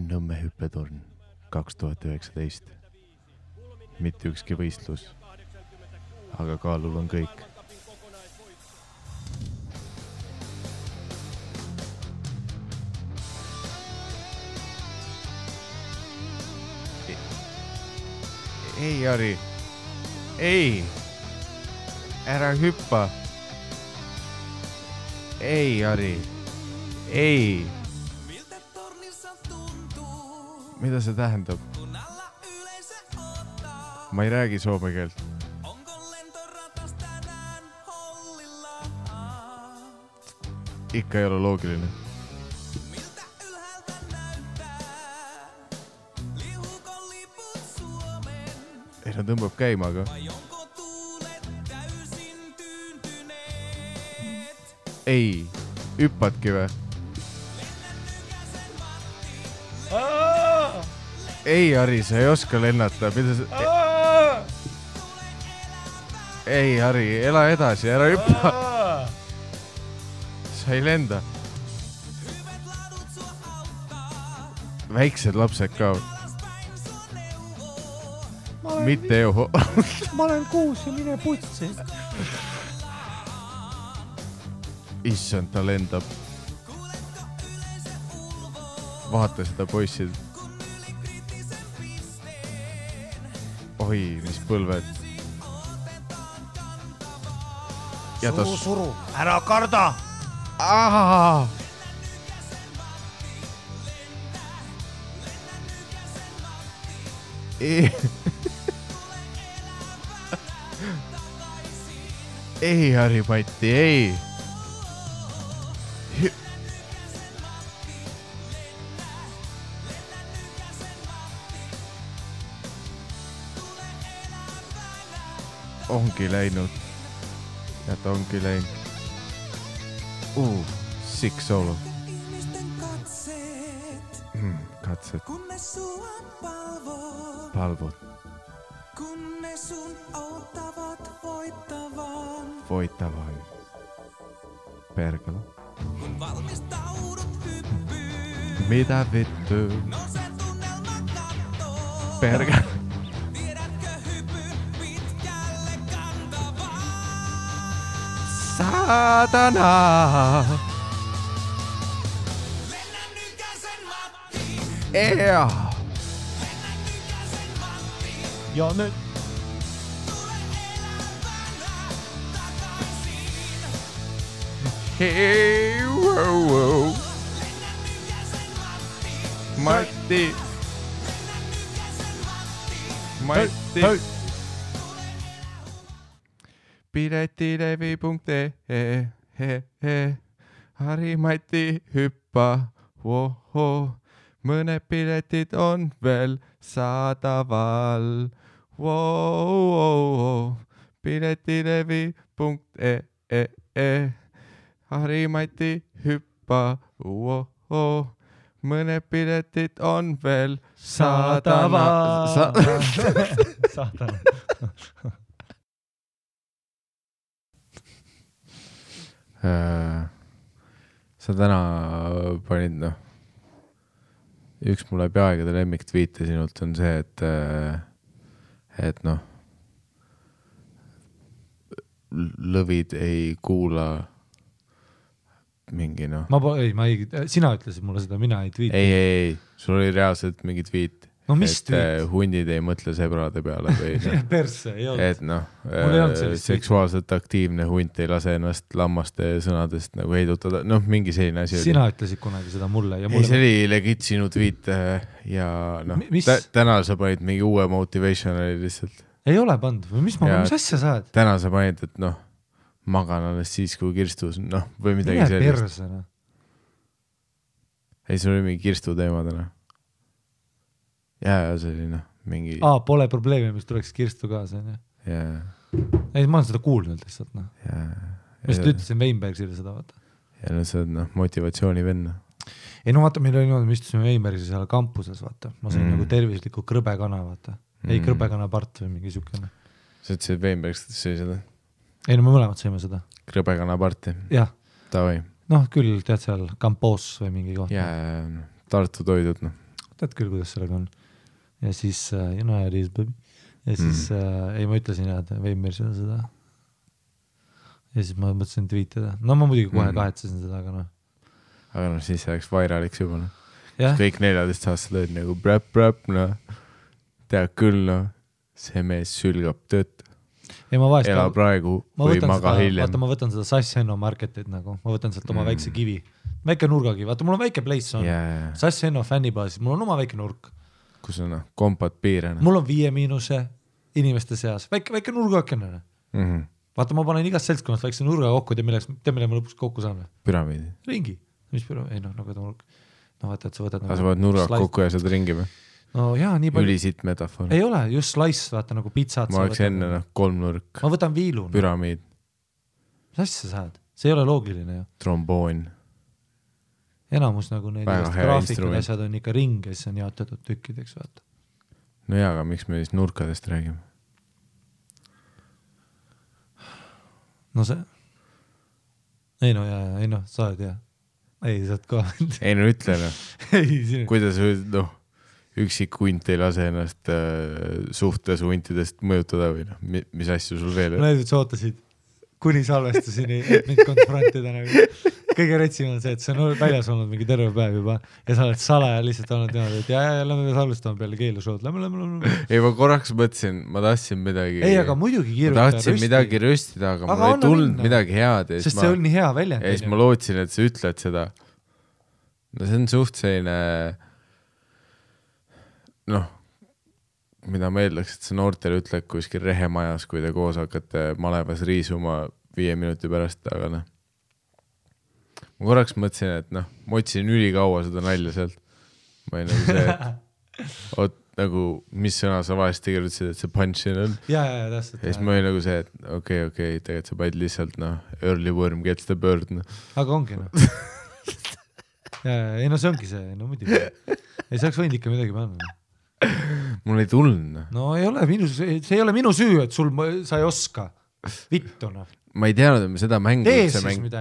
Nõmme hüppetorn 2019. Mitte ükski võistlus, aga kaalul on kõik. Ei, Jari. Ei. Ära hüppa. Ei, Jari. Ei. Mida see tähendab? Ma ei räägi soome keelt. Ikka ei ole loogiline. Ei, ta tõmbab käima, aga... Ei, hüppatki või? Ei, Harri, sa ei oska lennata. Mida sa... Ei, Harri, ela edasi, ära hüppa. Sa ei lenda. Väiksed lapsed ka. Mitte ju. Ma olen 6 ja mine putsi. Issand, ta lendab. Vaata seda poissid. Oi, mis põlved. Suru. Ära karda. Ahaa. Ei, Harri-Matti, ei. Ongi läinud. Ja ta ongi läinud. Sick solo. Katset. Palvot. Voittavan. Perkele. Mitä vittu? Perkele. Saatana. Ja nyt. Hei, wow. Matti. Piletilevi.ee Harri-Matti hyppä. Woho. Mõned piletid on veel saadaval. Wow. Piletilevi.ee Harri-Matti hyppä. Woho. Mõned piletid on veel saadaval. Saatana. Sa täna panid, noh, üks mul läbi aegade lemmiktviite sinult on see, et noh, lõvid ei kuula mingi, noh. Sina ütlesid mulle seda, mina ei tweeti. Ei, sul oli reaalselt mingi tweet. No mis tweet? Hundid ei mõtle sebrade peale või perse, ei olnud. Et noh, seksuaalselt aktiivne hunt ei lase ennast lammaste sõnadest nagu heidutada. Noh, mingi selline asi oli. Sina ütlesid kunagi seda mulle. Ja ei, see oli legit sinu tweet ja noh, täna sa panid mingi uue motivationali lihtsalt. Ei ole pannud või mis asja saad? Täna sa panid, et noh, magan alles siis, kui kirstus, noh, või midagi sellist. Persena. Ei, sul oli mingi kirstu teema täna. Ja see oli noh, mingi... Pole probleemi, mis tuleks kirstu kaasa. Jaa. Ei, ma olen seda kuulnud lihtsalt. No. Mis ta ütlesin Weinbergsile seda, vaata. Ja no see on noh, motivatsiooni venna. Ei no vaata, meil oli niimoodi, me istusime Weinbergsi seal kampuses, vaata. Ma sain nagu tervisliku krõbekana, vaata. Ei krõbekana part või mingi sükene. Sa ütlesid Weinbergs, et see seda? Ei no me mõlemad saime seda. Krõbekana parti? Jah. Tavai. Noh, küll tead seal Kampoos või mingi koht. Jaa, Tartu toidud, noh. tead küll, kuidas sellega on. Ja siis, you know how it is, baby. Ja siis, ei ma ütlesin jah, et Veimersile seda. Ja siis ma mõtlesin tweetida. No ma muidugi kohe kahetsesin seda, aga noh. Aga noh, siis oleks vairaliks juba. Kõik 14 aastased olid nagu bräp, noh. Tead küll, noh. See mees sülgab tööd. Ela praegu või maga hiljem. Vaata, ma võtan seda Sass Henno marketit nagu. Ma võtan sealt oma väikse kivi. Väike nurgakivi. Vaata, mul on väike place on. Sass Henno fännibaasis. Mul on oma väike nurk. Kus on kompad piirena. Mul on 5- inimeste seas. Väike nurgakene. Vaata, ma panen igast seltskonnast väikse nurga kokku, mille ma lõpuks kokku saan. Püramiidi. Ringi. Mis püramiidi? Ei noh, nagu ta nurk. No vaata, et sa võtad... Sa võtad nurga kokku ja saad ringi või? No jaa, nii palju... Ülisitt metafoor. Ei ole, just slice, vaata nagu pizzat. Ma oleks enne 3 nurk. Ma võtan viilu. Püramiid. Mis asja saad? See ei ole loogiline ju. Tromboon. Enamus nagu need graafikud asjad on ikka ring ja siis on jaotatud tükkideks, vaata. No jaa, aga miks me siis nurkadest räägime? No see... Ei no, sa oled hea. Ei, saad ka. Ei no ütle no. Kuidas noh, üksik hunt ei lase ennast suhtes huntidest mõjutada või noh, mis asju sul veel? Ma näiteks ootasid kuni salvestusini, et mind konfrontida nagu. Kõige retsim on see, et see on väljas olnud mingi terve päev juba ja sa oled salaja lihtsalt olnud niimoodi, et lähme salvestama peale keelušood. Lähme. Ei, ma korraks mõtlesin, ma tahtsin midagi... Ei, aga muidugi kiirutada rösti. Ma tahtsin midagi röstida, aga mul ei tulnud midagi head. Sest see oli nii hea väljend. Ja siis ma lootsin, et sa ütled seda. No see on suht selline... Noh, mida ma eeldaks, et see noortele ütled kuskil rehemajas, kui te koos hakkate malevas riisuma 5 minuti pärast, aga noh. Ma korraks mõtlesin, et noh, ma otsisin ülikaua seda nalja sealt. Ma ei nagu see, et nagu, mis sõna sa vahest tegelesid, et see punch-in on. Ja, täpselt. Ja siis ma olin nagu see, et okei, tegelikult sa panid lihtsalt, noh, early worm gets the bird. No. Aga ongi, noh. Ei, no see ongi see, no muidugi. Ei saaks võinud ikka midagi panna. Mul ei tulnud. No ei ole, see ei ole minu süü, et sa ei oska. Vittuna. Ma ei teadnud, et me seda mängu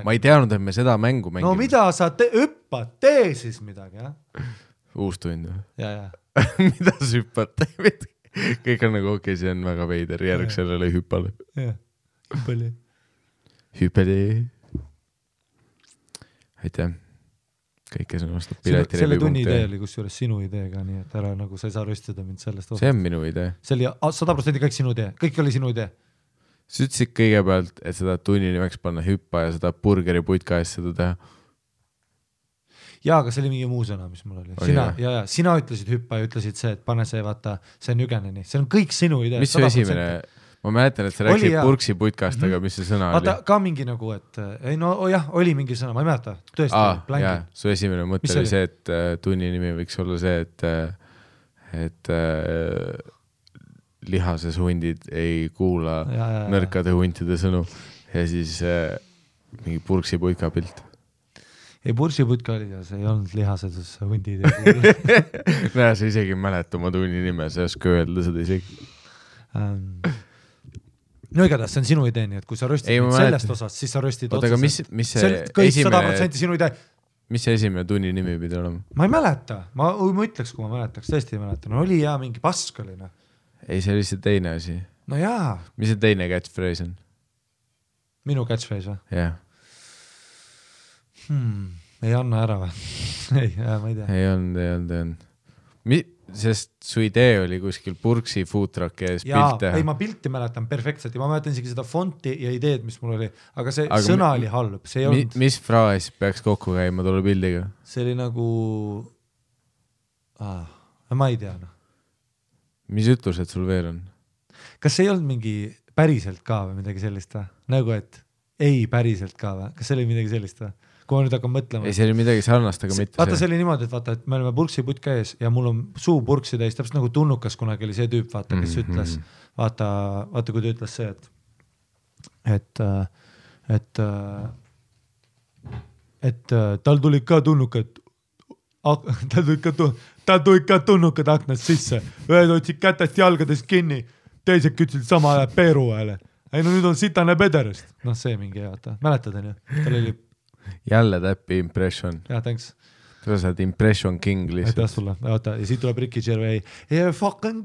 Ma ei teadnud, et me seda mängu mängime. No mida sa hüppad? Tee siis midagi, jah? Uus tund. Ja. Mida sa hüppad? Kõik on nagu okei, see on väga veider. Järg sellele hüppale. Ja, hüppele. Aitäh. Kõik, kes on vastab pileti selle tunni idee oli kusjuures sinu idee ka, nii et ära nagu sa ei saa röstada mind sellest osast. See on minu idee. See oli 100% kõik sinu idee. Kõik oli sinu idee. Sa ütlesid kõigepealt, et seda tunni nimeks panna hüppa ja seda burgeri putka eest seda teha. Jaa, aga see oli mingi muu sõna, mis mul oli. Sina ütlesid hüppa ja ütlesid see, et pane see, vaata, see on Jügeneni. See on kõik sinu idee. Mis su esimene... Ma mäletan, et sa rääksid purksi putkast, aga mis see sõna oli? Ka mingi nagu, et... Ei, no jah, oli mingi sõna, ma ei mäleta. Tõesti, jaa, su esimene mõte oli see, et tunni nimi võiks olla see, et lihases hundid ei kuula nõrkade huntide sõnu ja siis mingi purksi putka pilt. Ei, purksi putka oli ja see ei olnud lihases hundid ei kuula. Näe, sa isegi mäleta oma tunni nime, sa ei oska öelda seda isegi. No igatahes, see on sinu idee, nii et kui sa röstid sellest osast, siis sa röstid otseselt. Mis see kõik 100% sinu idee. Mis see esimene tunni nimi pidi olema? Ma ei mäleta. Ma ütleks, kui ma mäletaks. Tõesti ei mäleta. No oli ja mingi pask oli. No. Ei, see oli see teine asi. No jaa. Mis see teine catchphrase on? Minu catchphrase või? Jah. Ei anna ära või? Ei, ma ei tea. Ei olnud. Sest su idee oli kuskil purksi foodtruck ees pilt teha. Ei, ma pilti mäletan perfektselt ja ma mäletan isegi seda fonti ja ideed, mis mul oli. Aga see sõna oli halb. See ei olnud... Mis fraas peaks kokku käima tolle pildiga? See oli nagu... ma ei tea. No. Mis ütlused sul veel on? Kas see ei olnud mingi päriselt ka või midagi sellist või? Nagu, et ei päriselt ka või? Kas see oli midagi sellist või? Kui ma nüüd hakkan mõtlema. Ei, see oli midagi sarnast, aga mitte vaata, see oli niimoodi, et vaata, et me oleme purksi putka ees ja mul on suu purksi täis, täpselt nagu Tunnukas kunagi oli see tüüp, vaata, kes ütles, vaata, kui ta ütles see, et tal tulid ka tunnukad, tal tulid ka tunnukad aknast sisse, ühed otsid kätest jalgadest kinni, teised kütsid sama ajal peeru hääle. Ei, no nüüd on sitane pederest. Noh, see mingi, vaata, mäletad, on ju? Tal oli jälle täppi impression. Jah, thanks. sa saad impression king aitäh lihtsalt. sulle, oota, ja siit tuleb Ricky Gervais yeah, fucking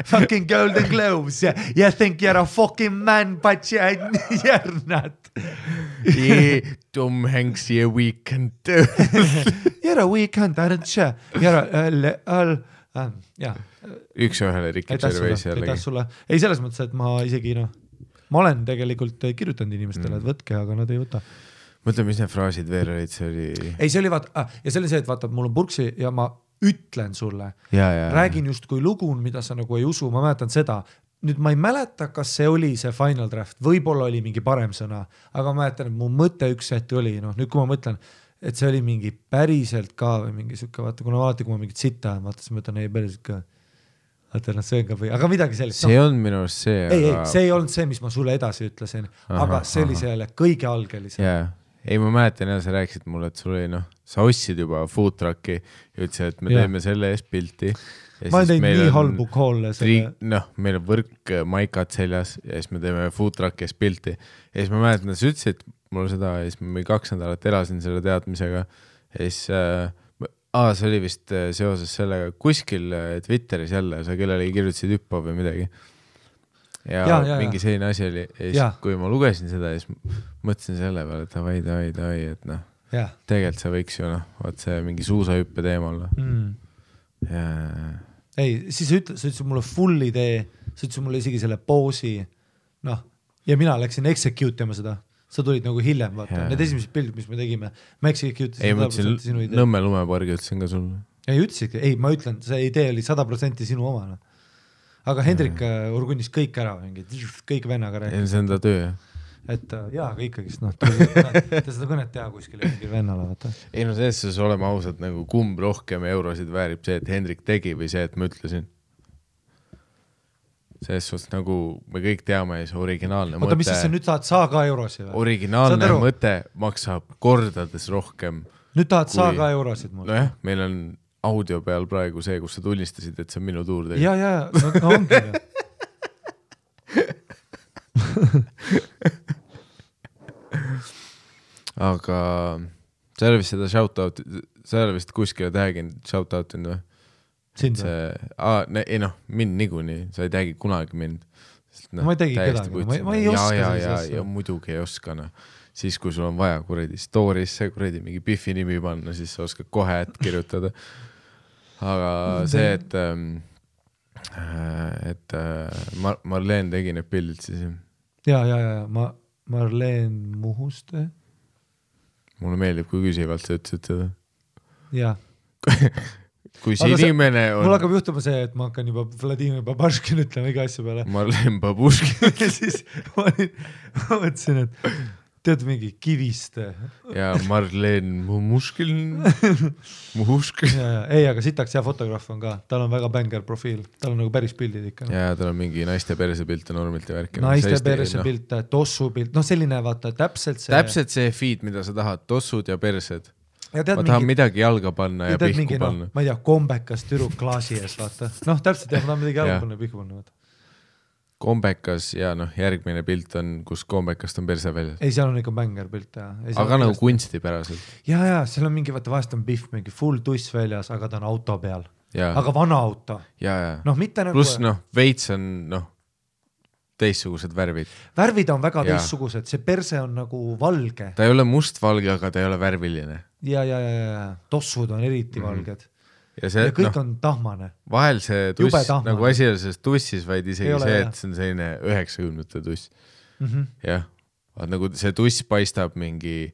fucking golden globes you think you're a fucking man but you're not Tom Hanks yeah weekend you're a weekend aren't you you're a jah üks-ühele Ricky Gervais jällegi. aitäh sulle, ei selles mõttes, et ma isegi ma olen tegelikult kirjutanud inimestele, et võtke, aga nad ei võta. Mõtle, mis need fraasid veel olid, see oli... Ei, see oli vaata, ja see oli see, et vaata, mul on purksi ja ma ütlen sulle, räägin just kui lugu, mida sa nagu ei usu, ma mäletan seda, nüüd ma ei mäleta, kas see oli see final draft, võib-olla oli mingi parem sõna, aga ma mäletan, et mu mõte üks hetk oli, nüüd kui ma mõtlen, et see oli mingi päriselt ka või mingi siuke, vaata, kuna alati, kui ma mingit sitta, vaata, siis ma ütlen, ei päriselt ka, vaata, see on ka või, aga midagi sellist. See on minu arust see, ei, see ei olnud see, mis ma sulle edasi ütlesin, aga see oli selle kõige algelisem. Ei, ma mäletan ja sa rääkisid mulle, et sul oli sa ostsid juba food trucki ja ütlesid, et me teeme selle eest pilti. Ma olen teinud nii halbu koolle selle. Meil on võrk maikad seljas ja siis me teeme food trucki eest pilti. Ja siis ma mäletan, et sa ütlesid mulle seda ja siis ma 2 nädalat elasin selle teadmisega. Ja siis, see oli vist seoses sellega kuskil Twitteris jälle, sa kellelegi kirjutasid hüppa või midagi. Ja mingi selline asi oli ja siis kui ma lugesin seda ja siis mõtlesin selle peale, et davai, et tegelikult see võiks ju vaat see mingi suusahüppe teemal ei, siis sa ütlesid mulle full idee, sa ütlesid mulle isegi selle poosi ja mina läksin execute ima seda, sa tulid nagu hiljem vaata, need esimesed pildid, mis me tegime ma execute ei, ma ütlesin Nõmme lumepargi ütlesin ka sulle ei, ma ütlen, see idee oli 100% sinu oma aga Hendrik urgunnis kõik ära kõik vennaga rääkis. See on ta töö, et aga ikkagist, ta seda kõnet teha kuskil mingi vennale, vaata. Ei, selles oleme ausad, nagu kumb rohkem eurosid väärib see, et Hendrik tegi või see, et ma ütlesin. Selles suhtes nagu me kõik teame, see originaalne mõte. Oota, mis siis nüüd tahad saa ka eurosid? Originaalne mõte maksab kordades rohkem. Nüüd tahad saa ka eurosid mul? Nojah, meil on audio peal praegu see, kus sa tunnistasid, et see on minu tuur tegi. Ja, ongi. Aga sa ei ole vist seda shoutout, sa ei ole vist kuskile tag'inud shoutoutin või? Sind või? Mind niikuinii, sa ei tagi kunagi mind. Ma ei tagi kedagi, ma ei oska sellise. Ja muidugi ei oska, Siis kui sul on vaja kuredi story'sse kuredi mingi Biffi nimi panna, siis sa oskad kohe kirjutada. Aga see, et Marleen tegi need pildid siis. Ja, Marleen Muhuste. Mulle meeldib, kui küsivalt sa ütlesid seda. Ja. Kui see inimene on... Mul hakkab juhtuma see, et ma hakkan juba Vladimir Babuškin ütlema iga asja peale. Marleen Babuškin. Ja siis ma mõtlesin, et tead mingi Kiviste. Ja Marleen Muhuškin. Ei, aga sitaks hea fotograaf on ka. Tal on väga bänger profiil. Tal on nagu päris pildid ikka. Ja tal on mingi naiste perse pilt ja normilt ja värki. Naiste perse pilt, tossu pilt. Selline vaata täpselt see feed, mida sa tahad. Tossud ja persed. Ma tahan midagi jalga panna ja pihku panna. Ma ei tea, kombekas türuk klaasi ees, vaata. Täpselt jah, ma tahan midagi jalga panna ja pihku panna, vaata. Kombekas ja järgmine pilt on, kus kombekast on perse väljas. Ei, seal on ikka bänger pilt. Aga nagu kunstipäraselt. Ja, seal on mingi, vaata vahest on Biff mingi full tuss väljas, aga ta on auto peal. Aga vana auto. Ja. Mitte nagu... Plus veits on teistsugused värvid. Värvid on väga teistsugused, see perse on nagu valge. Ta ei ole mustvalge, aga ta ei ole värviline. Ja. Tossud on eriti valged. Ja kõik on tahmane. Vahel see tuss, nagu asi on selles tussis, vaid isegi see, et see on selline 90-te tuss. Jah, nagu see tuss paistab mingi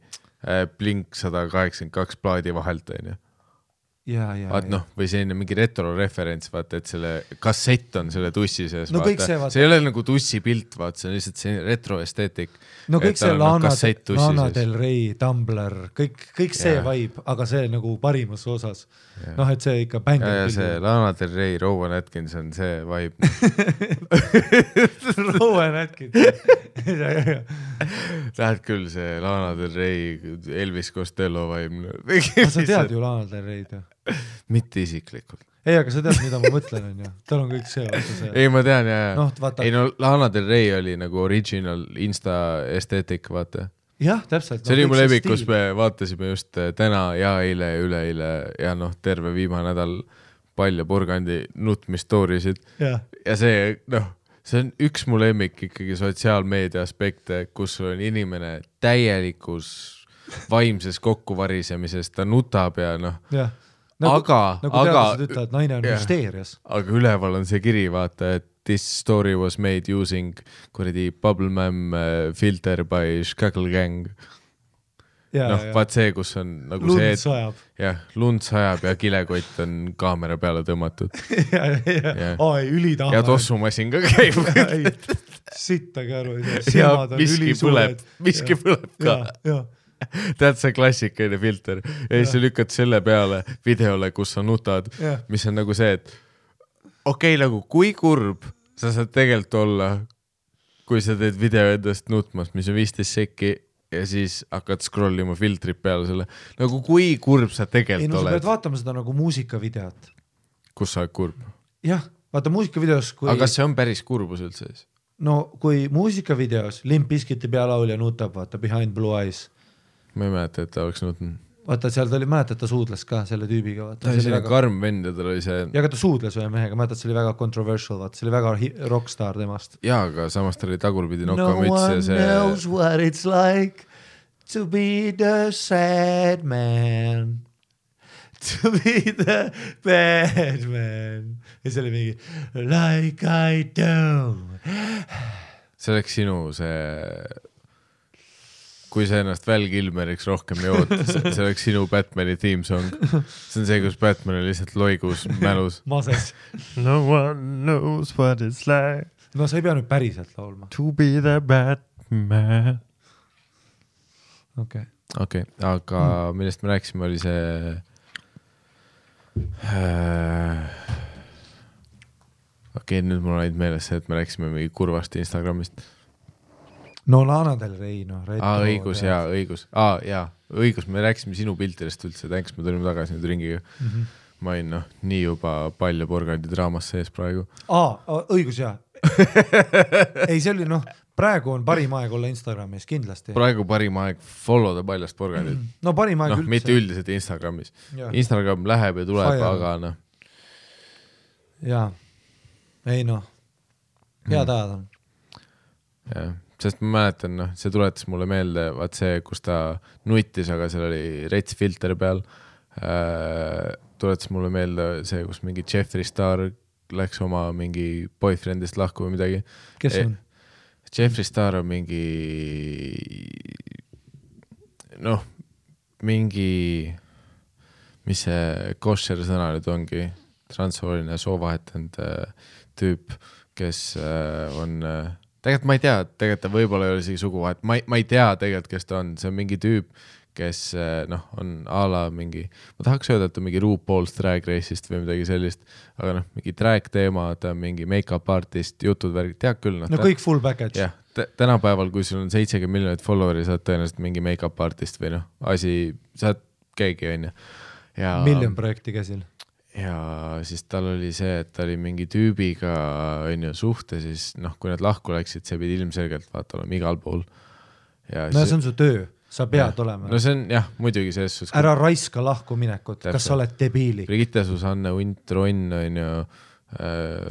Blink 182 plaadi vahelt, on ju. Või selline mingi retro-referents, vaata, et selle kassett on selle tussi sees, vaata. See ei ole nagu tussi pilt, vaata, see on lihtsalt selline retro-esteetik. Kõik see Lana Del Rey, Tumblr, kõik see vibe, aga see nagu parimas osas. Et see ikka bänger. Ja see Lana Del Rey, Rowan Atkinson, see vibe. Rowan Atkinson. Lähed küll see Lana Del Rey, Elvis Costello vibe. Sa tead ju Lana Del Rey'd ju? Mitte isiklikult. Ei, aga sa tead, mida ma mõtlen, on ju. Tal on kõik see. Ei, ma tean, jah. Ei, Lana Del Rey oli nagu original Insta esteetik, vaata. jah, täpselt. See oli mu lemmik, kus me vaatasime just täna ja eile ja üleeile ja noh, terve viimane nädal Pall ja Purgandi nutmistoorisid ja see, noh, see on üks mu lemmik ikkagi sotsiaalmeedia aspekte, kus on inimene täielikus vaimses kokkuvarisemises, ta nutab ja noh, nagu teadlased ütlevad, naine on hysteerias. Aga üleval on see kiri, vaata, et this story was made using kuradi Bubblemam filter by Skackle Gang. Noh, vaat see, kus on nagu lund see, sajab. Jah, lund sajab ja kilekott on kaamera peale tõmmatud. Ülitahva. Ja tossumasin ka käib. Sittagi aru. Ja miski põleb ka. Tead see klassikaline filter ja siis lükkad selle peale videole, kus sa nutad, mis on nagu see, et okei, nagu kui kurb sa saad tegelikult olla, kui sa teed video endast nutmas, mis on 15 sekki ja siis hakkad scrollima filtrit peale selle. Nagu kui kurb sa tegelikult oled. Sa pead vaatama seda nagu muusikavideot. Kus sa oled kurb? Jah, vaata muusikavideos kui... Aga kas see on päris kurbus üldse siis? No kui muusikavideos Limp Bizkiti pealaulja nutab, vaata Behind Blue Eyes. Ma ei mäleta, et ta oleks nutnud. Vaata, seal ta oli, mäletad, ta suudles ka selle tüübiga. Vaata. Ta oli väga... karm vend ja tal oli see... Ja ka ta suudles ühe mehega, mäletad, see oli väga controversial, vaata, see oli väga rockstar temast. Jaa, aga samas ta oli tagurpidi nokamüts ja see... No one knows what it's like to be the sad man, to be the bad man. Ja see oli mingi like I do. See oleks sinu see... Kui sa ennast Val Kilmeriks rohkem jood, see oleks sinu Batmani theme song. See on see, kus Batman on lihtsalt loigus mälus. Mases. No one knows what it's like. No sa ei pea nüüd päriselt laulma. To be the Batman. Okei, aga millest me rääksime, oli see... Okei, nüüd mul on ainult meeles see, et me rääksime mingi kurvast Instagramist. No Lana Del Rey, no. Õigus, õigus, me rääkisime sinu piltidest üldse, tänks, me tulime tagasi nüüd ringiga. Ma olin nii juba Pall ja Purgandi draamas sees praegu. Õigus, jaa. Ei, see oli, praegu on parim aeg olla Instagramis, kindlasti. Praegu parim aeg follow the Paljast Purgandit. No parim aeg üldse. Mitte üldiselt Instagramis. Instagram läheb ja tuleb, aga Jaa. Ei, head ajad on. Jah. Sest ma mäletan, see tuletas mulle meelde, vaat see, kus ta nuitis, aga seal oli rets filter peal. Tuletas mulle meelde see, kus mingi Jeffree Star läks oma mingi boyfriendist lahku või midagi. Kes on? Jeffree Star on mingi mingi mis see kosher sõna nüüd ongi, transsooline soovahetanud tüüp, kes on tegelikult ma ei tea, tegelikult ta võib-olla ei ole isegi suguvahet, ma ei tea tegelikult, kes ta on, see on mingi tüüp, kes on a la mingi, ma tahaks öelda, et ta mingi RuPaul's Drag Race'ist või midagi sellist, aga mingi drag teema, ta on mingi make-up artist, jutud värgid, tead küll. Kõik full package. Jah, tänapäeval, kui sul on 70 miljonit followeri, saad tõenäoliselt mingi make-up artist või saad keegi, on ju. Miljon projekti käsil. Ja siis tal oli see, et ta oli mingi tüübiga suhte, siis kui nad lahku läksid, see pidi ilmselgelt vaata olema igal pool. Ja no see on su töö, sa pead olema. No see on muidugi selles suhtes. Ära raiska lahku minekut, kas sa oled debiili? Brigitte Susanne Unt Ronn on ju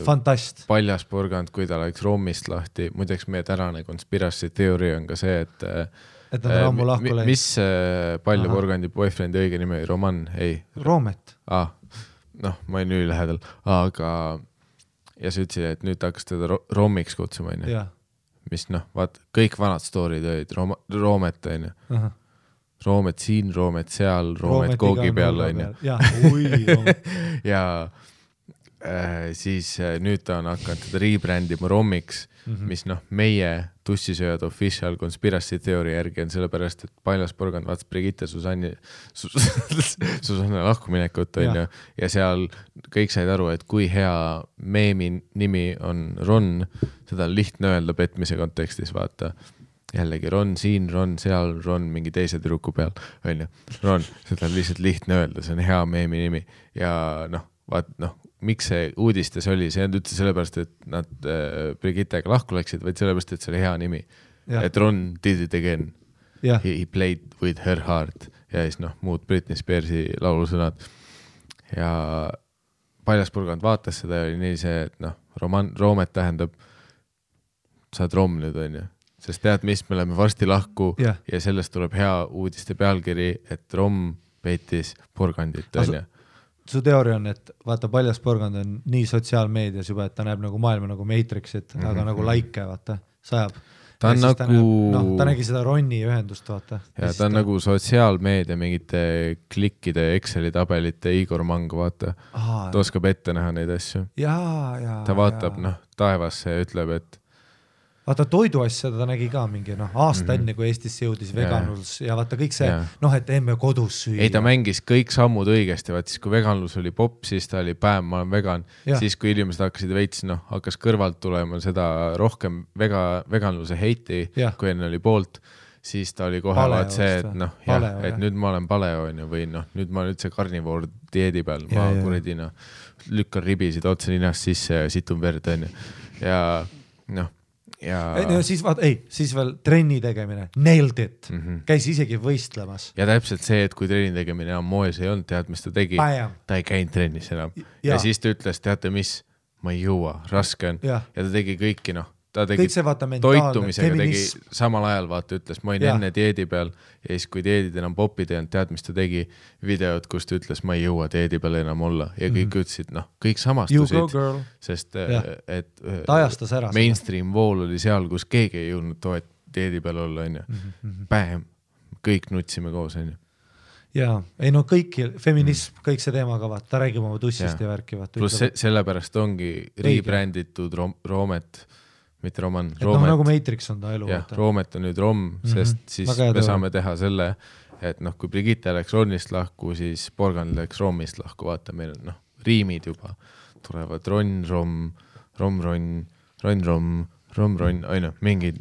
fantast. Paljas Purgand, kui ta läks Rommist lahti. Muideks meie tänane conspiracy theory on ka see, et nad on ammu lahku läinud. Mis Palja Purgandi boyfriendi õige nime? Roman? Ei. Roomet. Ma olin ülilähedal, aga ja sa ütlesid, et nüüd hakkas teda Rommiks kutsuma, on ju. Mis vaat, kõik vanad storid olid Roomet, on ju. Roomet siin, Roomet seal, Roomet koogi peal, on ju. Ja siis nüüd ta on hakanud teda rebrandima Rommiks, mis meie tussisööjad official conspiracy theory järgi on sellepärast, et Paljas Purgand vaatas Brigitte Susanne lahkuminekut, on ju, ja seal kõik said aru, et kui hea meemi nimi on Ron, seda on lihtne öelda petmise kontekstis, vaata. Jällegi Ron siin, Ron seal, Ron mingi teise tüdruku peal, on ju. Ron, seda on lihtsalt lihtne öelda, see on hea meemi nimi ja miks see uudistes oli, see on üldse sellepärast, et nad Brigittega lahku läksid, vaid sellepärast, et see oli hea nimi. Et Ron did it again. Jah. He played with her heart ja siis noh, muud Britney Spearsi laulusõnad ja Paljaspurgand vaatas seda ja oli nii see, et noh, roomet tähendab saad rom nüüd on ju, sest tead mis, me oleme varsti lahku ja sellest tuleb hea uudiste pealkiri, et rom peitis purgandit on ju. Su teooria on, et vaata Paljaspurgand on nii sotsiaalmeedias juba, et ta näeb nagu maailma nagu Matrixit, aga nagu laike, vaata, sajab. Ta on nagu... ta nägi seda Ronni ühendust, vaata. Ja ta on nagu sotsiaalmeedia mingite klikkide Exceli tabelite Igor Mang, vaata. Ta oskab ette näha neid asju. Ta vaatab noh, taevasse ja ütleb, et vaata toiduasja ta nägi ka mingi aasta enne, kui Eestisse jõudis veganlus ja vaata kõik see, et emme kodus süüa. Ei, ta mängis kõik sammud õigesti, vaat siis kui veganlus oli popp, siis ta oli päev, ma olen vegan, siis kui inimesed hakkasid veits, hakkas kõrvalt tulema seda rohkem veganluse heiti, kui enne oli poolt, siis ta oli kohe vaat see, et et nüüd ma olen paleo või nüüd ma olen üldse karnivoor dieedi peal, ma kuredi lükkan ribisid otse ninast sisse ja situn verd on ja siis veel trenni tegemine, nailed it, käis isegi võistlemas. Ja täpselt see, et kui trenni tegemine on moes ei olnud, tead, mis ta tegi, ta ei käinud trennis enam. Ja siis ta ütles, teate mis, ma ei jõua, raske on. Ja ta tegi kõiki, ta tegi toitumisega, tegi samal ajal, vaata, ütles, ma olin enne dieedi peal ja siis kui dieedid enam popid ei olnud, tead, mis ta tegi videod, kus ta ütles, ma ei jõua dieedi peal enam olla ja kõik ütlesid, kõik samastusid, sest et mainstream vool oli seal, kus keegi ei jõudnud dieedi peal olla, on ju. Pähem, kõik nutsime koos, on ju. Jaa, ei kõik, feminism, kõik see teema ka, ta räägib oma tussist ja värki. Plus sellepärast ongi rebränditud Roomet, mitte Roman, Roomet. Nagu Matrix on ta elu. Roomet on nüüd Rom, sest siis me saame teha selle, et kui Brigitte läks Ronnist lahku, siis Porgand läks Romist lahku, vaata, meil on riimid juba tulevad Ron, Rom, Rom, Ron, Ron, Rom, Rom, Ron, aina, mingid,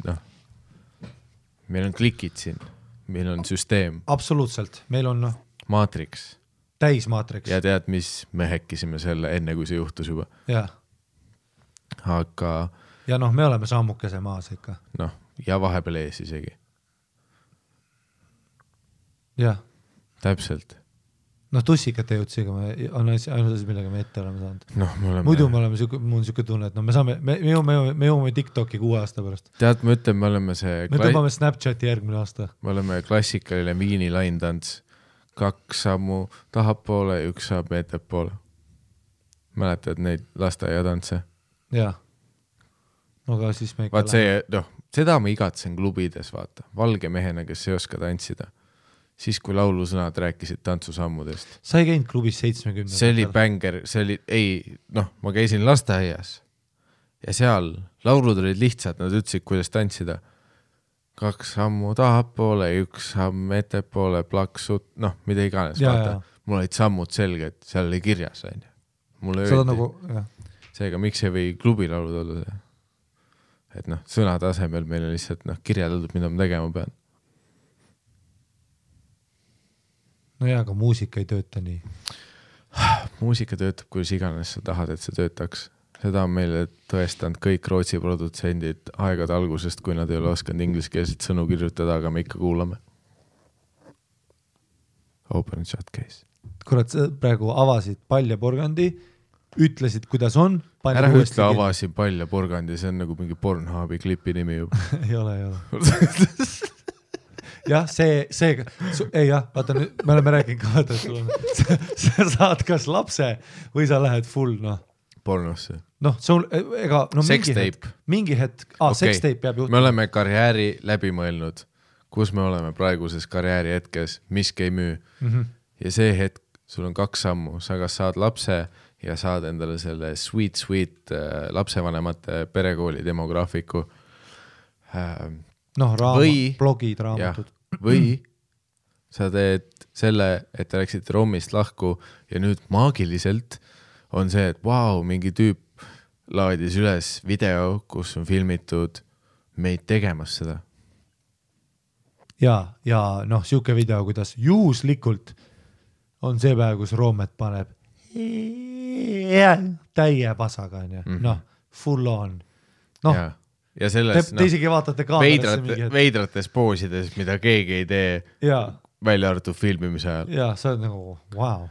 meil on klikid siin, meil on süsteem. Absoluutselt, meil on Matrix. Täis Matrix. Ja tead, mis me häkkisime selle enne, kui see juhtus juba. Aga ja me oleme sammukese maas ikka. Ja vahepeal ees isegi. Jah. Täpselt. Tussikate jõudsiga on ainult asi, millega me ette oleme saanud. Muidu mul on siuke tunne, et me jõuame TikToki 6 aasta pärast. Tead, ma ütlen, me oleme see... Me tõmbame Snapchati järgmine aasta. Me oleme klassikaline viini laintants. 2 sammu tahapoole, 1 saab ettepoole. Mäletad neid lasteaiatantse? Jaa. Aga siis me vaat see, seda ma igatsen klubides, vaata. Valge mehena, kes ei oska tantsida. Siis, kui laulusõnad rääkisid tantsusammudest. Sa ei käinud klubis 70. See oli bänger, see oli, ma käisin lasteaias ja seal laulud olid lihtsad, nad ütlesid, kuidas tantsida. 2 sammu tahapoole, 1 samm ettepoole, plaksut, mida iganes, vaata. Mul olid sammud selged, seal oli kirjas, on ju. Mulle öeldi. Seega, miks ei või klubilaulud olla see? Et sõnade asemel meil on lihtsalt kirjeldatud, mida ma tegema pean. Aga muusika ei tööta nii. Muusika töötab, kuidas iganes sa tahad, et see töötaks. Seda on meile tõestanud kõik Rootsi produtsendid aegade algusest, kui nad ei ole oskanud ingliskeelset sõnu kirjutada, aga me ikka kuulame. Open and shut case. Kurat, praegu avasid Palja Porgandi, ütlesid, kuidas on. Ära ütle avasin Palja Porgandi, see on nagu mingi Pornhubi klipi nimi juba. ei ole. Jah, vaata nüüd, me oleme rääkinud ka, vaata, sa saad kas lapse või sa lähed full, Pornosse. mingi hetk, sextape peab juhtuma. Me oleme karjääri läbi mõelnud, kus me oleme praeguses karjääri hetkes, miski ei müü. Ja see hetk, sul on 2 sammu, sa kas saad lapse ja saad endale selle sweet lapsevanemate perekooli demograafiku. Blogid, raamatud. Või sa teed selle, et te läksite Romist lahku ja nüüd maagiliselt on see, et mingi tüüp laadis üles video, kus on filmitud meid tegemas seda. Ja siuke video, kuidas juhuslikult on see päev, kus Roomet paneb täie pasaga, full on. ja selles te isegi vaatate kaamerasse mingi veidrates poosides, mida keegi ei tee välja arvatud filmimise ajal. Ja, sa oled nagu, wow.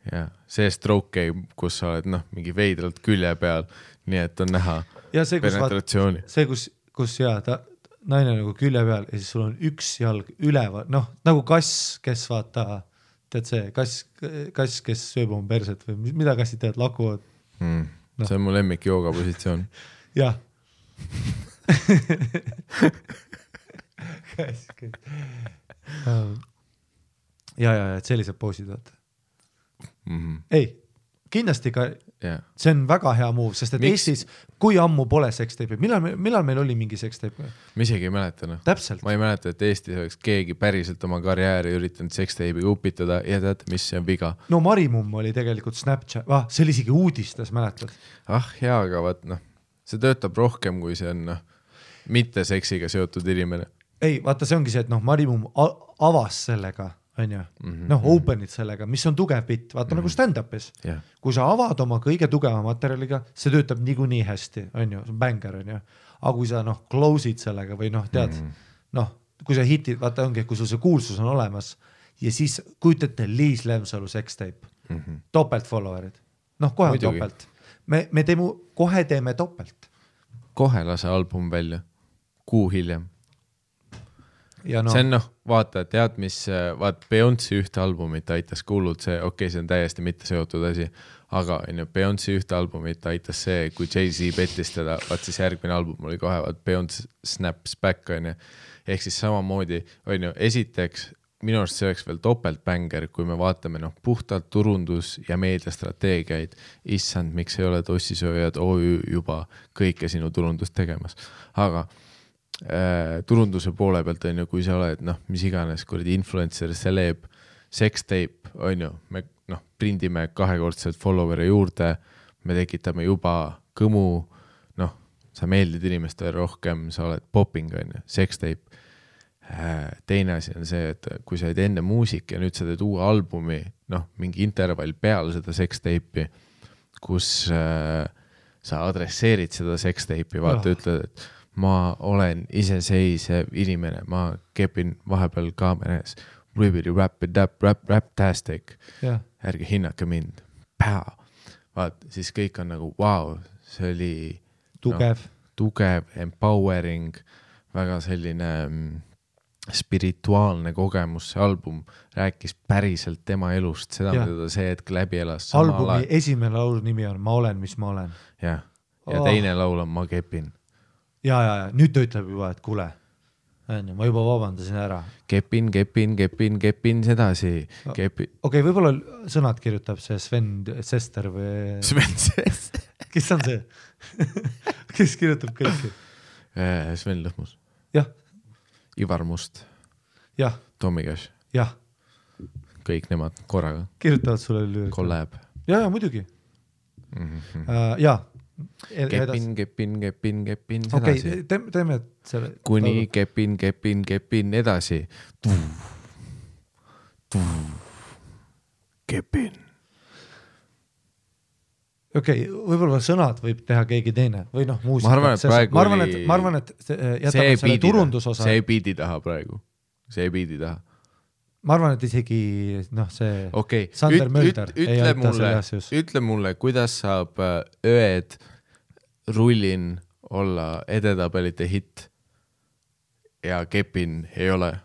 Ja, see stroke game, kus sa oled mingi veidralt külje peal, nii et on näha penetratsiooni. See, kus naine nagu külje peal ja siis sul on üks jalg üleval, nagu kass, kes vaata, tead see, kass, kes sööb oma perset või mida kassid tead, lakuvad. See on mu lemmik jooga positsioon. Jah. ja, et sellised poosid vaata. Ei, kindlasti ka see on väga hea move, sest et Eestis, kui ammu pole seksteipi, millal meil oli mingi seksteip? Ma isegi ei mäleta. Täpselt. Ma ei mäleta, et Eestis oleks keegi päriselt oma karjääri üritanud seksteipi upitada ja tead, mis see on viga. No Marimumm oli tegelikult Snapchat, see oli isegi uudistes, mäletad? Hea, aga vaat see töötab rohkem, kui see on mitte seksiga seotud inimene. Ei, vaata, see ongi see, et Marimumm avas sellega, on ju, open'id sellega, mis on tugev bitt, vaata nagu stand-upis. Kui sa avad oma kõige tugeva materjaliga, see töötab niikuinii hästi, on ju, see on banger, on ju. Aga kui sa close'id sellega või tead, kui sa hitid, vaata ongi, kui sul see kuulsus on olemas ja siis kujutate Liis Lemsalu seksteip, topelt followerid, kohe on topelt. Me kohe teeme topelt. Kohe lase album välja, kuu hiljem. Ja see on vaata, tead mis, Beyoncé ühte albumit aitas kuulud see, see on täiesti mitte seotud asi, aga Beyoncé ühte albumit aitas see, kui Jay-Z pettis teda, siis järgmine album oli kohe, Beyoncé Snaps Back, ehk siis samamoodi, esiteks, minu arust see oleks veel topeltbänger, kui me vaatame puhtalt turundus- ja meediastrateegiaid, issand, miks ei ole tossisööjad OÜ juba kõike sinu turundust tegemas. Aga turunduse poole pealt kui sa oled, mis iganes, kuradi influencer, celeb, sextape, me prindime 2-kordselt followeri juurde, me tekitame juba kõmu, sa meeldid inimestele rohkem, sa oled popping, sextape. Teine asi on see, et kui sa oled enne muusik ja nüüd sa teed uue albumi, mingi intervall peale seda sextape'i, kus sa adresseerid seda sextape'i, vaata ütled, et ma olen iseseisev inimene, ma kepin vahepeal kaameras, rap-tastic, ärge hinnake mind, vaat, siis kõik on nagu, wow, see oli tugev, empowering, väga selline spirituaalne kogemus, see album rääkis päriselt tema elust, seda mida ta see hetk läbi elas. Albumi esimene laulu nimi on Ma olen, mis ma olen. Ja teine laul on Ma kepin. Ja, nüüd ta ütleb juba, et kuule, ma juba vabandasin ära. Kepin, sedasi. Okei, võib-olla sõnad kirjutab see Sven Sester või... Sven Sester? Kes on see? Kes kirjutab kõiki? Sven Lõhmus. Jah. Ivar Must. Jah. Tommy Cash. Jah. Kõik nemad korraga. Kirjutavad sulle lüüri. Collab. Ja, muidugi. Jaa. Kepin, sedasi. Teeme selle. Kuni kepin edasi. Kepin. Okei, võib-olla sõnad võib teha keegi teine või muusika. Ma arvan, et jätame selle turundusosa. See ei biidi taha praegu. Ma arvan, et isegi see Sander Mölder ei aita selle asjus. Ütle mulle, kuidas saab ööd rullin olla edetabelite hit ja kepin ei ole.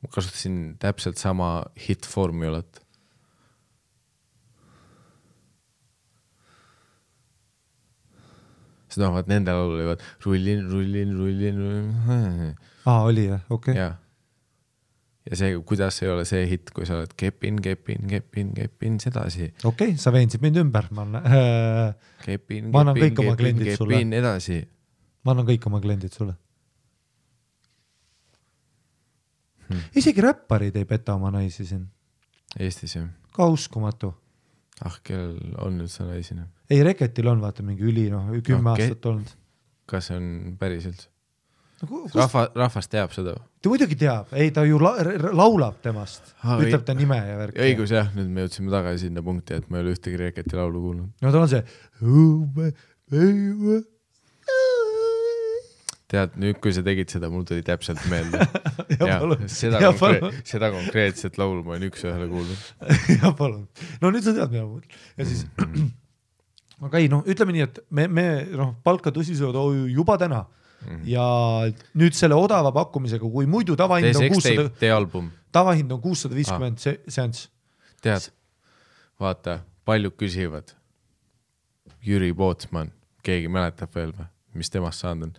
Ma kasutasin täpselt sama hit-formulat. Seda vaat nende laulu olivad rullin. Oli jah, okei. Ja see, kuidas ei ole see hit, kui sa oled kepin, sedasi. Okei, sa veensid mind ümber. Ma annan kõik oma kliendid sulle. Edasi. Ma annan kõik oma kliendid sulle. Isegi räpparid ei peta oma naisi siin. Eestis jah. Ka uskumatu. Kellel on nüüd sa naisina? Ei, Reketil on vaata mingi 10 aastat olnud. Kas see on päriselt? Rahvas teab seda? Ta muidugi teab, ei ta ju laulab temast, ütleb ta nime ja värk. Õigus jah, nüüd me jõudsime tagasi sinna punkti, et ma ei ole ühtegi Reketi laulu kuulnud. No ta on see tead, nüüd kui sa tegid seda, mul tuli täpselt meelde. Seda konkreetset laulu ma olen üks-ühele kuulnud. Ja palun. No nüüd sa tead, mida ma mõtlen. Ja siis, aga ei, ütleme nii, et me palka tõsisööd juba täna ja nüüd selle odava pakkumisega, kui muidu tavahind on 650 seanss. Tead, vaata, paljud küsivad. Jüri Pootsman, keegi mäletab veel või, mis temast saanud on.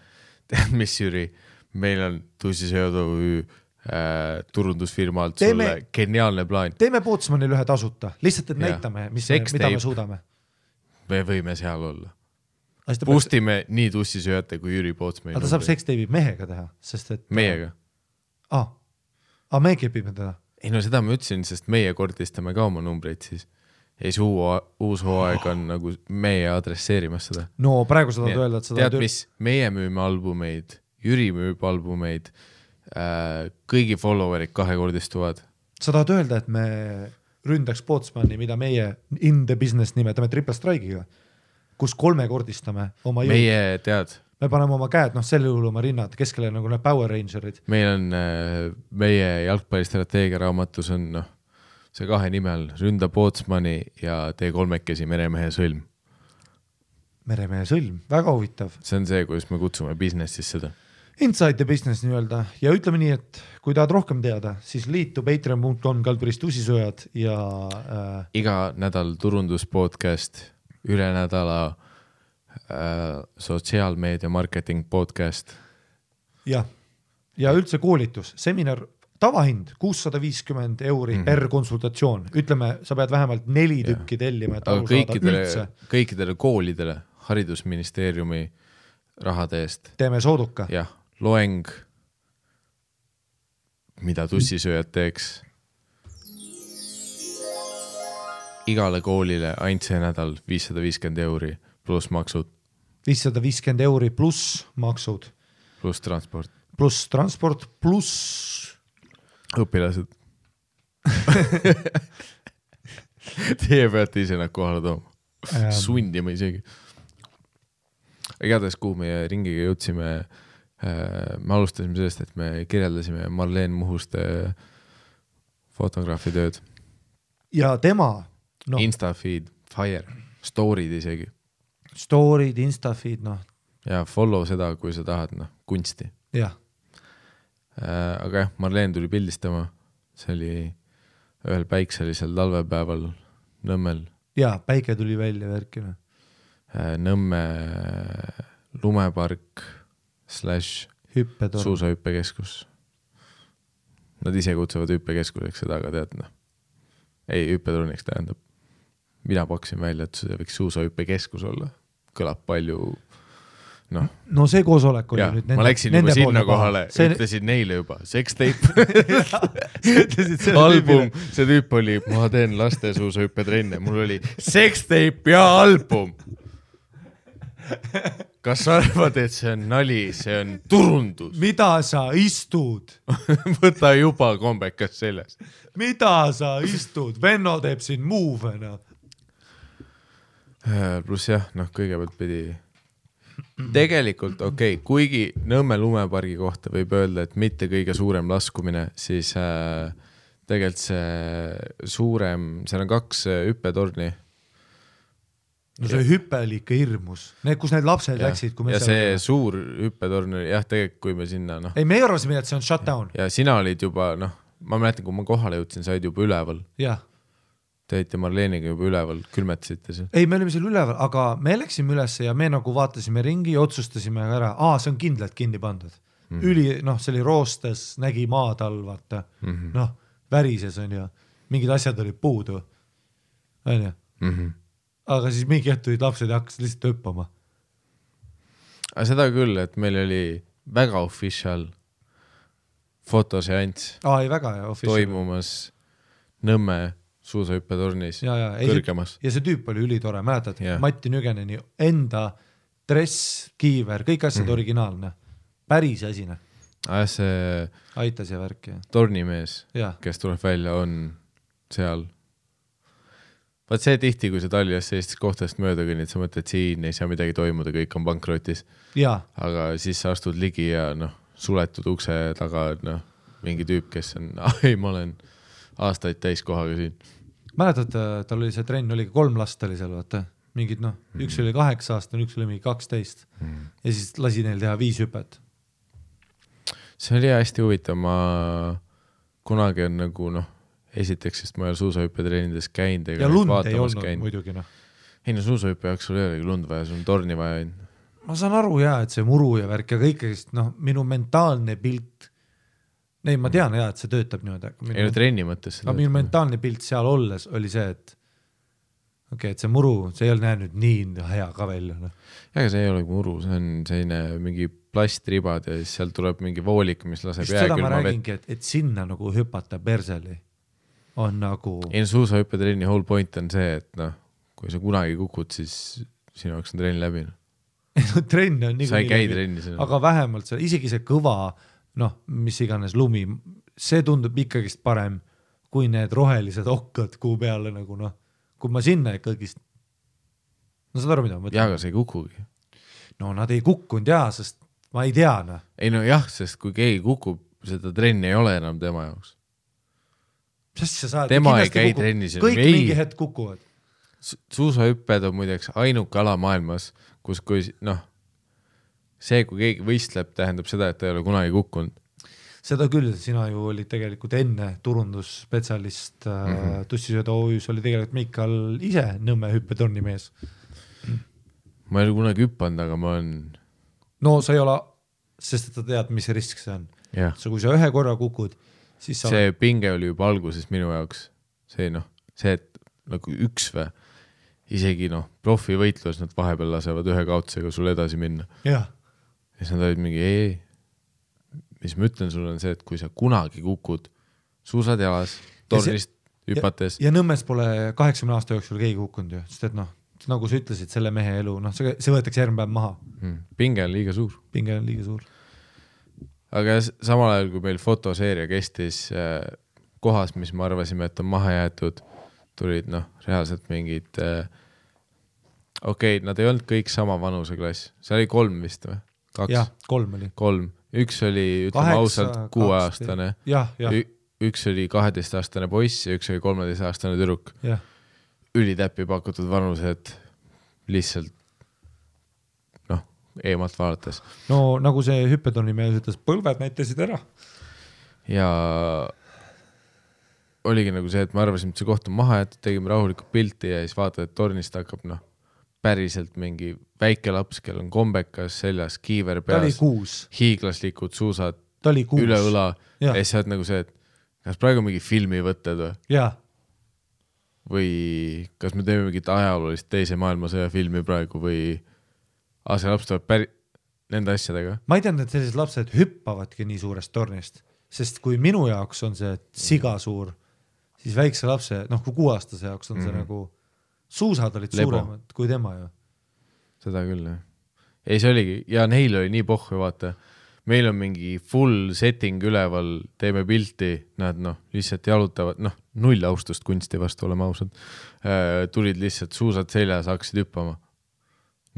Tead, mis Jüri, meil on tõsisööd turundusfirma alt sulle geniaalne plaan. Teeme Pootsmanil ühe tasuta, lihtsalt et näitame, mida me suudame. Me võime seal olla. Boostime nii tussisööjate kui Jüri Pootsmani. Aga ta saab seksteibi mehega teha, sest et... Meiega. Me kepime teda. Ei no seda ma ütlesin, sest meie kordistame ka oma numbreid siis. Ja see uus hooaeg on nagu meie adresseerimas seda. No praegu sa tahad öelda, et seda... Tead, mis? Meie müüme albumeid, Jüri müüb albumeid, kõigi followerid kahekordistuvad. Sa tahad öelda, et me ründaks Pootsmani, mida meie in the business nimetame triple strike'iga, kus kolmekordistame oma jõud. Meie tead. Me paneme oma käed, selle juhul oma rinnad, keskele nagu need Power Rangerid. Meil on meie jalgpallistrateegia raamatus on see kahe nimel Ründa Pootsmani ja tee kolmekesi Meremehe sõlm. Meremehe sõlm, väga huvitav. See on see, kuidas me kutsume businessis seda. Inside the business nii-öelda ja ütleme nii, et kui tahad rohkem teada, siis liitu patreon.com/tussisööjad ja... Iga nädal turunduspodcast, üle nädala sotsiaalmeedia marketing podcast. Ja üldse koolitus, seminar, tavahind 650 € per konsultatsioon. Ütleme, sa pead vähemalt 4 tükki tellima, et kõikidele koolidele haridusministeeriumi rahade eest. Teeme sooduka. Jah, loeng, mida tussisööjad teeks. Igale koolile ainult see nädal 550 € pluss maksud. 550 € pluss maksud. Pluss transport. Pluss õpilased. Teie peate ise nad kohale tooma. Sundima isegi. Igatahes, kuhu meie ringiga jõudsime, me alustasime sellest, et me kirjeldasime Marleen Muhuste fotograafi tööd. Ja tema... Instafeed, Fire, story'd isegi. Story'd, Instafeed, Ja follow seda, kui sa tahad, kunsti. Jah. Aga jah, Marleen tuli pildistama. See oli ühel päikselisel talvepäeval Nõmmel. Ja, päike tuli välja värkina. Nõmme lumepark / suusahüppekeskus. Nad ise kutsuvad hüppekeskuseks seda, aga tead, ei, hüppeturniks tähendab. Mina paksin välja, et see võiks suusahüppekeskus olla. Kõlab palju, No see koosolek oli nüüd ma läksin juba sinna kohale, ütlesin neile juba, sextape. Album, see tüüp oli, ma teen laste suusahüppetrenne, mul oli sextape ja album. Kas sa arvad, et see on nali, see on turundus? Mida sa istud? Võta juba kombekas selles. Mida sa istud? Venno teeb siin move'na. Pluss jah, kõigepealt pidi tegelikult kuigi Nõmme lumepargi kohta võib öelda, et mitte kõige suurem laskumine, siis tegelikult see suurem, seal on 2 hüppetorni. No see hüppe oli ikka hirmus. Kus need lapsed läksid, kui me ja see suur hüppetorn oli, tegelikult kui me sinna, Ei, me ei arvasime, et see on shutdown. Ja sina olid juba, ma mäletan, kui ma kohale jõudsin, sa olid juba üleval. Jah. Te olite Marleeniga juba üleval, külmetasite see. Ei, me olime seal üleval, aga me läksime üles ja me nagu vaatasime ringi ja otsustasime ära, see on kindlalt kinni pandud. See oli roostes, nägi maad all, vaata. Värises on ju, mingid asjad olid puudu. On ju? Aga siis mingi hetk tulid lapsed ja hakkasid lihtsalt hüppama. Aga seda küll, et meil oli väga official fotoseanss. Ei, väga official. Toimumas Nõmme suusahüppetornis kõrgemas. Ja see tüüp oli ülitore, mäletad? Matti Nügeneni enda dress, kiiver, kõik asjad originaalne. Päris asine. See aitas ja värk. Tornimees, kes tuleb välja, on seal vaat see tihti, kui sa Tallinnas sellistest kohtadest mööda kõnnid, sa mõtled, siin ei saa midagi toimuda, kõik on pankrotis. Aga siis sa astud ligi ja suletud ukse taga, mingi tüüp, kes on, ma olen aastaid täiskohaga siin. Mäletad, tal oli see trenn, oli 3 last oli seal, vaata. Mingid, üks oli 8 aastane, üks oli mingi 12. Ja siis lasi neil teha 5 hüpet. See oli hästi huvitav, ma kunagi on nagu, esiteks, sest ma ei ole suusahüppetreenides käinud. Ja lund ei olnud muidugi, Ei suusahüppe jaoks sul ei olegi lund vaja, sul on torni vaja. Ma saan aru et see muru ja värk ja kõikest, minu mentaalne pilt, ma tean et see töötab niimoodi. Ei no trenni mõttes. Aga minu mentaalne pilt seal olles oli see, et et see muru, see ei ole näinud nii hea ka välja. Aga see ei ole muru, see on selline mingi plastribad ja siis seal tuleb mingi voolik, mis laseb jääkülma vett. Seda ma räägingi, et sinna nagu hüpata perseli on nagu... Ei suusahüppetrenni whole point on see, et kui sa kunagi kukud, siis sinu jaoks on trenn läbi. Trenn on sa ei käi trenni. Aga vähemalt see, isegi see kõva, mis iganes lumi, see tundub ikkagist parem kui need rohelised okkad kuu peale nagu kui ma sinna ikkagi saad aru, mida ma mõtlen? Jaa, aga see ei kukugi. Nad ei kukkunud sest ma ei tea. Ei jah, sest kui keegi kukub, seda trenni ei ole enam tema jaoks. Tema ei käi trennis. Kõik mingi hetk kukuvad. Suusahüpped on muideks ainuke ala maailmas, kus kui see, kui keegi võistleb, tähendab seda, et ta ei ole kunagi kukkunud. Seda küll, sina ju olid tegelikult enne turundusspetsialist Tussisööda OÜs oli tegelikult Miikal ise Nõmme hüppetorni mees. Ma ei ole kunagi hüppanud, aga ma olen... sa ei ole, sest ta tead, mis risk see on. Kui sa ühe korra kukud, siis sa... See pinge oli juba alguses minu jaoks. See, et nagu üks või isegi profivõitlus, nad vahepeal lasevad ühe kaotusega sul edasi minna. Ja siis nad olid mingi mis ma ütlen sulle on see, et kui sa kunagi kukud suusad jalas, tornist hüpates. Ja Nõmmes pole 80 aasta jooksul keegi kukkunud ju, sest et nagu sa ütlesid, selle mehe elu, see võetakse järgmine päev maha. Pinge on liiga suur. Aga samal ajal, kui meil fotoseeria kestis kohas, mis me arvasime, et on maha jäetud, tulid reaalselt mingid nad ei olnud kõik sama vanuseklass. See oli 3 vist või? 2? Jah, 3 oli. 3. Üks oli, ütleme ausalt, 6-aastane. Üks oli 12-aastane poiss ja üks oli 13-aastane tüdruk. Ülitäppi pakutud vanused lihtsalt eemalt vaadates. Nagu see hüppetorni mees ütles, põlved näitasid ära. Ja oligi nagu see, et me arvasime, et see koht on maha jäetud, tegime rahulikult pilti ja siis vaatad, et tornist hakkab päriselt mingi väike laps, kel on kombekas seljas, kiiver peas, hiiglaslikud suusad üle õla ja siis saad nagu see, et kas praegu mingi filmi võtted või kas me teeme mingit ajaloolist teise maailmasõja filmi praegu või see laps tuleb nende asjadega. Ma ei teadnud, et sellised lapsed hüppavadki nii suurest tornist, sest kui minu jaoks on see siga suur, siis väikse lapse, kui 6-aastase jaoks on see nagu suusad olid suuremad kui tema ju. Seda küll, jah. Ei, see oligi, ja neil oli nii pohhu, vaata. Meil on mingi full setting üleval, teeme pilti, nad lihtsalt jalutavad, null austust kunsti vastu, oleme ausad. Tulid lihtsalt suusad seljas, hakkasid hüppama.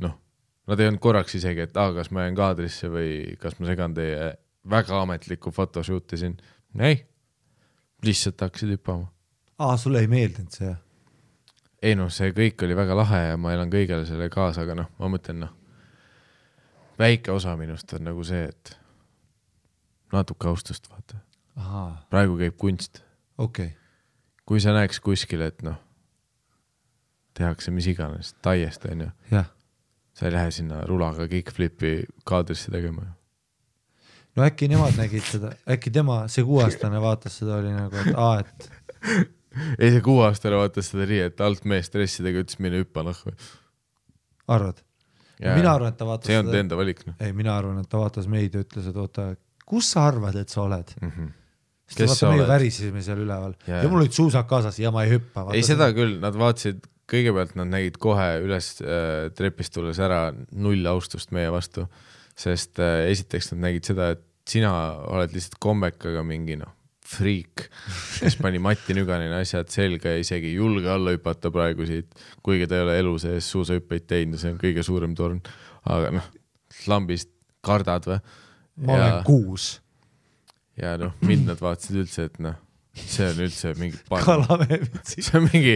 Nad ei olnud korraks isegi, et kas ma jään kaadrisse või kas ma segan teie väga ametlikku fotoshooti siin. Ei, lihtsalt hakkasid hüppama. Sulle ei meeldinud see? Ei see kõik oli väga lahe ja ma elan kõigele selle kaasa, aga ma mõtlen, väike osa minust on nagu see, et natuke austust vaata. Praegu käib kunst. Kui sa näeks kuskil, et tehakse mis iganes, taiest on ju. Sa ei lähe sinna rulaga kickflipi kaadrisse tegema. Äkki nemad nägid seda, äkki tema, see 6-aastane vaatas seda, oli nagu, et Ei, see 6-aastane vaatas seda nii, et alt mees stressidega ütles mine hüppa või. Arvad? Mina arvan, et ta vaatas see on enda valik. Ei, mina arvan, et ta vaatas meid ja ütles, et oota, kus sa arvad, et sa oled? Kes sa oled? Me värisime seal üleval. Ja mul olid suusad kaasas ja ma ei hüppa. Ei, seda küll, nad vaatasid, kõigepealt nad nägid kohe üles trepist tulles ära null austust meie vastu, sest esiteks nad nägid seda, et sina oled lihtsalt kombekaga mingi friik, kes pani Mati Nüganini asjad selga ja isegi ei julge alla hüpata praegu siit, kuigi ta ei ole elu sees suusahüppeid teinud, see on kõige suurem torn, aga noh, lambist kardad või? Ma olen 6. Ja noh, mind nad vaatasid üldse, et noh, see on üldse mingi parm. Kalameevitsi. See on mingi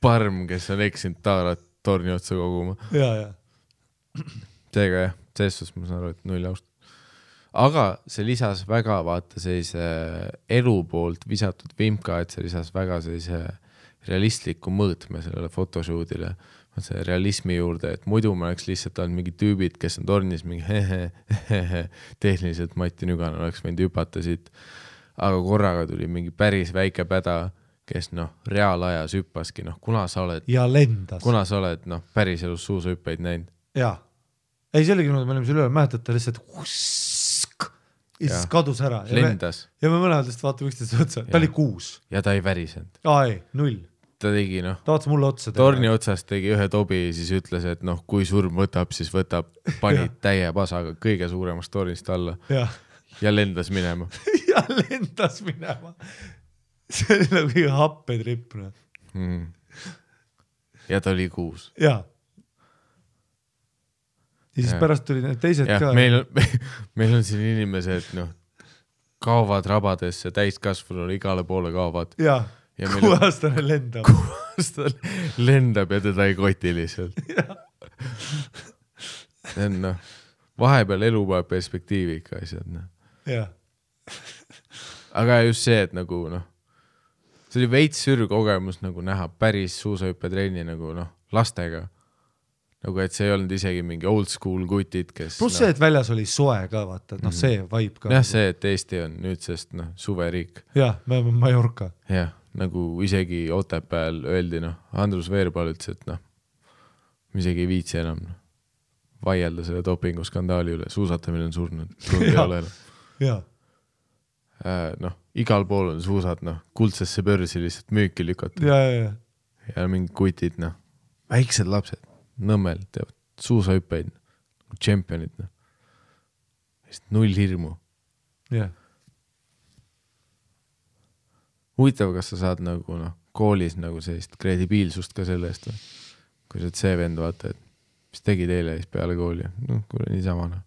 parm, kes on eksinud taarat torni otsa koguma. Ja. Seega jah, selles ma saan aru, et 0 aust. Aga see lisas väga, vaata sellise elu poolt visatud vimka, et see lisas väga sellise realistliku mõõtme sellele photoshootile, see realismi juurde, et muidu ma oleks lihtsalt olnud mingi tüübid, kes on tornis mingi tehniliselt Mati Nüganen oleks võinud hüpata siit, aga korraga tuli mingi päris väike päda, kes noh, reaalajas hüppaski, noh, kuna sa oled päris elus suusahüppeid näinud? Jaa. Ei, see oligi, me olime selle üle, mäletate lihtsalt ja siis kadus ära. Lendas. Ja me mõlemad lihtsalt vaatame üksteist otsa. Ta oli 6. Ja ta ei värisenud. Ei, 0. Ta tegi noh. Ta vaatas mulle otsa. Torni otsast tegi ühe tobi ja siis ütles, et noh, kui surm võtab, siis võtab, pani täie pasaga kõige suuremast tornist alla. Ja lendas minema. See oli nagu kõige happetripp. Ja ta oli 6. Jaa. Ja siis pärast tuli need teised ka. Meil on siin inimesed, noh, kaovad rabadesse, täiskasvunul igale poole kaovad. Ja 6-aastane lendab. 6-aastane lendab ja teda ei koti lihtsalt. See on, noh, vahepeal elu peab perspektiivi ikka asjad, noh. Jah. Aga just see, et nagu, noh, see oli veits sürkogemus nagu näha päris suusahüppetrenni nagu, noh, lastega. Nagu, et see ei olnud isegi mingi old school kutid, kes... Plus see, et väljas oli soe ka, vaata, et noh, see vibe ka. Jah, see, et Eesti on nüüdsest, noh, suveriik. Jah, me oleme Mallorca. Jah, nagu isegi Otepääl öeldi, noh, Andrus Veerpaal ütles, et noh, isegi ei viitsi enam vaielda selle dopinguskandaali üle, suusatamine on surnud, tund ei ole enam. Jah. Noh, igal pool on suusad, noh, kuldsesse börsi lihtsalt müüki lükatud. Ja mingi kutid, noh, väiksed lapsed. Nõmmel teevad suusahüppeid, tšempionid, noh. 0 hirmu. Yeah. Huvitav, kas sa saad nagu, noh, koolis nagu sellist kredibiilsust ka selle eest, või? Kui sa see vend vaata, et mis tegi teile siis peale kooli, noh, kuule niisama, noh,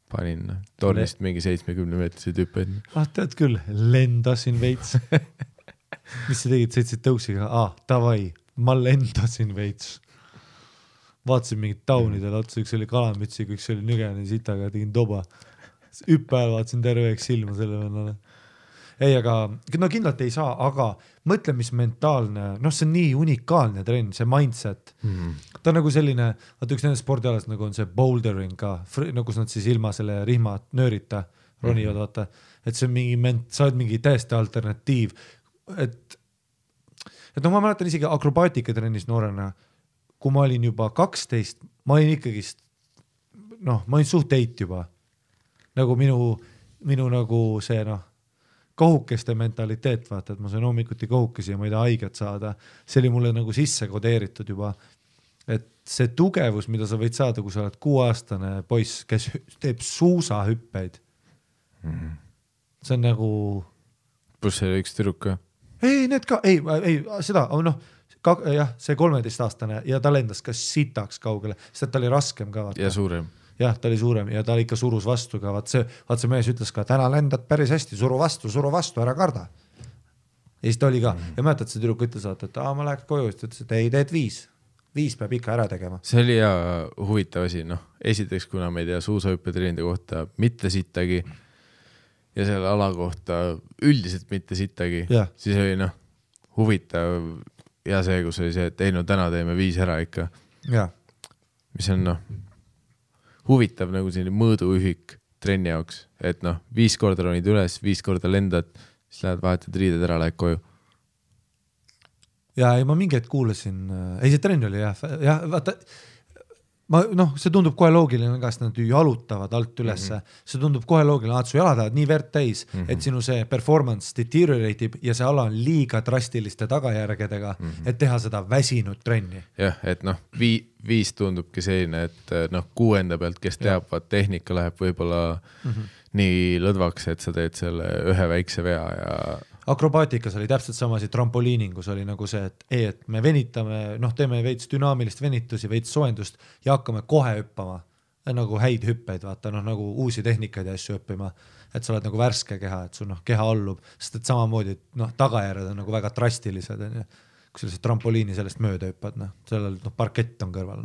panin, noh, tornist mingi 70-meetriseid hüppeid. Tead küll, lendasin veits. Mis sa tegid, sõitsid tõuksiga? Tavai, ma lendasin veits. Vaatasin mingid taunidele otsa, üks oli kalamütsiga, üks oli Nügani sitaga, tegin toba. Hüppajal vaatasin terveeks silma selle vennale. Ei, aga no kindlalt ei saa, aga mõtle, mis mentaalne, noh, see on nii unikaalne trenn, see mindset. Ta on nagu selline, vaata üks nende spordialas nagu on see bouldering ka, nagu nad siis ilma selle rihma nöörita ronivad, vaata, et see on mingi, sa oled mingi täiesti alternatiiv, et noh, ma mäletan isegi akrobaatikatrennis noorena, kui ma olin juba 12, ma olin ikkagist, noh, ma olin suht teit juba. Nagu minu nagu see, noh, kohukeste mentaliteet, vaata, et ma sain hommikuti kohukesi ja ma ei taha haiget saada. See oli mulle nagu sisse kodeeritud juba. Et see tugevus, mida sa võid saada, kui sa oled 6-aastane poiss, kes teeb suusahüppeid. See on nagu... Plus see üks tüdruk ka? Ei, need ka, ei, seda, noh, jah, see 13-aastane ja ta lendas ka sitaks kaugele, sest ta oli raskem ka. Vaata. Ja suurem. Jah, ta oli suurem ja ta ikka surus vastu ka. Vaat see mees ütles ka, täna lendad päris hästi, suru vastu, ära karda. Ja siis ta oli ka. Ja mäletad, see tüdruk ütles, et ma läheks koju, siis ütles, et ei, teed 5. 5 peab ikka ära tegema. See oli ja huvitav asi, noh, esiteks, kuna me ei tea suusahüppetreenide kohta mitte sittagi ja selle ala kohta üldiselt mitte sittagi, siis oli, noh, huvitav ja see, kus oli see, et ei, no täna teeme 5 ära ikka. Ja. Mis on, noh, huvitav nagu selline mõõduühik trenni jaoks, et noh, 5 korda ronid üles, 5 korda lendad, siis lähed vahetad riided ära, lähed koju. Ja ma mingi hetk kuulasin, ei see trenn oli jah, vaata, noh, see tundub kohe loogiline, kas nad jalutavad alt ülesse, see tundub kohe loogiline, et su jalad lähevad nii verd täis, et sinu see performance deterioratib ja see ala on liiga drastiliste tagajärgedega, et teha seda väsinud trenni. Jah, et noh, 5 tundubki selline, et noh, 6. pealt, kes teab, tehnika läheb võib-olla nii lõdvaks, et sa teed selle ühe väikse vea ja akrobaatikas oli täpselt samasid, trampoliiningus oli nagu see, et me venitame, teeme veits dünaamilist venitusi, veits soojendust ja hakkame kohe hüppama, nagu häid hüppeid, vaata, nagu uusi tehnikaid ja asju õppima, et sa oled nagu värske keha, et sul keha allub, sest et samamoodi, tagajärjed on nagu väga drastilised, kui sa trampoliini sellest mööda hüppad, sellel parkett on kõrval,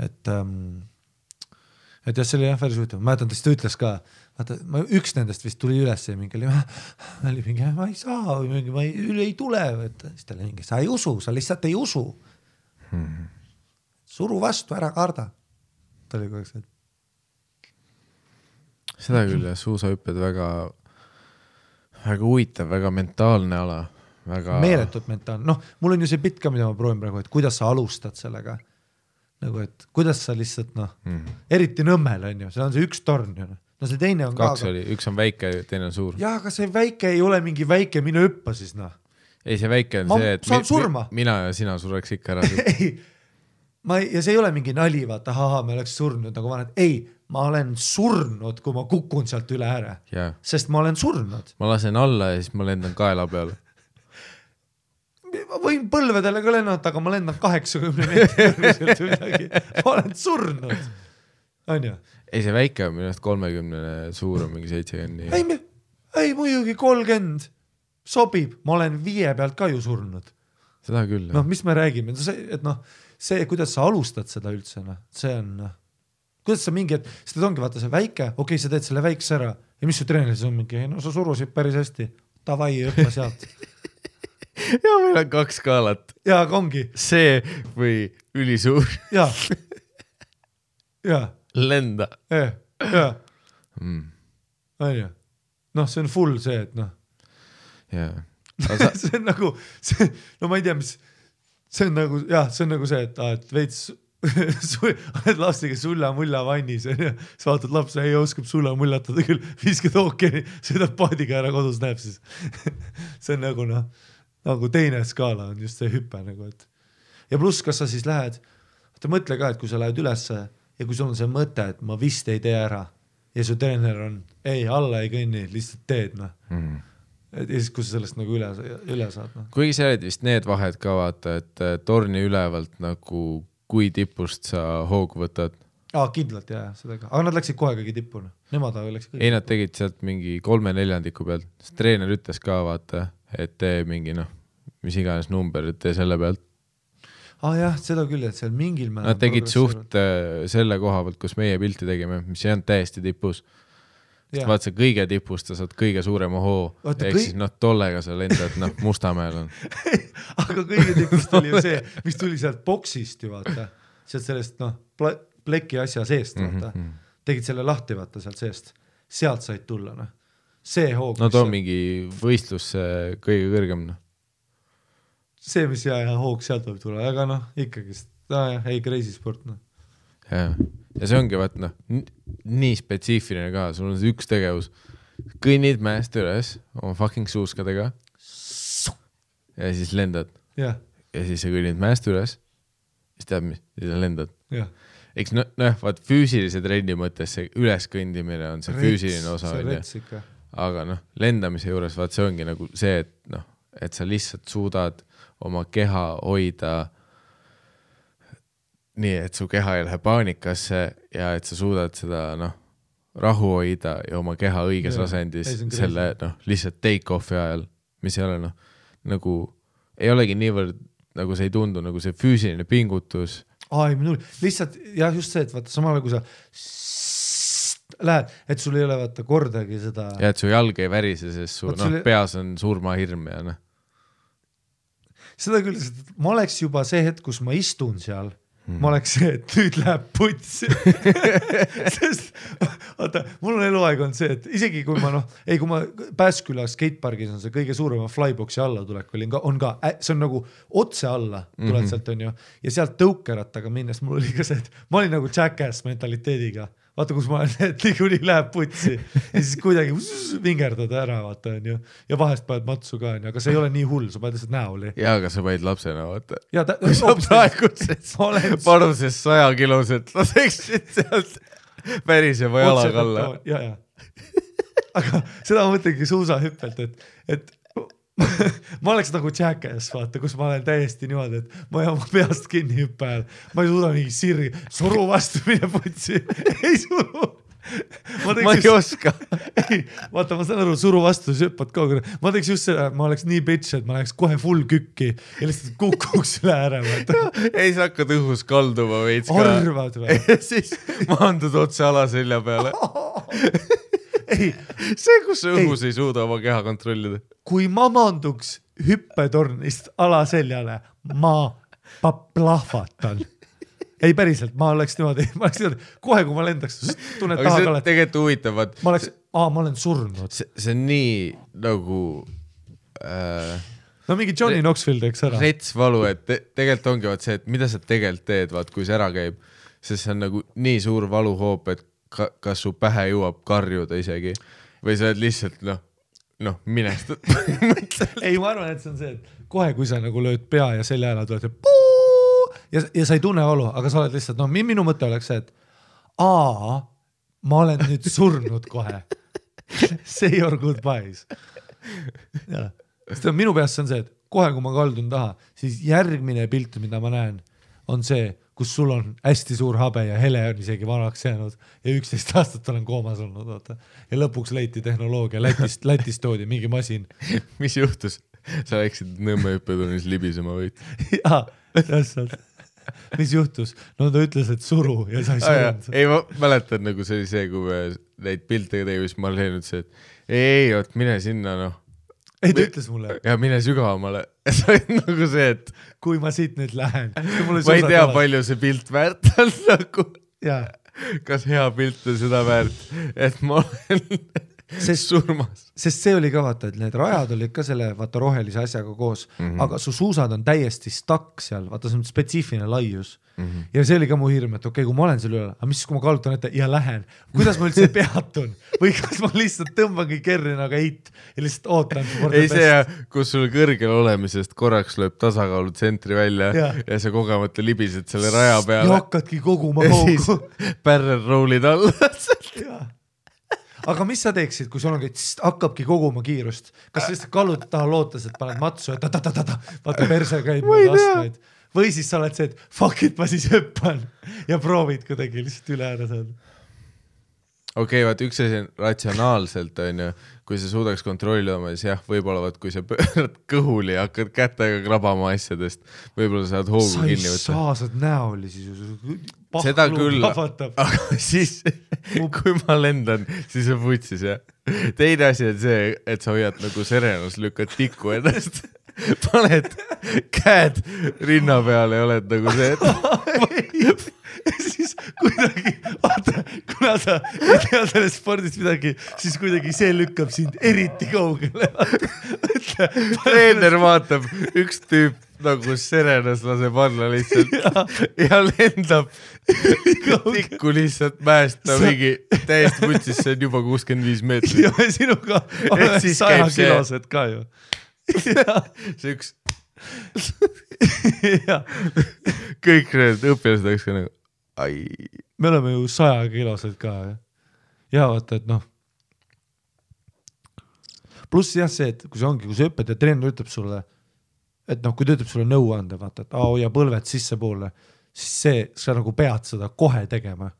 et jah, see oli päris huvitav, ma mäletan, ta ütles ka, vaata, üks nendest vist tuli üles ja mingi oli mingi, ma ei saa või mingi, ma ei tule, siis ta oli mingi, sa ei usu, sa lihtsalt ei usu. Suru vastu, ära karda. Ta oli kogu aeg. Seda küll, suusahüpped väga huvitav, väga mentaalne ala. Väga... Meeletult mentaalne. Mul on ju see pitt ka, mida ma proovin praegu, et kuidas sa alustad sellega. Nagu, et kuidas sa lihtsalt, eriti Nõmmel on ju, see on see üks torn ju. See teine on kaks ka. Oli, üks on väike, teine on suur. Jaa, aga see väike ei ole mingi väike, mine hüppa siis, Ei, see väike on see, et mina ja sina sureks ikka ära. Ei, ja see ei ole mingi nali, vaata, me oleks surnud, nagu ma olen, ei, ma olen surnud, kui ma kukun sealt üle ära. Sest ma olen surnud. Ma lasen alla ja siis ma lendan kaela peale. Ma võin põlvedele ka lennata, aga ma lendan 80 meetrit midagi. Ma olen surnud. On ju? Ei, see väike on minust 30, suur on mingi 70. Ei, muidugi 30 sobib. Ma olen 5 pealt ka ju surnud. Seda küll. Mis me räägime? Et see, kuidas sa alustad seda üldse, see on, kuidas sa mingi, seda ongi vaata see väike, okei, sa teed selle väikse ära ja mis su treeneris on mingi, sa surusid päris hästi, davai, õppa sealt. Ja meil on 2 skaalat. Ja, ongi. See või ülisuur. Ja. Lenda. Ja. On ju. See on full see, et see on nagu, ma ei tea, mis see on nagu, see on nagu see, et veits oled lapsiga sulla-mulla vannis ja sa vaatad lapse, ei oskab sulla-mullatada küll, viskad ookeani, sõidab paadiga ära kodus näeb siis. See on nagu teine skaala on just see hüpe nagu, et ja pluss, kas sa siis lähed, mõtle ka, et kui sa lähed ülesse ja kui sul on see mõte, et ma vist ei tee ära ja su treener on, ei, alla ei kõnni, lihtsalt teed, ja siis kui sa sellest nagu üle saad. Kuigi sa oled vist need vahed ka vaata, et torni ülevalt nagu kui tipust sa hoogu võtad. Kindlalt seda ka. Aga nad läksid kohe kõigi tippuna. Nemad läksid kõigi. Ei, nad tegid sealt mingi 3/4 pealt. Sest treener ütles ka vaata, et tee mingi mis iganes number, et tee selle pealt. Jah, seda küll, et seal mingil määral nad tegid suht selle koha pealt, kus meie pilti tegime, mis ei olnud täiesti tipus. Sest vaat see kõige tipust, sa saad kõige suurema hoo. Ehk siis tollega sa lendad, Mustamäel on. Aga kõige tipust oli ju see, mis tuli sealt boksist ju vaata. Sealt sellest pleki asja seest vaata. Tegid selle lahti vaata sealt seest. Sealt said tulla. See hoog. Too mingi võistlus kõige kõrgem. See, mis hoog sealt võib tulla. Aga ikkagi, ei crazy sport. Ja see ongi vaat nii spetsiifiline ka, sul on see üks tegevus, kõnnid mäest üles oma fucking suuskadega ja siis lendad ja siis sa kõnnid mäest üles siis tead mis, siis lendad eks vaat füüsilise trenni mõttes see üleskõndimine on see füüsiline osa aga lendamise juures vaat see ongi nagu see, et sa lihtsalt suudad oma keha hoida nii, et su keha ei lähe paanikasse ja et sa suudad seda rahu hoida ja oma keha õiges asendis selle lihtsalt take-off'i ajal, mis ei ole nagu ei olegi niivõrd nagu see ei tundu nagu see füüsiline pingutus. Lihtsalt just see, et vaata samal kui sa lähed, et sul ei ole vaata kordagi seda ja et su jalg ei värise, sest su peas on surmahirm ja seda küll, ma oleks juba see hetk, kus ma istun seal ma oleks see, et nüüd läheb putsi. Sest, vaata, mul on eluaeg on see, et isegi kui ma kui ma Pääsküla skatepargis on see kõige suurema flyboxi alla tulek on ka, see on nagu otse alla tuled sealt on ju, ja sealt tõukerattaga minnes mul oli ka see, et ma olin nagu jackass mentaliteediga. Vaata, kus ma olen, et liiguni läheb putsi ja siis kuidagi vingerdad ära, vaata on ju. Ja vahest paned matsu ka, aga see ei ole nii hull, sa paned lihtsalt näoli. Ja, aga sa paned lapsena, vaata. Kui sa praegu panuses 100 kiloselt laseksid sealt päris juba jalaga alla. Ja, aga seda ma mõtlengi suusahüppelt, et ma oleks nagu Jackass, vaata, kus ma olen täiesti niimoodi, et ma ei oma peast kinni hüppe ajal, ma ei suuda mingi sirri, suru vastu mine putsi, ei suru. Ma ei oska. Ei, vaata, ma saan aru, suru vastu, siis hüppad kogu. Ma teeks just seda, ma oleks nii bitch, et ma läheks kohe full kükki ja lihtsalt kukuks üle ära. Ei, sa hakkad õhus kalduma veits ka. Arvad või? Ja siis maandud otse alaselja peale. Ei. See, kus sa õhus ei suuda oma keha kontrollida. Kui ma maanduks hüppetornist alaseljale, ma plahvatan. Ei päriselt, ma oleks niimoodi, kohe kui ma lendaks, tunned taha kallet. Aga see tegelikult huvitavad. Ma olen surnud. See on nii nagu... No mingi Johnny Knoxville teeks ära. Retsvalu, et tegelikult ongi vaat see, et mida sa tegelikult teed, vaat kui see ära käib, sest see on nagu nii suur valuhoop, et kas su pähe jõuab karjuda isegi või sa oled lihtsalt minestad. Ei, ma arvan, et see on see, et kohe kui sa nagu lööd pea ja selja ära tuled ja sa ei tunne valu, aga sa oled lihtsalt, minu mõte oleks see, et ma olen nüüd surnud kohe. Say your goodbyes. Sest minu peast see on see, et kohe kui ma kaldun taha, siis järgmine pilt, mida ma näen, on see, kus sul on hästi suur habe ja hele on isegi vanaks jäänud ja 11 aastat olen koomas olnud. Vaata. Ja lõpuks leiti tehnoloogia, Lätist toodi mingi masin. Mis juhtus? Sa läksid Nõmme hüppetunnis libisema võid? Jaa, täpselt. Mis juhtus? No ta ütles, et suru ja sa ei surunud. Ei, ma mäletan, nagu see oli see, kui me neid piltega teevis, ma olen nüüd see, et ei, mine sinna, Ei, ta ütles mulle. Ja mine sügavamale. See on nagu see, et... Kui ma siit nüüd lähen. Ma ei tea, palju see pilt väärt on nagu. Jaa. Kas hea pilt on seda väärt, et ma olen surmas. Sest see oli ka vaata, et need rajad olid ka selle vaata rohelise asjaga koos, aga su suusad on täiesti stuck seal, vaata see on spetsiifiline laius. Ja see oli ka mu hirm, et okei, kui ma olen seal üle, aga mis kui ma kalutan ette ja lähen, kuidas ma üldse peatun või kas ma lihtsalt tõmbangi kerri nagu eit ja lihtsalt ootan. Ei see, kus sul kõrgel olemisest korraks lööb tasakaalu tsentri välja ja sa kogemata libised selle raja peale. Ja hakkadki koguma hoogu. Ja siis barrel rollid alla. Aga mis sa teeksid, kui sul ongi, hakkabki koguma kiirust? Kas lihtsalt kallud taha lootes, et paned matsu, et vaata perse käib astmeid. Või siis sa oled see, et fuck it, ma siis hüppan ja proovid kuidagi lihtsalt üle ära saada. Okei, vaat üks asi on ratsionaalselt, kui sa suudaks kontrollida, siis jah, võib-olla kui sa pöörad kõhuli ja hakkad kätega krabama asjadest, võib-olla saad hoogu kinni võtta. Sa ei saa, saad näoli siis. Seda küll, aga siis, kui ma lendan, siis on vutsis, jah. Teine asi on see, et sa hoiad nagu serenus, lükkad tikku ennast. Paned käed rinna peale ja oled nagu see, et siis kuidagi, vaata, kuna sa ei tea sellest spordist midagi, siis kuidagi see lükkab sind eriti kaugele. Treener vaatab, üks tüüp nagu serenas laseb alla lihtsalt ja lendab tikku lihtsalt mäest mingi täiesti vutsis, see on juba 65 meetrit. Ja sinuga on 100 kilosed ka ju. See üks kõik need õpilased oleks ka nagu me oleme ju 100 kilosed ka ja vaata, et pluss jah see, et kui see ongi, kui see õpetaja treener ütleb sulle, et kui ta ütleb sulle nõu anda, vaata, et hoia põlved sisse poole, siis see, sa nagu pead seda kohe tegema.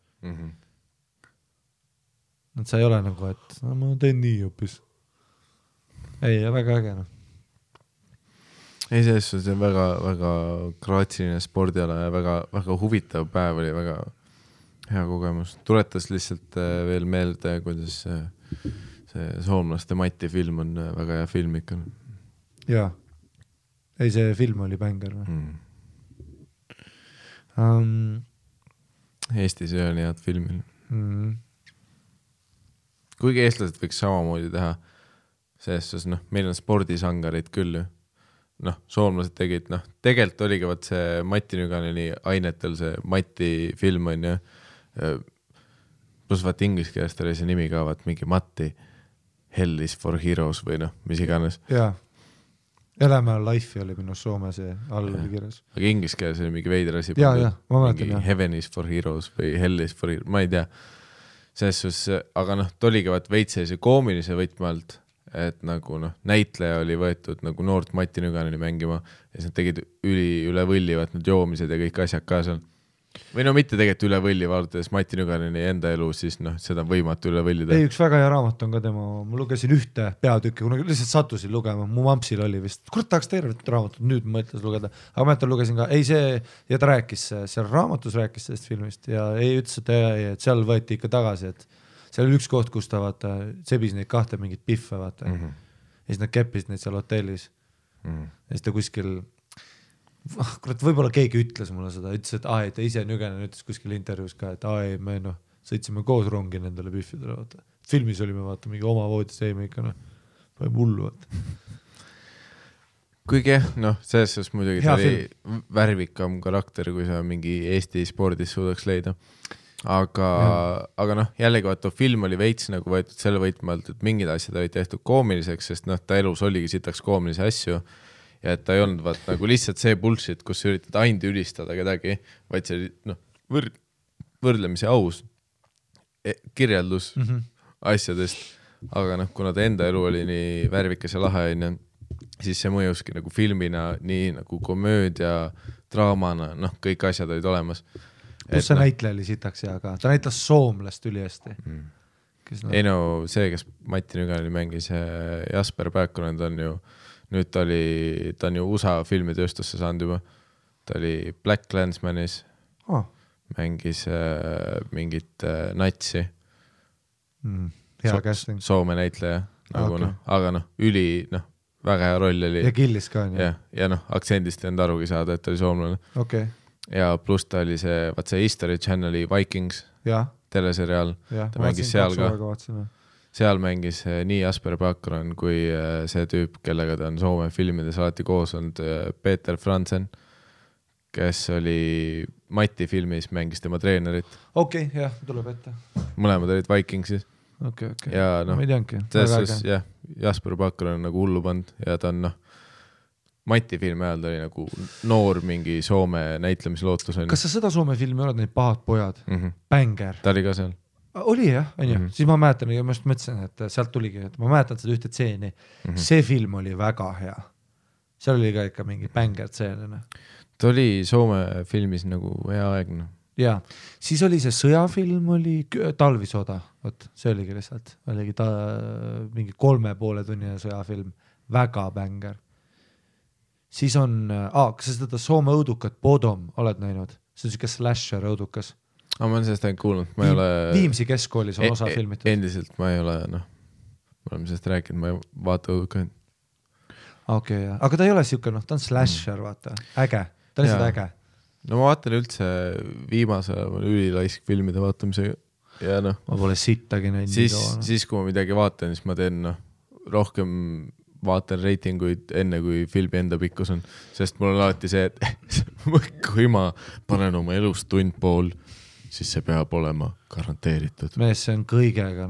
Et sa ei ole nagu, et ma teen nii hoopis. Ei, väga äge. Ei, see on väga, väga graatsiline spordiala ja väga, väga huvitav päev oli, väga hea kogemus. Tuletas lihtsalt veel meelde, kuidas see soomlaste Mati film on väga hea film ikka. Jaa. Ei, see film oli bänger või? Eestis ei ole nii head filmil. Kuigi eestlased võiks samamoodi teha, sest meil on spordisangarid küll ju. Soomlased tegid, tegelikult oligi vaat see Mati Nüganeni ainetel see Mati film on ju, pluss vaat inglise keelest oli see nimi ka, vaat mingi Mati Hell is for Heroes või mis iganes. Jaa, Elämä Life oli minu Soome see all oli kirjas. Aga inglise keeles oli mingi veider asi. Jaa, ma mäletan. Heaven is for Heroes või Hell is for Heroes, ma ei tea. selles suhtes, aga noh, ta oligi vaat veits sellise koomilise võtme alt, et nagu noh, näitleja oli võetud nagu noort Mati Nüganeni mängima ja siis nad tegid üle võlli, vaat need joomised ja kõik asjad ka seal. Või no mitte tegelikult üle võlli, vaadates Mati Nüganeni enda elu, siis noh, seda on võimatu üle võllida. Ei, üks väga hea raamat on ka tema, ma lugesin ühte peatükki, kuna lihtsalt sattusin lugema, mu mampsil oli vist, kurat tahaks tervet raamatut, nüüd mõtles lugeda, aga ma lugesin ka, ei see, ja ta rääkis, seal raamatus rääkis sellest filmist ja ei ütles, et seal võeti ikka tagasi, et seal oli üks koht, kus ta vaata, sebis neid kahte mingit piffe, vaata. Ja siis nad keppisid neid seal hotellis. Ja siis ta kuskil, kurat, võib-olla keegi ütles mulle seda, ütles, et et ta ise Nüganen ütles kuskil intervjuus ka, et ei, me sõitsime koos rongi nendele piffidele, vaata. Filmis olime, vaata, mingi oma voodis jäime ikka, paneme hullu, vaata. Kuigi selles suhtes muidugi ta oli värvikam karakter, kui sa mingi Eesti spordis suudaks leida. Aga jällegi vaata, film oli veits nagu võetud selle võitmalt, et mingid asjad olid tehtud koomiliseks, sest ta elus oligi sitaks koomilisi asju ja et ta ei olnud vaat nagu lihtsalt see bullshit, kus sa üritad ainult ülistada kedagi, vaid see oli võrdlemisi aus kirjeldus asjadest, aga kuna ta enda elu oli nii värvikas ja lahe, siis see mõjuski nagu filmina, nii nagu komöödia, draamana, kõik asjad olid olemas. Kus see näitleja oli sitaks ja aga ta näitles soomlast ülihästi. Ei see, kes Mati Nüganeni mängis, Jasper Pääkkonen, nüüd ta on ju USA filmitööstusse saanud juba. Ta oli Black Landsmanis, mängis mingit natsi. Hea casting. Soome näitleja, aga üli, väga hea roll oli. Ja killis ka, ja aktsendist ei olnud arugi saada, et ta oli soomlane. Okei. Ja pluss ta oli see History Channeli Vikings teleseriaal, ta mängis seal ka. Seal mängis nii Jasper Pääkkonen kui see tüüp, kellega ta on Soome filmides alati koos olnud, Peter Fransen, kes oli Mati filmis, mängis tema treenerit. Okei, jah, tuleb ette. Mõlemad olid Vikingsis. Okei. Ja ma ei teanki. Jasper Pääkkonen on nagu hullu pand ja ta on Mati filmi ajal ta oli nagu noor mingi Soome näitlemislootus. Kas sa seda Soome filmi oled, neid Pahad pojad? Banger. Ta oli ka seal. Oli jah, on ju. Siis ma mäletan, ja ma just mõtlesin, et sealt tuligi, et ma mäletan seda ühte tseeni. See film oli väga hea. Seal oli ka ikka mingi banger tseenina. Ta oli Soome filmis nagu hea aegna. Ja, siis oli see sõjafilm, oli Talvisoda. Võt, see oligi lihtsalt. Oligi mingi 3,5 tunnine sõjafilm. Väga banger. Siis on, kas sa seda Soome õudukat Bodom oled näinud? See on siuke slasher õudukas. Ma olen sellest ainult kuulnud, ma ei ole... Viimsi keskkoolis on osa filmitud. Endiselt ma ei ole, me oleme sellest rääkinud, ma ei vaata õudukaid. Okei, aga ta ei ole siuke, ta on slasher, vaata. Äge, ta on lihtsalt äge. No ma vaatan üldse viimase ülilaisk filmide vaatamisega ja Ma pole sittagi näinud. Siis kui ma midagi vaatan, siis ma teen rohkem... vaatan reitinguid enne, kui filmi enda pikkus on, sest mul on alati see, et kui ma panen oma elust tund pool, siis see peab olema garanteeritud. Mees, see on kõigega.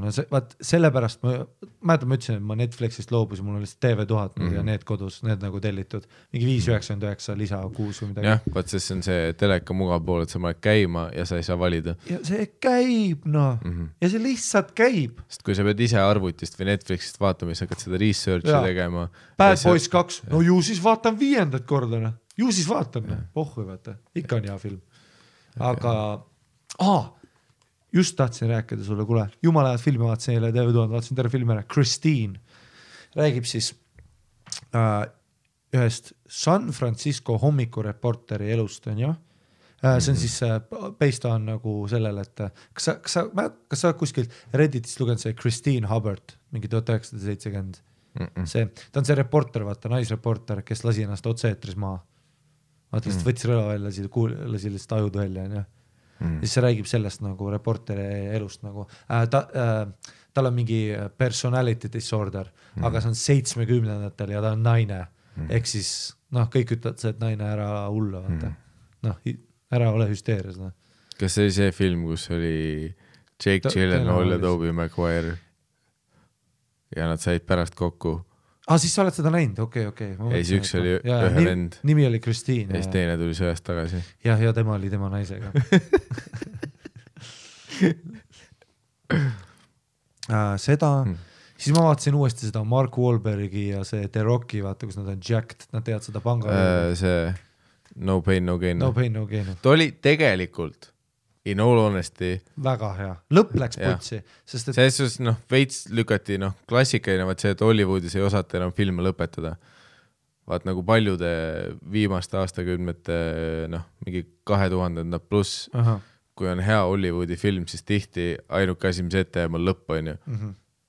Sellepärast ma ütlesin, et ma Netflixist loobusin, mul oli TV1000 ja need kodus, need nagu tellitud. Mingi 5,99 lisa 6 või midagi. Jah, vaat see on see teleka mugav pool, et sa paned käima ja sa ei saa valida. Ja see käib, ja see lihtsalt käib. Sest kui sa pead ise arvutist või Netflixist vaatama, siis hakkad seda researchi tegema. Bad Boys 2, no ju siis vaatan 5. korda. Ju siis vaatan, pohhu vaata. Ikka on hea film. Aga... just tahtsin rääkida sulle, kuule, jumala head filmi vaatasin eile TV1000, vaatasin terve filmi ära, Christine räägib siis ühest San Francisco hommikureporteri elust, on ju? See on siis based on nagu sellele, et kas sa kuskilt Redditist lugenud see Christine Hubbard, mingi 1970 ta on see reporter, vaata, naisreporter, kes lasi ennast otse-eetris maa. Vaata, lihtsalt võttis rõla välja, lasi lihtsalt ajudu välja, on ju? Siis see räägib sellest nagu reporteri elust nagu. Tal on mingi personality disorder, aga see on 70-ndatel ja ta on naine. Ehk siis, kõik ütlevad see, et naine ära hulla, vaata. Ära ole hüsteerias. Kas see oli see film, kus oli Jake Gyllenhaal ja Tobey Maguire ja nad said pärast kokku? Siis sa oled seda näinud, okei. Ei, siis üks oli ühe vend. Nimi oli Christine. Ja siis teine tuli sööst tagasi. Ja tema oli tema naisega. seda siis ma vaatasin uuesti seda Mark Wahlbergi ja see The Rocki, vaata, kus nad on jacked, nad teevad seda panga. See No Pain, No Gain. No Pain, No Gain. Ta oli tegelikult, in all honesty, väga hea. Lõpp läks putsi. Sest et... selles veits lükati, klassikaline, vaat see, et Hollywoodis ei osata enam filme lõpetada. Vaat nagu paljude viimaste aastakümnete, mingi 2000 pluss, kui on hea Hollywoodi film, siis tihti ainuke asi, mis ette jääb on lõpp, on ju.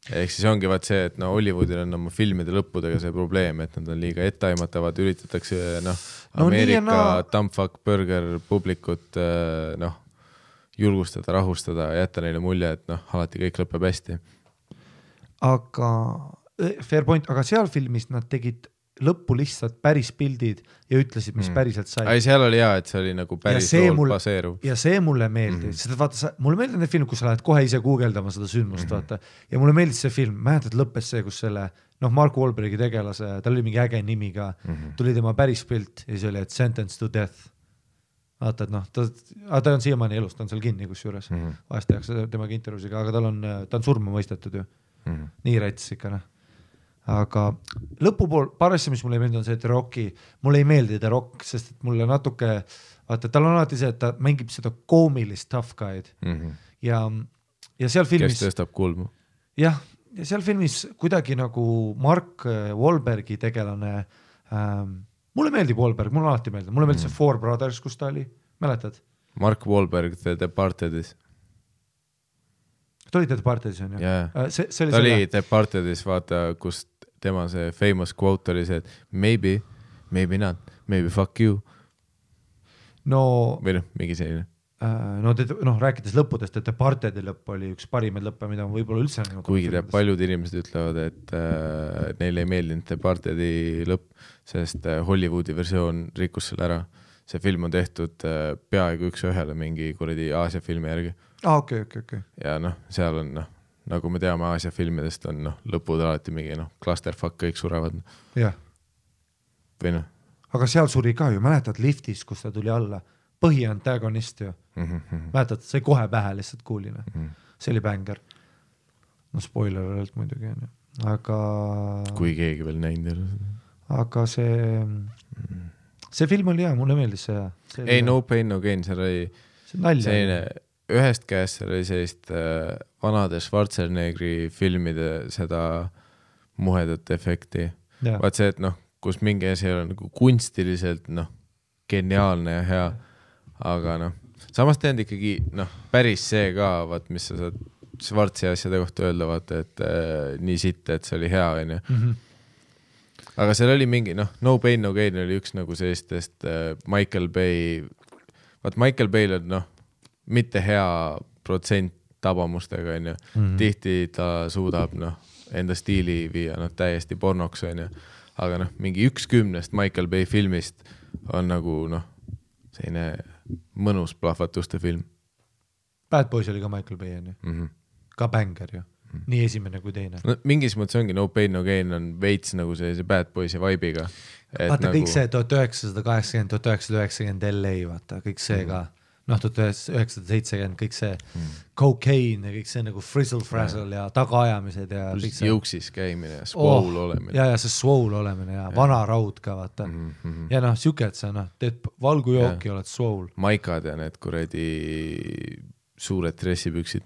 Ehk siis ongi vaat see, et Hollywoodil on oma filmide lõppudega see probleem, et nad on liiga ettaimatavad, üritatakse Ameerika dumbfuck burger publikut julgustada, rahustada, jätta neile mulje, et alati kõik lõpeb hästi. Aga fair point, aga seal filmis nad tegid lõppu lihtsalt päris pildid ja ütlesid, mis päriselt sai. Ai, seal oli hea, et see oli nagu päris lool baseeruv. Ja see mulle meeldis. Seda vaata, mulle meeldib need film, kus sa lähed kohe ise guugeldama seda sündmust, vaata. Ja mulle meeldis see film. Mäletad, lõppes see, kus selle, Mark Wahlbergi tegelase, tal oli mingi äge nimi ka, tuli tema päris pilt ja see oli, et sentence to death. Vaata, et ta on siiamaani elus, ta on seal kinni kus juures. Vahest tehakse temaga intervjuusiga, aga ta on surma mõistetud ju. Nii rätsis ikka, aga lõpupool, paar asja, mis mulle ei meeldi, on see, et Rocki, mulle ei meeldi The Rock, sest et mulle natuke, vaata, tal on alati see, et ta mängib seda koomilist tough guy'd ja seal filmis... Kes tõstab kulmu. Jah, ja seal filmis kuidagi nagu Mark Wahlbergi tegelane, mulle meeldib Wahlberg, mulle alati meeldib, mulle meeldib see Four Brothers, kus ta oli, mäletad? Mark Wahlberg, The Departedis. Ta oli The Departedis, on ju? Yeah. Ta oli The Departedis, vaata, kus tema see famous quote oli see, et maybe not, maybe fuck you. Või mingi selline. Rääkides lõppudest, et Departedi lõpp oli üks parimaid lõppe, mida ma võib-olla üldse... Kuigi paljud inimesed ütlevad, et neile ei meeldinud Departedi lõpp, sest Hollywoodi versioon rikkus selle ära. See film on tehtud peaaegu üks ühele mingi kuradi Aasia filmi järgi. Okay. Ja seal on, nagu me teame Aasia filmidest on lõpud alati mingi clusterfuck, kõik surevad. Jah. Või Aga seal suri ka ju, mäletad liftis, kus ta tuli alla. Põhiantagonist ju. Mäletad, see kohe pähe lihtsalt kuuline. See oli bänger. Spoiler alert muidugi. Aga... Kui keegi veel näinud. Aga see film oli hea, mulle meeldis see hea. Ei, No Pain, No Gain, seal oli selline... Ühest käest oli sellist vanade Schwarzeneggeri filmide seda muhedat efekti. Vaat see, et kus mingi asi on nagu kunstiliselt geniaalne ja hea, aga samas teend ikkagi päris see ka, vaat mis sa saad Schwarzi asjade kohta öelda, vaata, et nii sitt, et see oli hea, on ju. Aga seal oli mingi, No Pain, No Gain oli üks nagu sellistest Michael Bay, vaat Michael Bay on mitte hea protsent tabamustega, on ju. Tihti ta suudab enda stiili viia täiesti pornoks, on ju. Aga mingi 1/10 Michael Bay filmist on nagu selline mõnus plahvatuste film. Bad Boys oli ka Michael Bay, on ju. Ka bänger ju. Nii esimene kui teine. Mingis mõttes ongi No Pain, No Gain on veits nagu see Bad Boysi vibe'iga. Vaata kõik see 1980, 1990 LA, vaata kõik see ka. 1970, kõik see cocaine ja kõik see nagu frizzle-frazzle ja tagaajamised ja kõik see. Jõuksis käimine ja swole olemine. Ja see swole olemine ja vana raud ka, vaata. Ja siuke, et sa teed valgujooki, oled swole. Maikad ja need kuredi suured dressipüksid.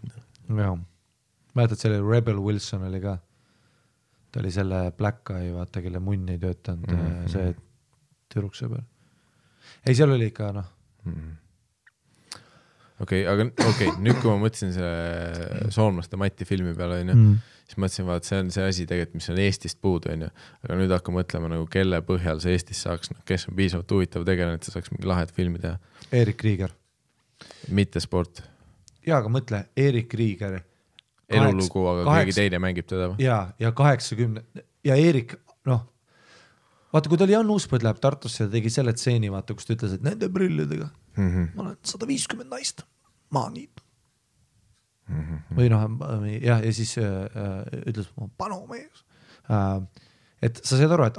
Jah. Mäletad, selle Rebel Wilson oli ka. Ta oli selle Black Eye, vaata, kelle munn ei töötanud see tüdrukse peal. Ei, seal oli ikka, Okei, nüüd kui ma mõtlesin selle Soomlaste Mati filmi peale, siis mõtlesin, vaat see on see asi tegelikult, mis on Eestist puudu, aga nüüd hakka mõtlema, nagu kelle põhjal see Eestis saaks, kes on piisavalt huvitav tegelane, et see saaks mingi lahed filmi teha. Erik Krieger. Mitte sport. Jaa, aga mõtle, Erik Krieger. Elulugu, aga keegi teine mängib teda. Ja 80, ja Erik, vaata, kui ta oli Jan Uuspõd läheb Tartusse ja tegi selle tseeni, vaata, kus ta ütles, et nende prillidega ma olen 150 naist, ma nii. Või ja siis ütles, panu mees. Et sa saad aru, et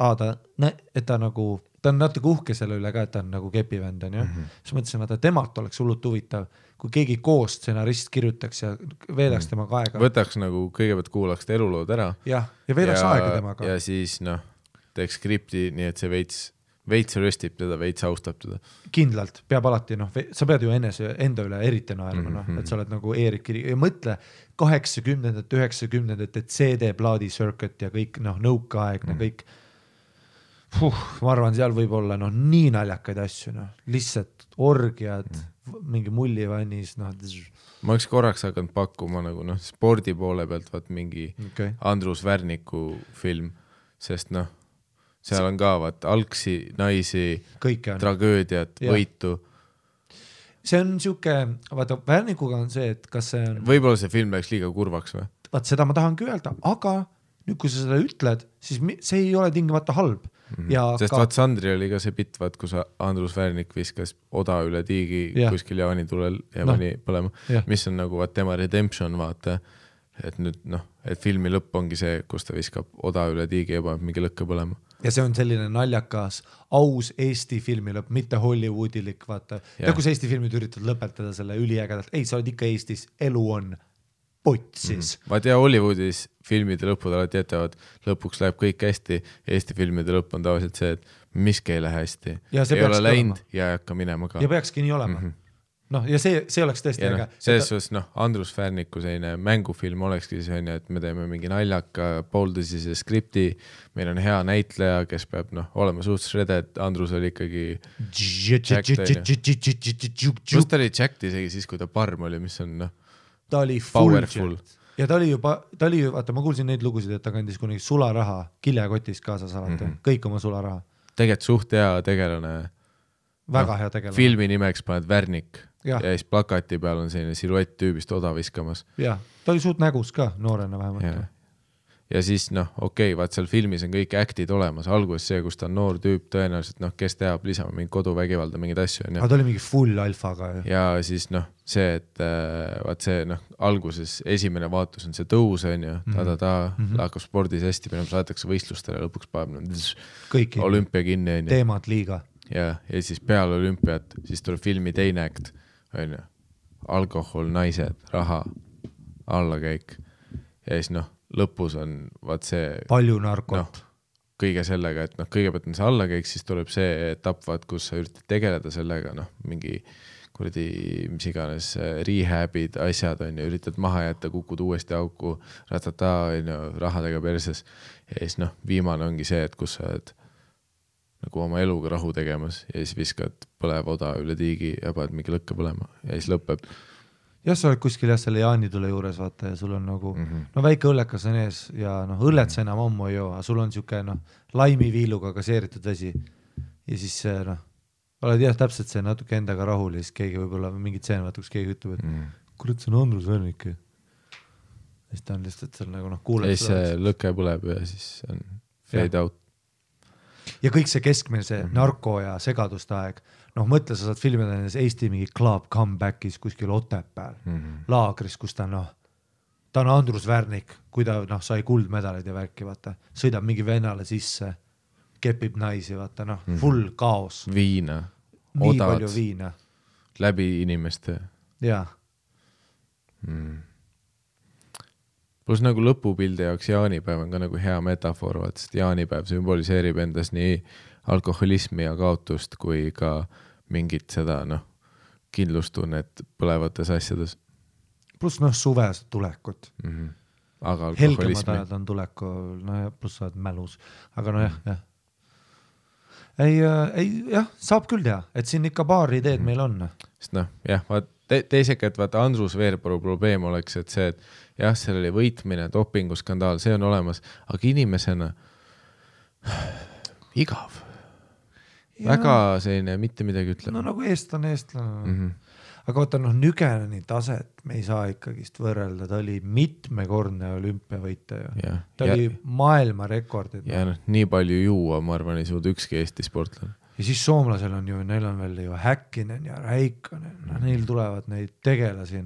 ta nagu ta on natuke uhke selle üle ka, et ta on nagu kepivend on ju. Siis mõtlesin, et temalt oleks hullult huvitav, kui keegi koos stsenarist kirjutaks ja veedaks temaga aega. Võtaks nagu kõigepealt kuulaks ta elulood ära. Ja veedaks aega temaga. Ja siis teeks skripti nii, et see veits röstib teda, veits austab teda. Kindlalt, peab alati, sa pead ju enda üle eriti naerma, et sa oled nagu Eerik Kiri ja mõtle 80-ndate, 90-ndate CD-plaadi circuit ja kõik, nõukaaegne kõik. Ma arvan, seal võib olla nii naljakaid asju, lihtsalt orgiad, mingi mullivannis. Ma oleks korraks hakanud pakkuma nagu spordi poole pealt vaat mingi Andrus Värniku film, sest seal on ka vaat algsi, naisi, tragöödiat, võitu. See on siuke, vaata Värnikuga on see, et kas see on... Võib-olla see film läks liiga kurvaks või? Vaat seda ma tahangi öelda, aga nüüd kui sa seda ütled, siis see ei ole tingimata halb. Sest vaat Sandri oli ka see bitt, vaat kus Andrus Värnik viskas oda üle tiigi kuskil jaanitulel ja pani põlema, mis on nagu vaat tema redemption vaata, et nüüd et filmi lõpp ongi see, kus ta viskab oda üle tiigi ja paneb mingi lõkke põlema. Ja see on selline naljakas, aus Eesti filmi lõpp, mitte Hollywoodilik, vaata. Ja kus Eesti filmid üritavad lõpetada selle üliägedalt, ei, sa oled ikka Eestis, elu on potsis. Vaat ja Hollywoodis filmide lõpud alati jätavad, lõpuks läheb kõik hästi, Eesti filmide lõpp on tavaliselt see, et miski ei lähe hästi. Ei ole läinud ja ei hakka minema ka. Ja peakski nii olema. Ja see oleks tõesti äge. Selles suhtes, Andrus Värniku selline mängufilm olekski see, et me teeme mingi naljaka pooltõsise skripti, meil on hea näitleja, kes peab olema suhtes rede, et Andrus oli ikkagi Just ta oli Jacked isegi siis, kui ta parm oli, mis on ta oli powerful. Ja ta oli vaata, ma kuulsin neid lugusid, et ta kandis kunagi sularaha kiljakotist kaasas alati, kõik oma sularaha. Tegelikult suht hea tegelane. Väga hea tegelane. Filmi nimeks paned Värnik ja siis plakati peal on selline siluett tüübist oda viskamas. Ja, ta oli suht nägus ka, noorena vähemalt. Ja siis okei, vaat seal filmis on kõik actid olemas, alguses see, kus ta on noor tüüp tõenäoliselt, kes teab lisama mingi koduvägivalda, mingid asju. Aga ta oli mingi full alfaga. Ja siis see, et vaat see alguses esimene vaatus on see tõus, on ju, hakkab spordis hästi, minema saadetakse võistlustele, lõpuks paneb olümpia kinni. Teemad liiga. Ja siis peale olümpiat, siis tuleb filmi teine akt, on ju, alkohol, naised, raha, allakäik ja siis lõpus on vaat see palju narkot kõige sellega, et kõigepealt on see allakäik, siis tuleb see etapp, vaat kus sa üritad tegeleda sellega, mingi kuradi mis iganes rehabid, asjad on ju, üritad maha jätta, kukud uuesti auku, ratata on ju, rahadega perses ja siis viimane ongi see, et kus sa oled nagu oma eluga rahu tegemas ja siis viskad põlev oda üle tiigi ja paned mingi lõkke põlema ja siis lõpeb. Ja sa oled kuskil selle jaanitule juures, vaata, ja sul on nagu, väike õllekas on ees ja õllet sa enam ammu ei joo, aga sul on siuke, laimiviiluga gaseeritud vesi. Ja siis oled täpselt see natuke endaga rahul ja siis keegi võib-olla mingid tseen, vaata, kus keegi ütleb, et kurat, see on Andrus Värnik. Ja siis ta on lihtsalt seal nagu kuuleb. Ja siis see lõke põleb ja siis on fade out. Ja kõik see keskmine, see narko ja segaduste aeg, mõtle, sa saad filmida Eesti mingi club comebackis kuskil Otepääl, laagris, kus ta on Andrus Värnik, kui ta sai kuldmedalid ja värki, vaata, sõidab mingi vennale sisse, kepib naisi, vaata, full kaos. Viina, nii odad, palju viina. Läbi inimeste. Jaa. Plus nagu lõpupildi jaoks jaanipäev on ka nagu hea metafoor, sest jaanipäev sümboliseerib endas nii alkoholismi ja kaotust kui ka mingit seda kindlustunnet põlevates asjades. Plus suvesed tulekut. Aga alkoholismi. Helgemad ajad on tulekul, plus sa oled mälus. Aga jah, saab küll teha, et siin ikka paar ideed meil on. Sest teisega, et vaata Andrus Veerpalu probleem oleks, et see, et jah, seal oli võitmine, dopinguskandaal, see on olemas, aga inimesena igav. Väga selline mitte midagi ütleb. Nagu eestlane. Aga vaata, Nügeneni taset me ei saa ikkagist võrrelda, ta oli mitmekordne olümpiavõitja. Ta oli maailmarekordid. Ja nii palju juua, ma arvan, ei suuda ükski Eesti sportlane. Ja siis soomlasel on ju, neil on veel ju Häkkinen ja Räikkönen, neil tulevad neid tegelasi.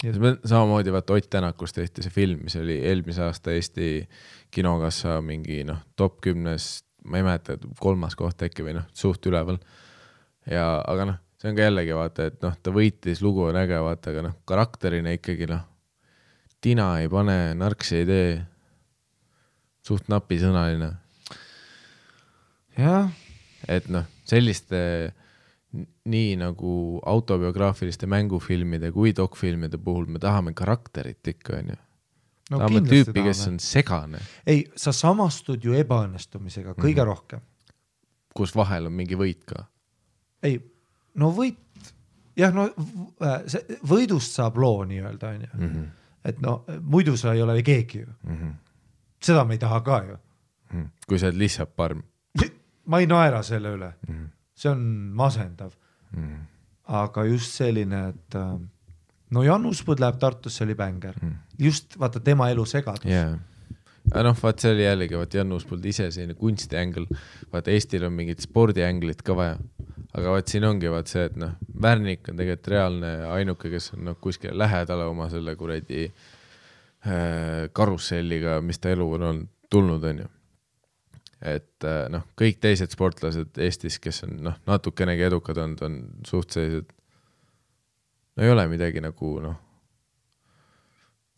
Samamoodi vaata Ott Tänakust tehti see film, mis oli eelmise aasta Eesti kinokassa mingi top 10 ma ei mäleta, 3. koht äkki või noh, suht üleval. Ja, aga noh, see on ka jällegi vaata, et noh, ta võitis, lugu on äge, vaata, aga noh, karakterina ikkagi noh, tina ei pane, narksi ei tee, suht napisõnaline. jah. Et noh, selliste nii nagu autobiograafiliste mängufilmide kui dokfilmide puhul me tahame karakterit ikka, on ju. No, tahame tüüpi, kes on segane. Ei, sa samastud ju ebaõnnestumisega kõige rohkem. Kus vahel on mingi võit ka. Ei, no võit, jah, no võidust saab loo nii-öelda, on ju. Et no, muidu sa ei ole keegi ju. Seda me ei taha ka ju. Kui sa oled lihtsalt parm. Ma ei naera selle üle. See on masendav. Aga just selline, et no Janus Põld läheb Tartusse, oli bänger. Just vaata tema elu segadus. Yeah. Noh, vaat see oli jällegi, vaat Janus Põld ise selline kunstiängel. Vaat Eestil on mingid spordiänglit ka vaja. Aga vaat siin ongi vaat see, et noh, Värnik on tegelikult reaalne ainuke, kes on noh, kuskil lähedale oma selle kuradi karusselliga, mis ta elu on tulnud, on ju. Et noh, kõik teised sportlased Eestis, kes on noh, natukenegi edukad on suht sellised, no ei ole midagi nagu noh,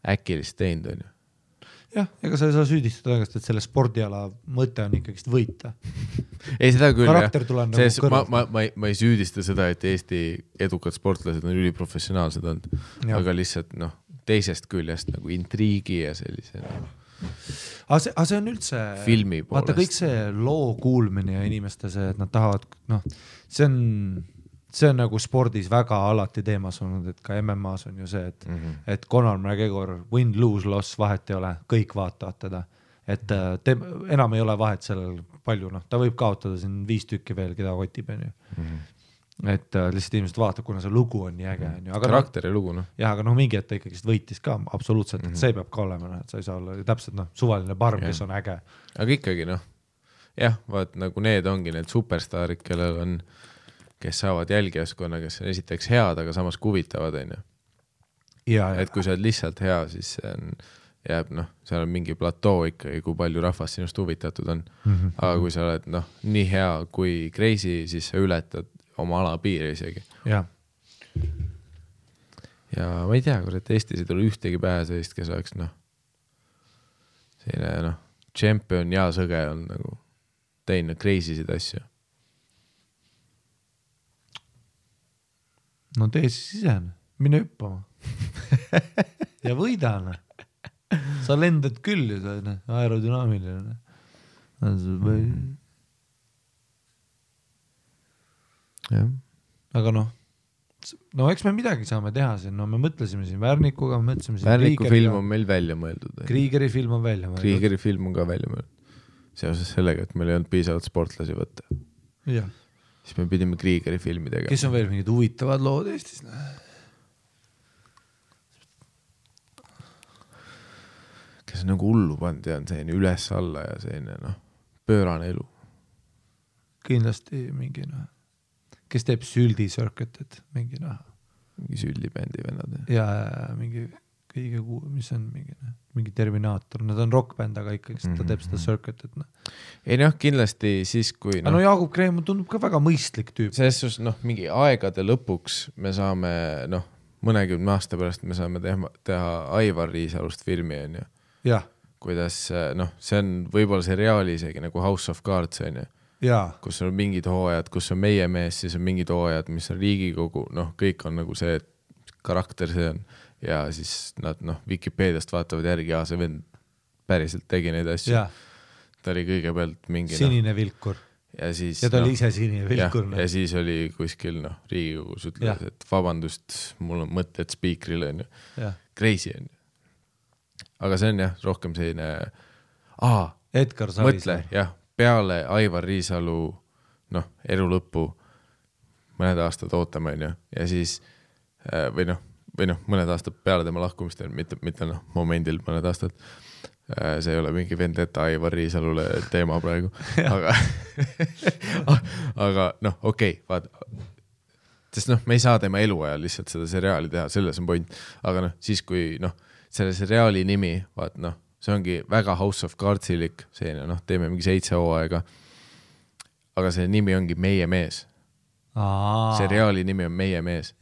äkilist teinud, on ju. Jah, ega sa ei saa süüdistada õigest, et selle spordiala mõte on ikkagi võita. Ei, seda küll, karakter tuleb nagu kõrvalt. Ma ei süüdista seda, et Eesti edukad sportlased on üliprofessionaalsed olnud, aga lihtsalt noh, teisest küljest nagu intriigi ja sellise Aga see on üldse filmi poolest. Vaata kõik see loo kuulmine ja inimeste see, et nad tahavad, noh, see on nagu spordis väga alati teemas olnud, et ka MMA-s on ju see, et Conor McGregor, win, lose, loss, vahet ei ole, kõik vaatavad teda. Et enam ei ole vahet sellel palju, noh, ta võib kaotada siin 5 tükki veel, keda kotib, on ju. Et lihtsalt inimesed vaatab, kuna see lugu on nii äge. Karakteri lugu, noh. Jah, aga noh, mingi, et ta ikkagi võitis ka absoluutselt, et see peab ka olema, et sa ei saa olla täpselt noh, suvaline parm, kes on äge. Aga ikkagi noh, jah, vaat nagu need ongi need superstaarid, kellel on, kes saavad jälgijaskonna, kes on esiteks head, aga samas kuvitavad, on ju. Et kui sa oled lihtsalt hea, siis jääb noh, seal on mingi platoo ikkagi, kui palju rahvast sinust huvitatud on. Aga kui sa oled noh, nii hea kui crazy, siis sa ületad oma ala piiri isegi. Ja ma ei tea, et Eestis ei tule ühtegi pähe sellist, kes oleks noh, selline noh, champion ja sõge on nagu teinud crazy'sid asju. No tee siis ise, mine hüppama. Ja võidane. Sa lendad küll ju, sa aerodünaamiline. Ja. Aga noh, eks me midagi saame teha siin, no me mõtlesime siin Värnikuga, me mõtlesime siin Värniku film on meil välja mõeldud. Kriegeri film on välja mõeldud. Kriegeri film on ka välja mõeldud. Seoses sellega, et meil ei olnud piisavalt sportlasi võtta. Ja. Siis me pidime Kriegeri filmi tegema. Kes on veel mingid huvitavad lood Eestis? Kes on nagu hullu pand ja on selline üles alla ja selline noh, pöörane elu. Kindlasti mingi noh. Kes teeb Süldi Circuited, mingi noh. Mingi Süldi-bändi vennad. Ja mingi kõige mis on mingi Terminaator. Nad on rockbänd, aga ikkagi ta teeb seda Circuited. Ei noh, kindlasti siis kui... No Jaagup Kreem tundub ka väga mõistlik tüüp. Selles noh, mingi aegade lõpuks me saame, noh, mõnekümne aasta pärast me saame teha Aivar Riisalust filmi, on ju. Jah. Kuidas, noh, see on võib-olla seriaali isegi nagu House of Cards, on ju. Jaa. Kus on mingid hooajad, kus on meie mees, siis on mingid hooajad, mis on Riigikogu, noh, kõik on nagu see karakter, see on, ja siis nad, noh, Wikipeediast vaatavad järgi, ja see vend päriselt tegi neid asju. Ja. Ta oli kõigepealt mingi... Sinine vilkur. Ja siis... Ja ta oli ise sinine vilkur. Ja siis oli kuskil, noh, Riigikogus ütles, et vabandust, mul on mõtted spiikrile, on ju. Crazy, on ju. Aga see on jah, rohkem selline... Edgar Savisaar. Mõtle, jah. Peale Aivar Riisalu noh, elu lõppu mõned aastad ootame, on ju, ja siis või noh, mõned aastad peale tema lahkumist, mitte noh, momendil mõned aastad, see ei ole mingi vendeta Aivar Riisalule teema praegu, aga noh, okei, vaata, sest noh, me ei saa tema eluajal lihtsalt seda seriaali teha, selles on point, aga noh, siis kui noh, selle seriaali nimi, vaat noh, see ongi väga House of Cardsilik, selline, noh, teeme mingi 7 hooaega aga see nimi ongi Meie mees. Seriaali nimi on Meie mees.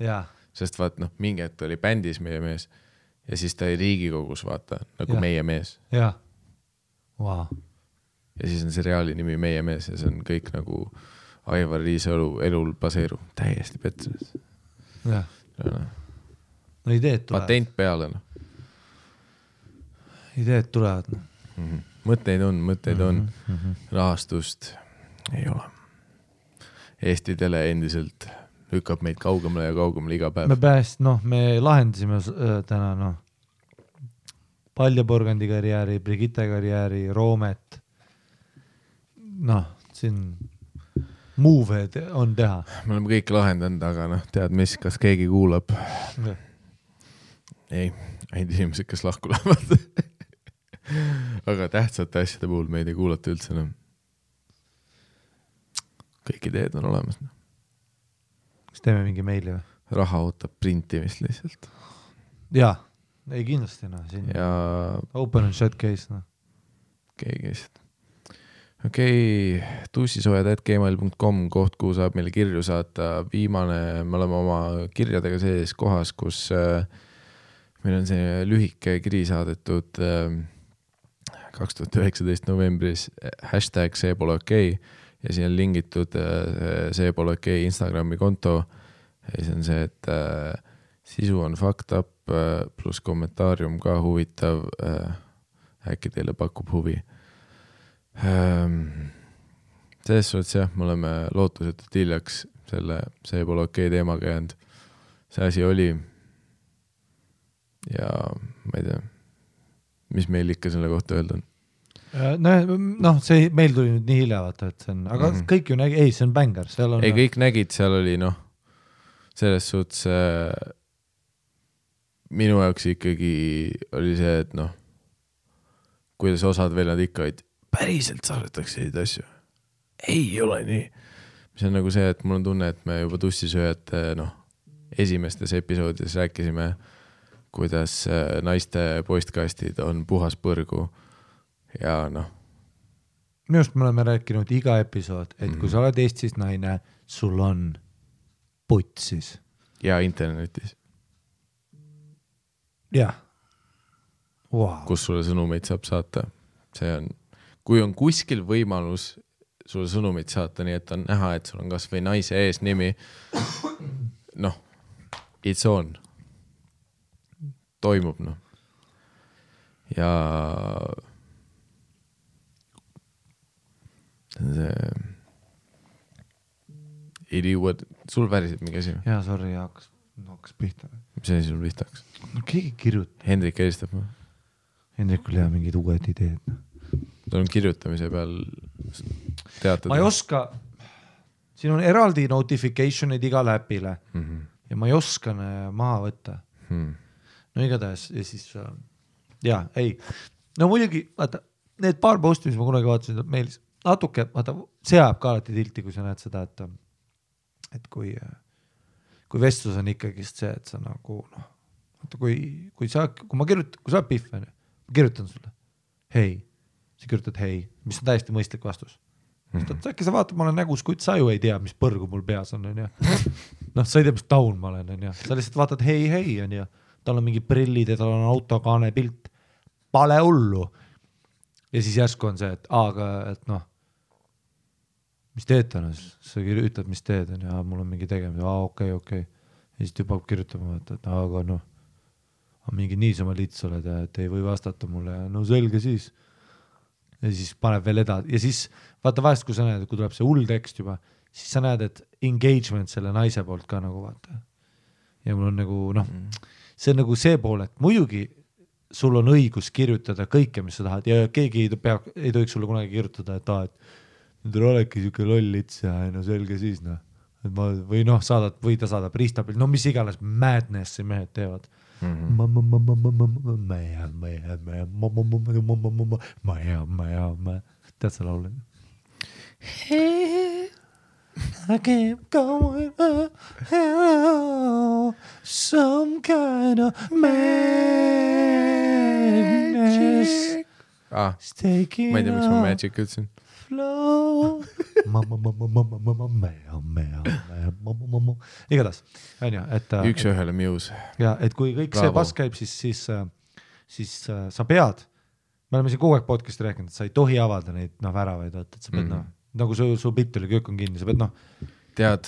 Sest vaat mingi hetk oli bändis Meie mees ja siis ta oli Riigikogus vaata nagu Meie mees. Wow. Ja siis on seriaali nimi Meie mees ja see on kõik nagu Aivar Riisalu elul baseeru. Täiesti petsunud. No ideed tulevad. Patent peale. Ideed tulevad. Mõtteid on. Rahastust ei ole. Eesti tele endiselt lükkab meid kaugemale ja kaugemale iga päev. Me lahendasime täna Paljaporgandi karjääri, Brigitte karjääri, Roomet. Siin move'ed on teha. Me oleme kõik lahendanud, aga tead mis, kas keegi kuulab? Ei, ainult inimesed, kes lahku lähevad. Aga tähtsate asjade puhul meid ei kuulata üldse. Kõik ideed on olemas. Kas teeme mingi meili või? Raha ootab printimist lihtsalt. Jaa, ei kindlasti. Ja... Open and shut case. Keegi lihtsalt. Okei, tussisojad@gmail.com, koht, kuhu saab meile kirju saata. Viimane, me oleme oma kirjadega sees kohas, kus meil on see lühike kiri saadetud 2019 novembris #seepole okei ja siin on lingitud seepole okei Instagrami konto ja siis on see, et sisu on fucked up pluss kommentaarium ka huvitav, äkki teile pakub huvi. Selles suhtes jah, me oleme lootusetult hiljaks selle seepole okei teemaga jäänud. See asi oli ja ma ei tea, mis meil ikka selle kohta öelda on. See meil tuli nüüd nii hilja vaata, et see on, aga kõik ju nägi, see on bängar. Ei, kõik nägid, seal oli selles suhtes minu jaoks ikkagi oli see, et kuidas osad veel nad ikka olid, päriselt saadetakse neid asju. Ei ole nii. Mis on nagu see, et mul on tunne, et me juba tussisööjad esimestes episoodides rääkisime, kuidas naiste postkastid on puhas põrgu ja Minu arust me oleme rääkinud iga episood, et kui sa oled Eestis naine, sul on putsis. Ja internetis. Jah. Wow. Kus sulle sõnumeid saab saata. See on, kui on kuskil võimalus sulle sõnumeid saata, nii et on näha, et sul on kas või naise ees nimi, it's on. Toimub, Ja see idiot, sul päriselt mingi asi? Jaa, sorry, hakkas pihta. Mis asi sul pihta hakkas? Keegi kirjutab. Hendrik helistab või? Hendrikul jää mingid uued ideed. Ta on kirjutamise peal teatada. Ma ei oska, siin on eraldi notificationid igale äpile ja ma ei oska maha võtta. No igatahes ja siis muidugi, vaata, need paar posti, mis ma kunagi vaatasin meilis, natuke, vaata, see ajab ka alati tilti, kui sa näed seda, et kui vestlus on ikkagi see, et sa nagu, vaata, kui sa pihv, ma kirjutan sulle, hei, sa kirjutad hei, mis on täiesti mõistlik vastus. Äkki sa vaatad, ma olen nägus, kuid sa ju ei tea, mis põrgu mul peas on, sa ei tea, mis taun ma olen, sa lihtsalt vaatad hei, tal on mingi prillid ja tal on autokaane pilt, pale hullu. Ja siis järsku on see, et mis teed täna, sa ütled, mis teed on ja mul on mingi tegemine, okei. Ja siis tüüp hakkab kirjutama, et aga mingi niisama lits oled ja et ei või vastata mulle ja selge siis. Ja siis paneb veel edasi ja siis vaata vahest, kui sa näed, kui tuleb see hull tekst juba, siis sa näed, et engagement selle naise poolt ka nagu vaata. Ja mul on nagu, see on nagu see pool, et muidugi sul on õigus kirjutada kõike, mis sa tahad ja keegi ei tohiks sulle kunagi kirjutada, et nüüd olegi siuke loll lits ja selge siis või ta saadab riistapilt, mis iganes madness mehed teevad. Tead sa laule? I keep going some kind of madness. ma ei tea, miks ma Magic ütlesin. igatahes onju, et üks ühele Muse. ja et kui kõik see pass käib, siis sa pead, me oleme siin kogu aeg podcast'i rääkinud, et sa ei tohi avada neid väravaid, et sa pead nagu su pilt oli, köök on kinni, sa pead tead,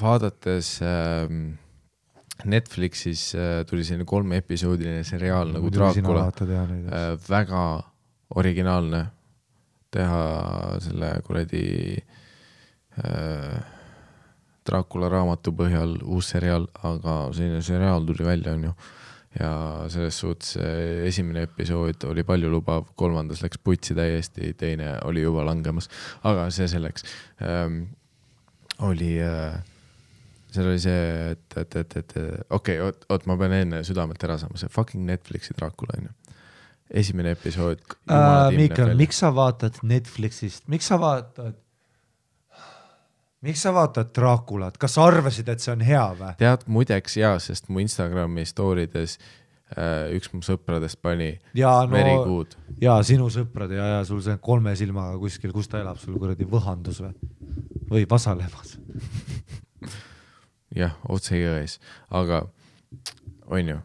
vaadates Netflixis tuli selline 3-episoodiline seriaal nagu Dracula, väga originaalne teha selle kuradi Dracula raamatu põhjal uus seriaal, aga selline seriaal tuli välja, on ju. Ja selles suhtes esimene episood oli palju lubav, 3. läks putsi täiesti, teine oli juba langemas, aga see selleks oli seal oli see, et okei, ma pean enne südamet ära saama, see fucking Netflixi Dracula, on ju. Esimene episood. Mikael, miks sa vaatad Netflixist, miks sa vaatad Draculat, kas sa arvasid, et see on hea või? Tead, muideks jaa, sest mu Instagrami stoorides üks mu sõpradest pani very good. Ja sinu sõprad ja sul see 3 silmaga kuskil, kus ta elab, sul kuradi Võhandus või Vasalemmas. Jah, otse jões, aga on ju.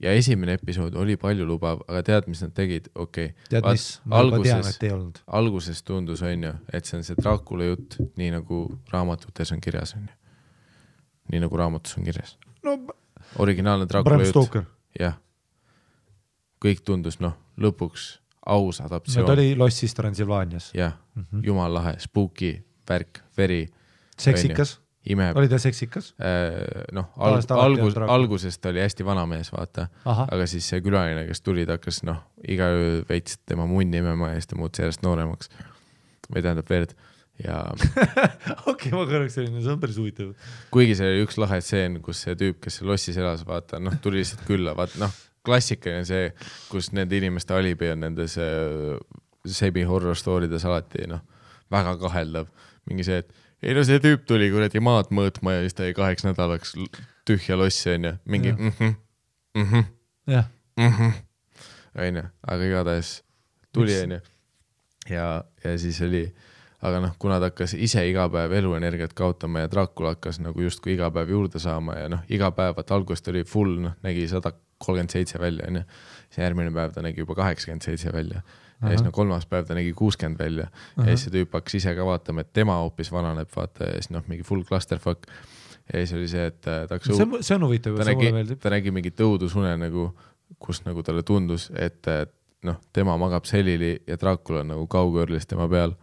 Ja esimene episood oli palju lubav, aga tead, mis nad tegid? Okei. Tead, mis? Ma juba tean, et ei olnud. Alguses tundus, on ju, et see on see Dracula jutt, nii nagu raamatutes on kirjas, on ju. Nii nagu raamatus on kirjas. No, originaalne Dracula jutt. Jah. Kõik tundus, lõpuks aus adaptsioon. Ta oli Lossis Transilvaanias. Jah, jumal lahe, spooky, värk, veri. Seksikas. Oli ta seksikas? Algusest oli hästi vana mees, vaata. Aga siis see külaline, kes tuli, ta hakkas iga öö veits tema munni imema ja siis ta muutus järjest nooremaks. Või tähendab verd. Ja... Okei, ma kõrvaks selline, see on päris huvitav. Kuigi see oli üks lahe stseen, kus see tüüp, kes Lossis elas, vaata, tuli lihtsalt külla, vaata, klassikaline see, kus nende inimeste alibi on nendes semi-horror storydes alati, väga kaheldav. Mingi see, et ei see tüüp tuli kuradi maad mõõtma ja siis ta 8 nädalaks tühja lossi, on ju. Mingi aga igatahes tuli, on ju. Ja siis oli, aga kuna ta hakkas ise iga päev eluenergiat kaotama ja Dracula hakkas nagu justkui iga päev juurde saama ja iga päev, algust oli full, nägi 137 välja, on ju. See järgmine päev ta nägi juba 87 välja. Ja siis 3. päev ta nägi 60 välja. Ja siis see tüüp hakkas ise ka vaatama, et tema hoopis vananeb, vaata, ja siis mingi full clusterfuck. Ja siis oli see, et ta hakkas... See on huvitav, see mulle meeldib. Ta nägi mingi tõudusune, kus talle tundus, et tema magab selili ja Dracula nagu kaugõrlis tema peal.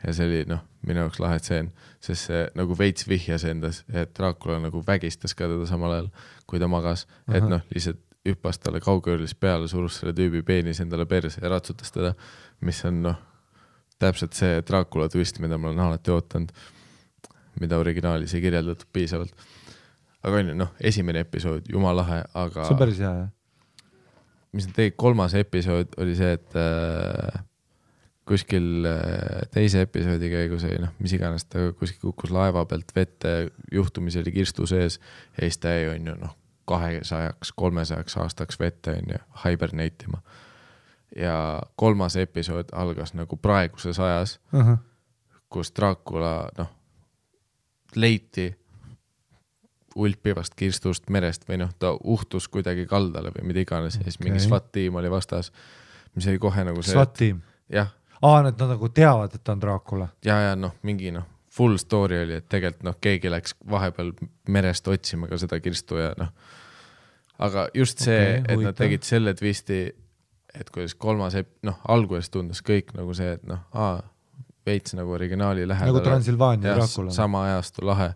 Ja see oli minu jaoks lahe tseen, sest see nagu veits vihjas endas, et Dracula nagu vägistas ka teda samal ajal, kui ta magas. Et lihtsalt hüppas talle kaugõrlis peale, surus selle tüübi peenis endale perse ja ratsutas teda, mis on täpselt see Dracula twist, mida ma olen alati ootanud, mida originaalis ei kirjeldatud piisavalt. Aga on ju, esimene episood, jumal lahe, aga... See on päris hea, jah? Mis nad tegid, 3. episood oli see, et kuskil teise episoodi käigus oli, mis iganes ta kuskil kukkus laeva pealt vette, juhtumis oli kirstu sees ja siis ta ei on ju 200-300 aastaks vette on ju hiberneitima. Ja 3. episood algas nagu praeguses ajas, kus Dracula leiti ulpivast kirstust merest või ta uhtus kuidagi kaldale või mida iganes ja siis mingi SWAT-tiim oli vastas, mis oli kohe nagu see... SWAT-tiim? Jah. Nad nagu teavad, et ta on Dracula. Ja mingi full story oli, et tegelikult keegi läks vahepeal merest otsima ka seda kirstu ja aga just see, et nad tegid selle twisti, et kuidas 3. alguses tundus kõik nagu see, et veits nagu originaali lähedale. Nagu Transilvaania Dracula. Sama ajastu lahe.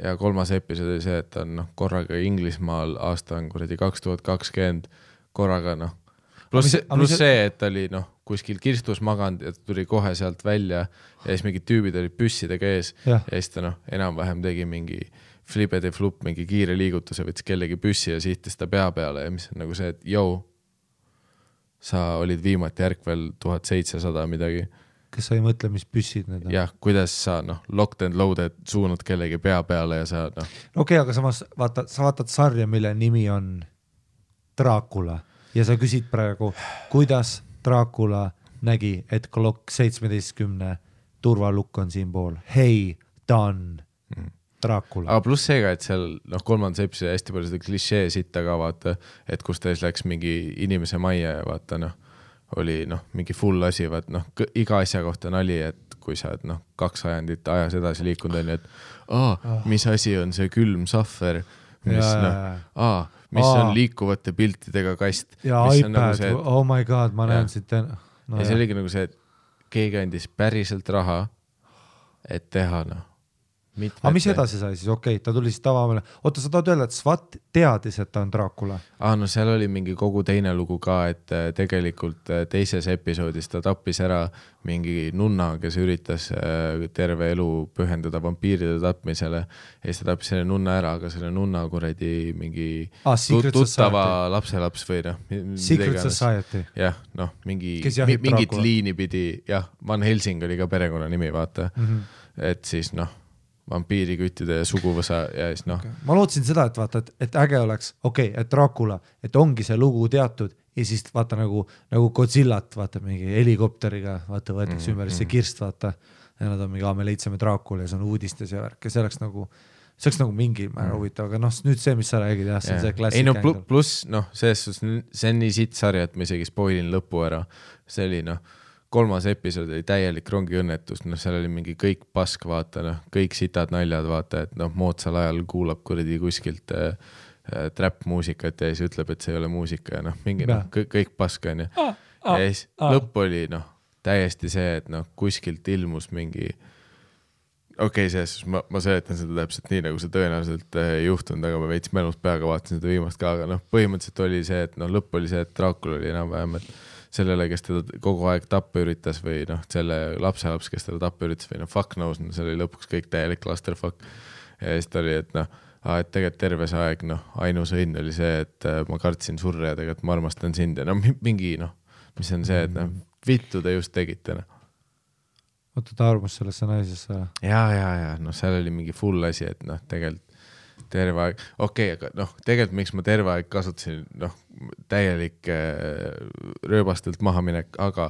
Ja 3. episood oli see, et ta on korraga Inglismaal, aasta on 2020, korraga Plus see, et ta oli kuskil kirstus maganud ja ta tuli kohe sealt välja ja siis mingid tüübid olid püssidega ees ja siis ta enam-vähem tegi mingi flipede flup, mingi kiire liigutuse, võttis kellegi püssi ja sihtis ta pea peale ja mis on nagu see, et sa olid viimati järkvel 1700 midagi. Kas sa ei mõtle, mis püssid need on? Jah, kuidas sa locked and loaded suunad kellegi pea peale ja sa Okei, aga samas sa vaatad sarja, mille nimi on Dracula ja sa küsid praegu, kuidas Dracula nägi, et klokk 17 turvalukk on siin pool. Hei, done. Dracula. Aga pluss seega, et seal kolmandas episoodi hästi palju seda klišee sitta ka vaata, et kus ta siis läks mingi inimese majja ja vaata oli mingi full asi, vaat iga asja kohta nali, et kui sa oled 2 ajandit ajas edasi liikunud on, et mis asi on see külm sahver, mis mis on liikuvate piltidega kast. Ja iPad, nagu see, oh my god, ma näen siit. Ja see oligi nagu see, et keegi andis päriselt raha, et teha Aga mis edasi sai siis? Okei, ta tuli siis tavamale. Oota, sa tahad öelda, et SWAT teadis, et ta on Dracula? Seal oli mingi kogu teine lugu ka, et tegelikult teises episoodis ta tappis ära mingi nunna, kes üritas terve elu pühendada vampiiride tapmisele ja siis ta tappis selle nunna ära, aga selle nunna kuradi mingi tuttava lapselaps või Secret Society. Jah, mingit liini pidi, Van Helsing oli ka perekonna nimi, vaata. Et siis vampiiriküttide ja suguvõsa ja siis Okay. Ma lootsin seda, et vaata, et äge oleks, et Dracula, et ongi see lugu teatud ja siis vaata nagu Godzillat, vaata mingi helikopteriga, vaata võetakse ümber see kirst, vaata ja nad on mingi, me leidsime Dracula ja see on uudistes ja värk ja see oleks nagu mingi määr huvitav, aga nüüd see, mis sa räägid, see on see klassik ängel. Pluss, see on nii sitt sarja, et ma isegi spoilin lõpu ära, see oli 3. episood oli täielik rongiõnnetus, seal oli mingi kõik pask, vaata, kõik sitad naljad, vaata, et moodsal ajal kuulab kuradi kuskilt trap muusikat ja siis ütleb, et see ei ole muusika ja mingi kõik pask on ja siis lõpp oli täiesti see, et kuskilt ilmus mingi selles ma seletan seda täpselt nii, nagu see tõenäoliselt juhtunud, aga ma veits mälust peaga vaatasin seda viimast ka, aga põhimõtteliselt oli see, et lõpp oli see, et Dracula oli enam-vähem, et sellele, kes teda kogu aeg tappa üritas või selle lapselaps, kes teda tappa üritas või fuck knows, see oli lõpuks kõik täielik clusterfuck ja siis ta oli, et et tegelikult terve see aeg ainus õnn oli see, et ma kartsin surra ja tegelikult ma armastan sind ja mingi mis on see, et vittu te just tegite Oota, ta armas sellesse naisesse ja seal oli mingi full asi, et tegelikult terve aeg, aga tegelikult miks ma terve aeg kasutasin täielik rööbastelt mahaminek, aga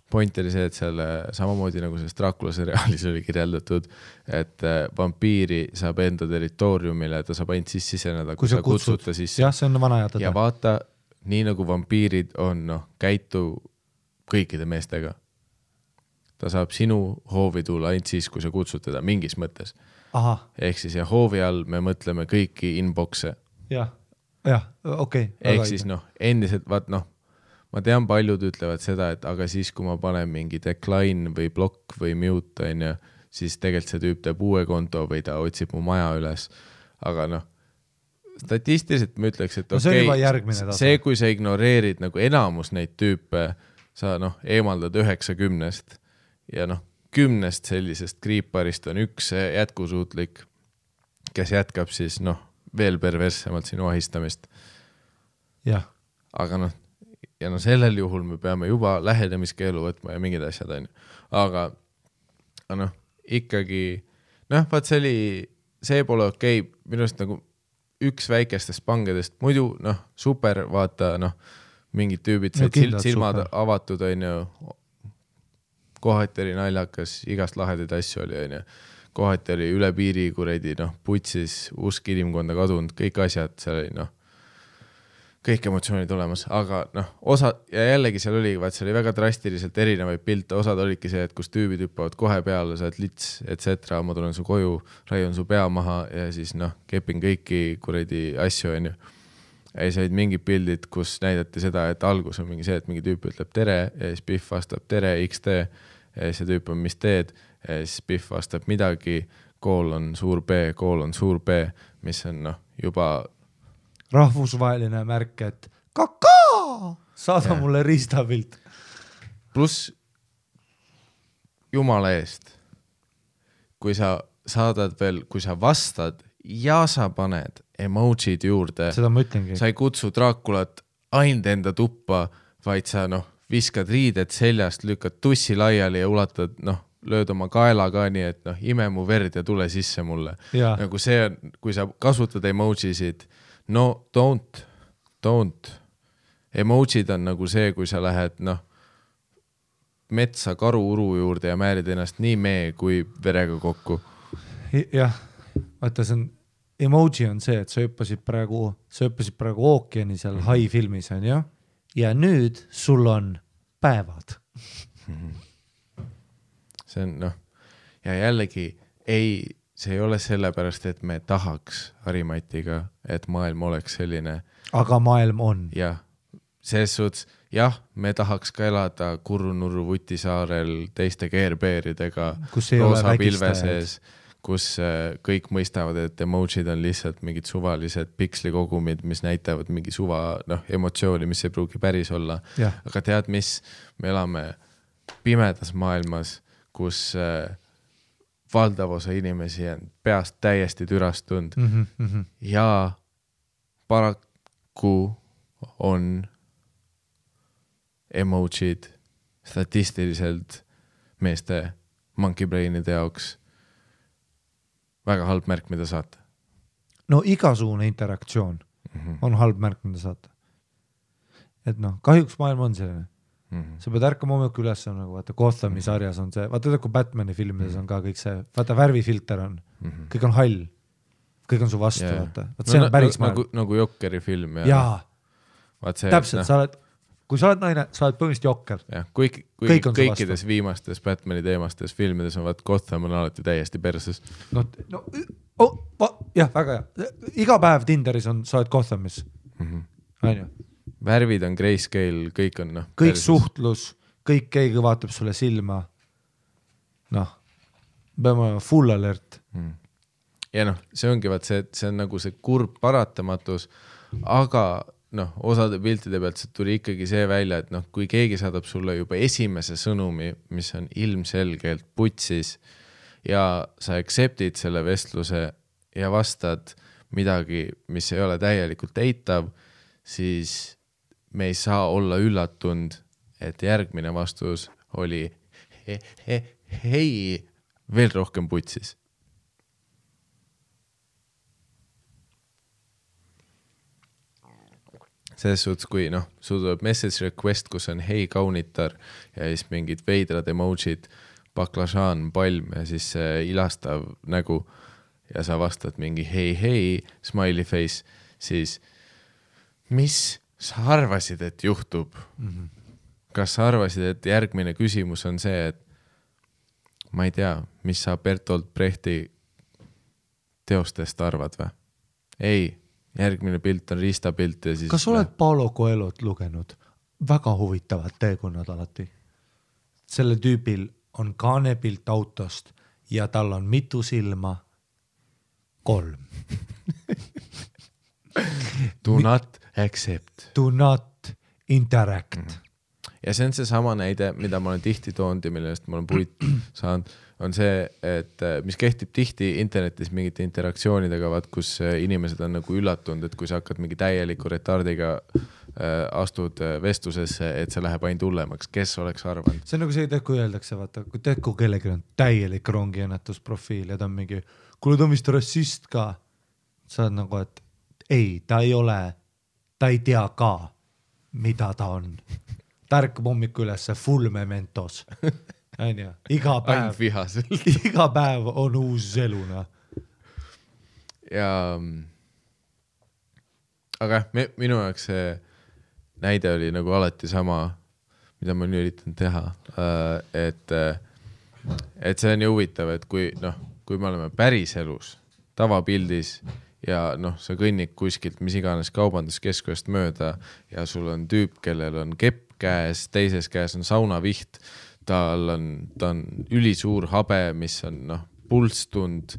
point oli see, et seal samamoodi nagu selles Dracula seriaalis oli kirjeldatud, et vampiiri saab enda territooriumile, ta saab ainult siseneda, kui sa kutsud ta sisse. Jah, see on vana jätada. Ja vaata, nii nagu vampiirid on, käitu kõikide meestega. Ta saab sinu hoovi tulla ainult siis, kui sa kutsud teda mingis mõttes. Ehk siis ja hoovi all me mõtleme kõiki inboxe. Jah, okei. Ehk siis endiselt, ma tean, paljud ütlevad seda, et aga siis, kui ma panen mingi decline või block või mute, siis tegelikult see tüüp teeb uue konto või ta otsib mu maja üles. Aga statistiliselt ma ütleks, et see, kui sa ignoreerid nagu enamus neid tüüpe, sa eemaldad 90 ja 10 sellisest kriiparist on üks jätkusuutlik, kes jätkab siis veel perverssemalt sinu ahistamist. Jah. Aga sellel juhul me peame juba lähenemiskeelu võtma ja mingid asjad on. Aga ikkagi vaat see pole okei. Minust nagu üks väikestest pangedest, muidu super, vaata mingid tüübid, silmad super. Avatud on ju, kohati oli naljakas, igast lahedaid asju oli, kohati oli üle piiri kuredi, putsis, usk inimkonda kadunud, kõik asjad, seal oli, kõik emotsioonid olemas, aga osa, ja jällegi seal oli väga drastiliselt erinevaid pilte, osad olidki see, et kus tüübid hüppavad kohe peale, sa oled lits, etc. Ma tulen su koju, raiun su pea maha ja siis kepin kõiki kuredi asju, on ju. Ja siis olid mingid pildid, kus näidati seda, et algus on mingi see, et mingi tüüp ütleb tere ja siis Biff vastab tere, XD ja siis see tüüp on mis teed ja siis Biff vastab midagi, kool on suur B, mis on juba rahvusvaheline märk, et kakaa, saada mulle riistapilt. Pluss jumala eest, kui sa saadad veel, kui sa vastad ja sa paned emojid juurde, seda ma ütlengi. Sa ei kutsu Draculat ainult enda tuppa, vaid sa viskad riided seljast, lükkad tussi laiali ja ulatad, lööd oma kaela ka nii, et ime mu verd ja tule sisse mulle. Nagu see on, kui sa kasutad emojisid, don't. Emojid on nagu see, kui sa lähed metsa karu-uru juurde ja määrid ennast nii mee kui verega kokku. Jah, vaata see on, emoji on see, et sa hüppasid praegu ookeani seal Hai filmis on ju, ja nüüd sul on päevad. See on ja jällegi see ei ole sellepärast, et me tahaks Harimatiga, et maailm oleks selline. Aga maailm on. Jah, selles suhtes, jah, me tahaks ka elada Kurru-Nurru Vutisaarel teiste keerbeeridega roosa pilve sees, kus kõik mõistavad, et emojid on lihtsalt mingid suvalised pikslikogumid, mis näitavad mingi emotsiooni, mis ei pruugi päris olla. Ja. Aga tead mis, me elame pimedas maailmas, kus valdav osa inimesi on peast täiesti türastunud ja paraku on emojid statistiliselt meeste monkey brainide jaoks väga halb märk, mida saata. No igasugune interaktsioon on halb märk, mida saata. Et kahjuks maailm on selline. Sa pead ärkama hommikul üles, nagu vaata Gothami sarjas on see, vaata kui Batmani filmides on ka kõik see, vaata värvifilter on, kõik on hall, kõik on su vastu, vaata. See on päris maailm. Nagu Jokkeri film. Jaa, täpselt, sa oled, kui sa oled naine, sa oled põhimõtteliselt Jokker. Kõikides viimastes Batmani teemastes filmides on Gotham on alati täiesti perses. Jah, väga hea. Iga päev Tinderis on, sa oled Gothamis. On ju? Värvid on grayscale, kõik on kõik perses. Suhtlus, kõik keegi vaatab sulle silma. Peame full alert. Ja see ongi see on nagu see kurb paratamatus, aga osade piltide pealt see tuli ikkagi see välja, et kui keegi saadab sulle juba esimese sõnumi, mis on ilmselgelt putsis ja sa acceptid selle vestluse ja vastad midagi, mis ei ole täielikult eitav, siis me ei saa olla üllatunud, et järgmine vastus oli hei, veel rohkem putsis. Selles suhtes, kui sul tuleb message request, kus on hei kaunitar ja siis mingid veidrad emojid, baklažaan, palm ja siis ilastav nägu ja sa vastad mingi hei, smiley face, siis mis sa arvasid, et juhtub? Kas sa arvasid, et järgmine küsimus on see, et ma ei tea, mis sa Bertolt Brechti teostest arvad või? Ei, järgmine pilt on riistapilt ja siis... Kas oled Paulo Coelhot lugenud? Väga huvitavad teekonnad alati. Selle tüübil on kaanepilt autost ja tal on mitu silma? 3. Do not accept. Do not interact. Ja see on see sama näide, mida ma olen tihti toonud ja millest ma olen puit saanud, on see, et mis kehtib tihti internetis mingite interaktsioonidega, kus inimesed on nagu üllatunud, et kui sa hakkad mingi täieliku retardiga astud vestlusesse, et see läheb ainult hullemaks. Kes oleks arvanud? See on nagu see, kui öeldakse, vaata, kui kellelgi on täielik rongiõnnetusprofiil ja ta on mingi, kuule ta on vist rassist ka. Sa oled nagu, et ei, ta ei ole, ta ei tea ka, mida ta on. Ta ärkab hommikul üles full mementos. Iga päev on uus eluna. Ja aga minu jaoks see näide oli nagu alati sama, mida ma nüüd üritan teha. Et see on ju huvitav, et kui me oleme päris elus, tavapildis ja sa kõnnid kuskilt mis iganes kaubanduskeskust mööda ja sul on tüüp, kellel on kepp käes, teises käes on saunaviht, ta on ülisuur habe, mis on pulstund,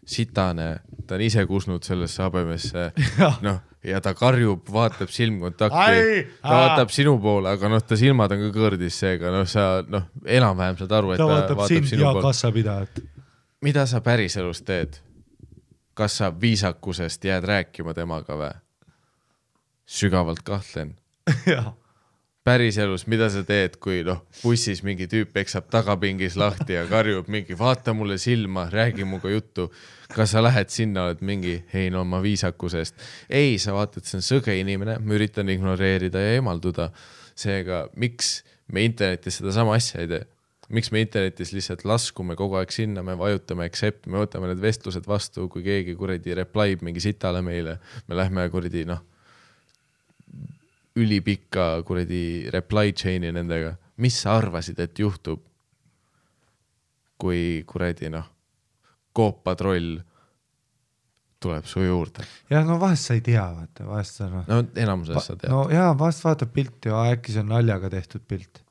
sitane, ta on ise kusnud sellesse habemesse ja ta karjub, vaatab silmkontakti, ta vaatab sinu poole, aga ta silmad on ka kõrdis seega, sa enam-vähem saad aru, et ta vaatab sind sinu ja poole. kassapidajat. Mida sa päris elus teed? Kas sa viisakusest jääd rääkima temaga või? Sügavalt kahtlen. päriselus, mida sa teed, kui bussis mingi tüüp eksab tagapingis lahti ja karjub mingi, vaata mulle silma, räägi muga juttu. Kas sa lähed sinna, oled mingi, hei no ma viisakusest. Ei, sa vaatad, see on sõge inimene, ma üritan ignoreerida ja eemalduda. Seega, miks me internetis seda sama asja ei tee? Miks me internetis lihtsalt laskume kogu aeg sinna, me vajutame accept, me võtame need vestlused vastu, kui keegi kuradi replyb mingi sitale meile, me lähme kuradi ülipikka kuradi reply chain'i nendega. Mis sa arvasid, et juhtub, kui kuradi Coop-patroll tuleb su juurde? Ja no vahest sa ei tea, vaata, vahest sa No enamuses sa tead. No jaa, vahest vaatab pilti ja äkki see on naljaga tehtud pilt.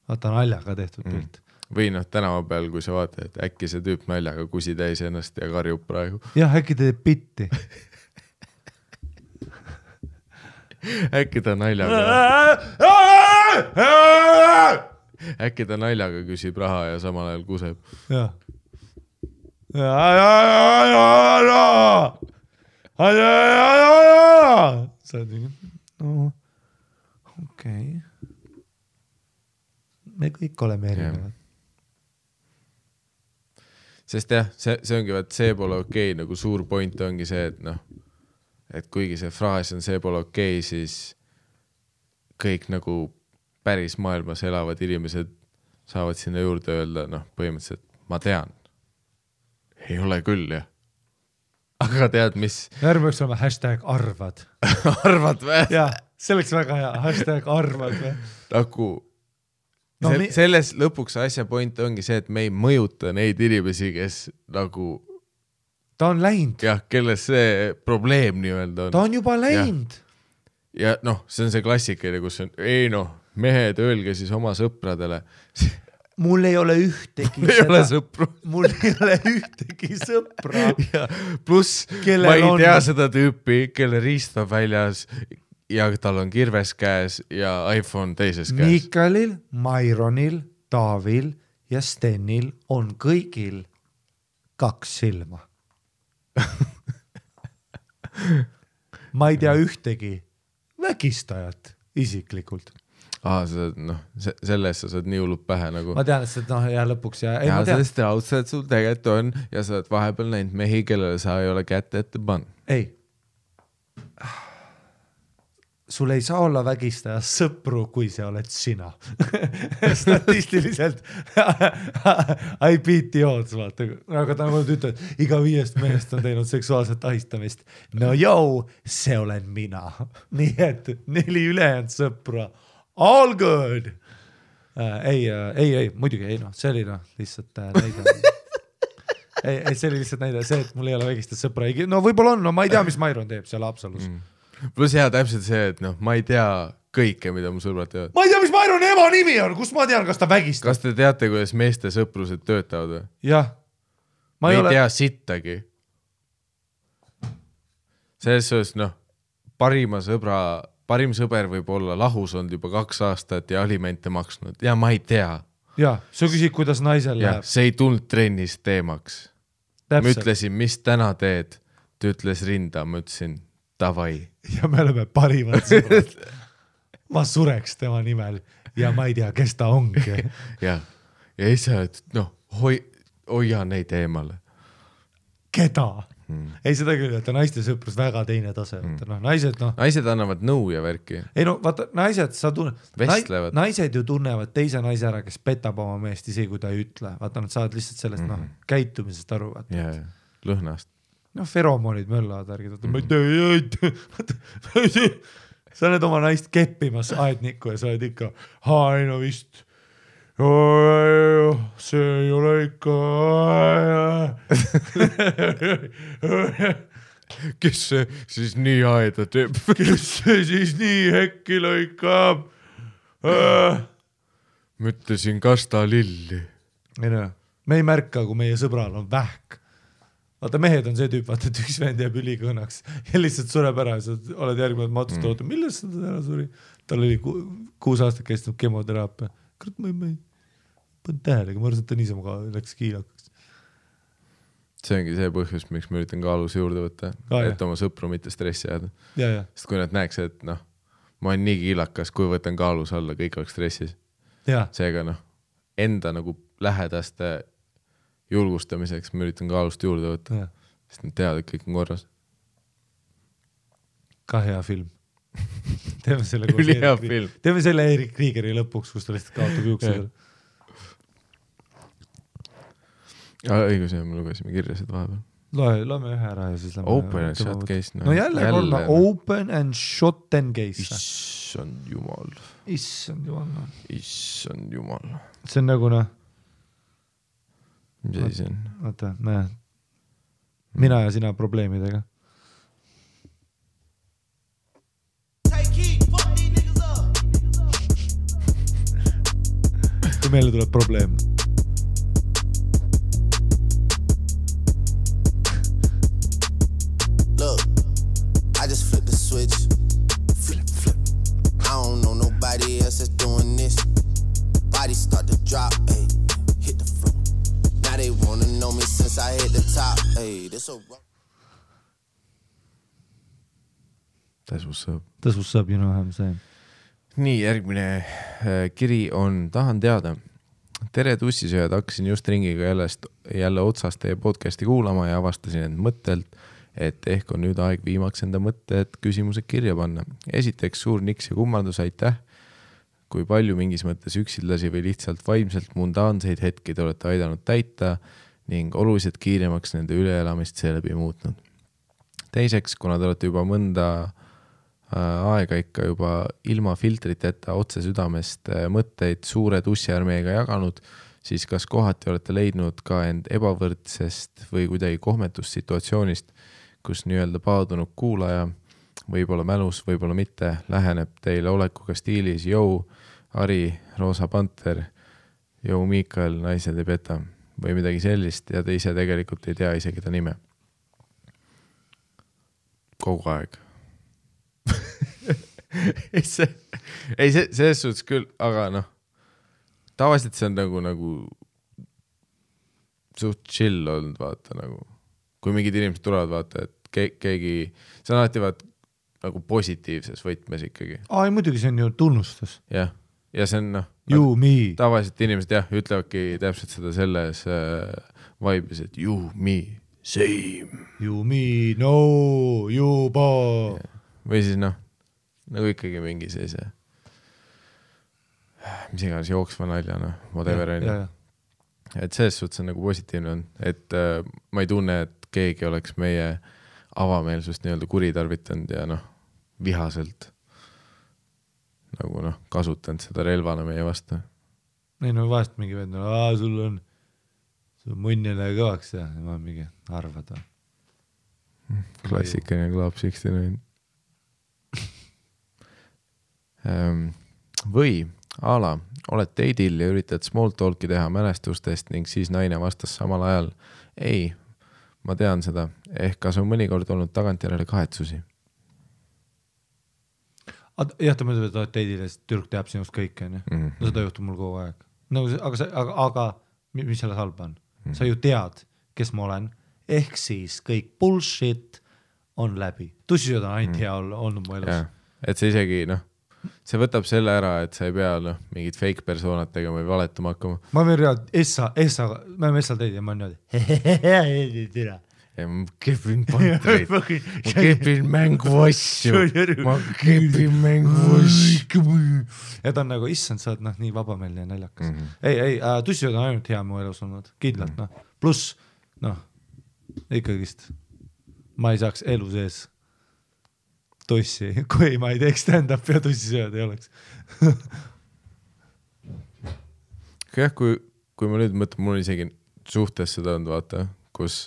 Vaata naljaga tehtud pilt. Või tänava peal, kui sa vaatad, et äkki see tüüp naljaga kusi täis ennast ja karjub praegu. Jah, äkki teeb bitti. Äkki ta naljaga küsib raha ja samal ajal kuseb. Jah. Sa oled mingi, no okei. Me kõik oleme erinevad. Sest jah, see ongi, see pole okei, nagu suur point ongi see, et kuigi see fraas on see pole okei, siis kõik nagu päris maailmas elavad inimesed saavad sinna juurde öelda, põhimõtteliselt ma tean. Ei ole küll, jah. Aga tead, mis? Järgmeks olema #arvad. Arvad või? Jah, see oleks väga hea, #arvad või? Nagu selles lõpuks asja point ongi see, et me ei mõjuta neid inimesi, kes nagu ta on läinud. Jah, kelles see probleem nii-öelda on. Ta on juba läinud. Ja see on see klassikeline, kus on, mehed, öelge siis oma sõpradele. Mul ei ole ühtegi Mul ei ole sõpru. Mul ei ole ühtegi sõpra. Plus ma ei tea seda tüüpi, kelle riist on väljas ja tal on kirves käes ja iPhone teises käes. Mikalil, Maironil, Taavil ja Stenil on kõigil 2 silma. Ma ei tea ühtegi vägistajat isiklikult. Selles sa saad nii hullult pähe nagu. Ma tean, et ja lõpuks ja sellest raudselt sul tegelikult on ja sa oled vahepeal näinud mehi, kellele sa ei ole kätte ette pannud. Ei. Sul ei saa olla vägistaja sõpru, kui see oled sina. Statistiliselt I beat the odds, vaata. Aga ta ütleb, iga 5 mehest on teinud seksuaalset ahistamist. No see olen mina. Nii et 4 ülejäänud sõpra. All good! Ei, muidugi ei, see oli lihtsalt näide. Ei, see oli lihtsalt näide, see, et mul ei ole vägistada sõpra. No võib-olla on, ma ei tea, mis Mairon teeb seal Haapsalus. Plus hea täpselt see, et ma ei tea kõike, mida mu sõbrad teevad. Ma ei tea, mis Maironi ema nimi on, kus ma tean, kas ta vägistab. Kas te teate, kuidas meeste sõprused töötavad või? Jah. Ma ei tea sittagi. Selles suhtes, parim sõber võib olla lahus olnud juba 2 aastat ja alimente maksnud. Ja ma ei tea. Jah, sa küsid, kuidas naisel läheb. See ei tulnud trennis teemaks. Ma ütlesin, mis täna teed? Ta ütles rinda, ma ütlesin davai. Ja me oleme parimad sõbrad. Ma sureks tema nimel ja ma ei tea, kes ta ongi. Ja ise, et hoia neid eemale. Keda? Ei seda küll, et naiste sõprus väga teine tase. Naised annavad nõu ja värki. Ei vaata, naised, vestlevad. Naised ju tunnevad teise naise ära, kes petab oma meest isegi, kui ta ei ütle. Vaata, nad saavad lihtsalt sellest käitumisest aru. Lõhnast. Feromonid möllavad värgid. Ma ei tea. Sa oled oma naist keppimas aednikku ja sa oled ikka, vist. See ei ole ikka. Kes see siis nii aeda teeb? Kes see siis nii hekki lõikab? Ma ütlesin kasta lilli. Me ei märka, kui meie sõbral on vähk. Vaata, mehed on see tüüp, vaata, et üks vend jääb ülikõnnaks ja lihtsalt sureb ära ja sa oled järgmine matust oota, millest sa ära suri? Tal oli 6 aastat kestnud kemoteraapia. Kurat, ma ei pannud tähelega, ma arvasin, et ta niisama läks kiilakaks. See ongi see põhjus, miks ma üritan kaalus juurde võtta, et oma sõpru mitte stressi jääda. Sest kui nad näeks, et ma olen nii kiilakas, kui võtan kaalus alla, kõik oleks stressis. Jaa. Seega noh, enda nagu lähedaste julgustamiseks ma üritan kaalust juurde võtta, sest nad teavad, et kõik on korras. Ka hea film. Teeme selle Ülihea film. Teeme selle Erik Kriegeri lõpuks, kus ta lihtsalt kaotab juuksedel. Õigus, me lugesime kirja seda vahepeal. Loeme ühe ära ja siis lähme. Open and shut case. No jälle korda open and shut and case. Issand jumal. Issand jumal. Issand jumal. See on nagu noh. Mis asi see on? Oota, mina ja sina probleemidega. Kui meile tuleb probleem. Look, I just flipped the switch. Flip. I don't know nobody else that's doing this. Body start to drop, ayy. Hit the floor. Now they wanna know me since I hit the top, ayy. This a That's what's up. That's what's up, you know what I'm saying. Nii, järgmine kiri on, tahan teada. Tere tussisööjad, hakkasin just ringiga jälle otsast teie podcasti kuulama ja avastasin end mõttelt, et ehk on nüüd aeg viimaks enda mõtted küsimused kirja panna. Esiteks suur niks ja kummardus, aitäh, kui palju mingis mõttes üksildasi või lihtsalt vaimselt mundaanseid hetki te olete aidanud täita ning oluliselt kiiremaks nende üleelamist seeläbi muutnud. Teiseks, kuna te olete juba mõnda aega ikka juba ilma filtriteta otse südamest mõtteid suure tussiarmeega jaganud, siis kas kohati olete leidnud ka end ebavõrdsest või kuidagi kohmetust situatsioonist, kus nii-öelda paadunud kuulaja, võib-olla mälus, võib-olla mitte, läheneb teile olekuga stiilis Jou, Ari, Roosa Panter, Jou Miikael, naised ei peta või midagi sellist ja te ise tegelikult ei tea isegi ta nime. Kogu aeg. ei, selles suhtes küll, aga noh, tavaliselt see on nagu suht chill olnud, vaata nagu, kui mingid inimesed tulevad, vaata, et keegi, see on alati vaata nagu positiivses võtmes ikkagi. Ai, muidugi see on ju tunnustus. Ja see on noh, tavaliselt inimesed jah, ütlevadki täpselt seda selles vaibis, et you, me, same. You, me, no, juba. Või siis noh, nagu ikkagi mingi sellise mis iganes jooksva nalja, noh, whatever on. Et selles suhtes on nagu positiivne on, et ma ei tunne, et keegi oleks meie avameelsust nii-öelda kuritarvitanud ja noh, vihaselt nagu noh, kasutanud seda relvana meie vastu. Ei no vahest mingi vend, sul on munnile kõvaks ja ma mingi arvad. Klassikaline Club 69. Või ala, oled date'il ja üritad small talk'i teha mälestustest ning siis naine vastas samal ajal. Ei, ma tean seda. Ehk kas on mõnikord olnud tagantjärele kahetsusi? Jah, ta mõtleb, et date'il ja türk teab sinust kõike. No seda juhtub mul kogu aeg. No, aga mis selles halba on? Sa ju tead, kes ma olen. Ehk siis kõik bullshit on läbi. Tussisööd on ainult hea olnud mu elus. Ja, et see isegi, noh, see võtab selle ära, et sa ei pea mingid fake persoonad tegema või valetama hakkama. Ma võin reaalselt, me oleme Essal teid ja ma olen niimoodi. Ja ma kepin pantreid, ma kepin mängu asju, ma kepin mängu asju. Ja ta on nagu, issand, sa oled nii vabameelne ja naljakas. Ei, tussisööd on ainult hea mu elus olnud, kindlalt. Plus, ikkagist, ma ei saaks elu sees tussi, kui ma ei teeks stand-up ja tussisööd ei oleks. Jah, kui ma nüüd mõtlen, mul isegi suhtes seda on, vaata, kus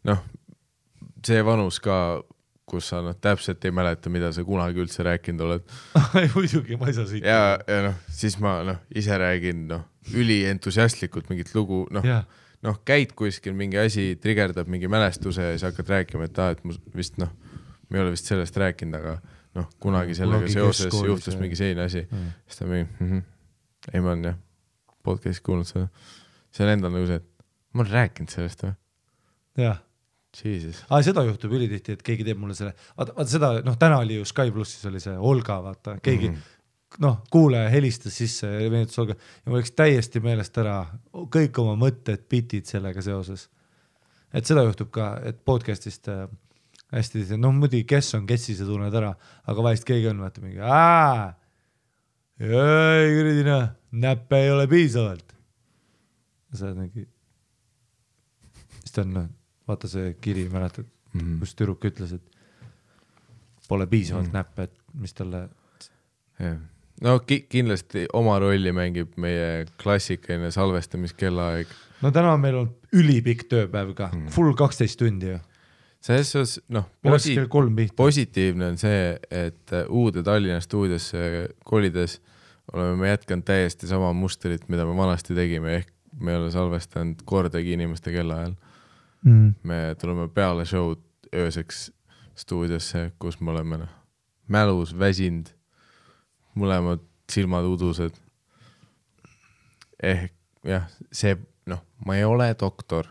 noh, see vanus ka, kus sa täpselt ei mäleta, mida sa kunagi üldse rääkinud oled. Muidugi, ma ei saa siit. Ja siis ma ise räägin üli entusiastlikult mingit lugu, käid kuskil mingi asi, trigerdab mingi mälestuse ja siis hakkad rääkima, et mu vist me ei ole vist sellest rääkinud, aga kunagi sellega seoses juhtus mingi selline asi. Siis ta mingi, ei ma olen podcast'i kuulnud seda. See on endal nagu see, et ma olen rääkinud sellest või? Jah. Jesus. Seda juhtub ülitihti, et keegi teeb mulle selle, vaata seda, täna oli ju Sky Plussis oli see Olga, vaata, keegi kuulaja helistas sisse ja meenutas Olga ja mul läks täiesti meelest ära kõik oma mõtted, bitid sellega seoses. Et seda juhtub ka, et podcastist hästi, muidugi kes on Kessi, see tunned ära, aga vahest keegi on, vaata mingi, küridina, näppe ei ole piisavalt. Ja sa oled mingi, siis ta on, vaata see kiri, mäletad, kus tüdruk ütles, et pole piisavalt näppe, et mis talle... No kindlasti oma rolli mängib meie klassikaline salvestamiskellaeg. No täna meil on ülipikk tööpäev ka, full 12 tundi ju. Selles osas, positiivne on see, et uude Tallinna stuudiosse kolides oleme me jätkanud täiesti sama mustrit, mida me vanasti tegime, ehk me ei ole salvestanud kordagi inimeste kellaajal. Me tuleme peale show'd ööseks stuudiosse, kus me oleme mälus, väsind, mõlemad silmad udused. Ehk jah, see, ma ei ole doktor,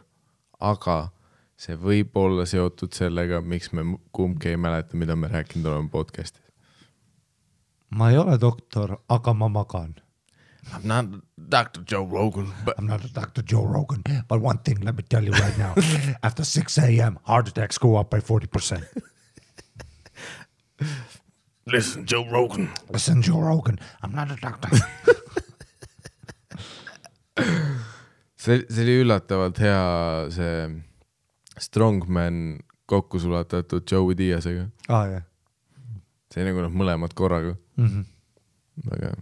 aga see võib olla seotud sellega, miks me kumbki ei mäleta, mida me rääkinud oleme podcastis. Ma ei ole doktor, aga ma magan. I'm not Dr. Joe Rogan. I'm not a Dr. Joe Rogan, but one thing, let me tell you right now. After 6 a.m., heart attacks go up by 40%. Listen, Joe Rogan. Listen, Joe Rogan. I'm not a doctor. see oli üllatavalt hea see Strongman kokku sulatatud Joey Diazega. Jah. See nagu mõlemad korraga. Aga...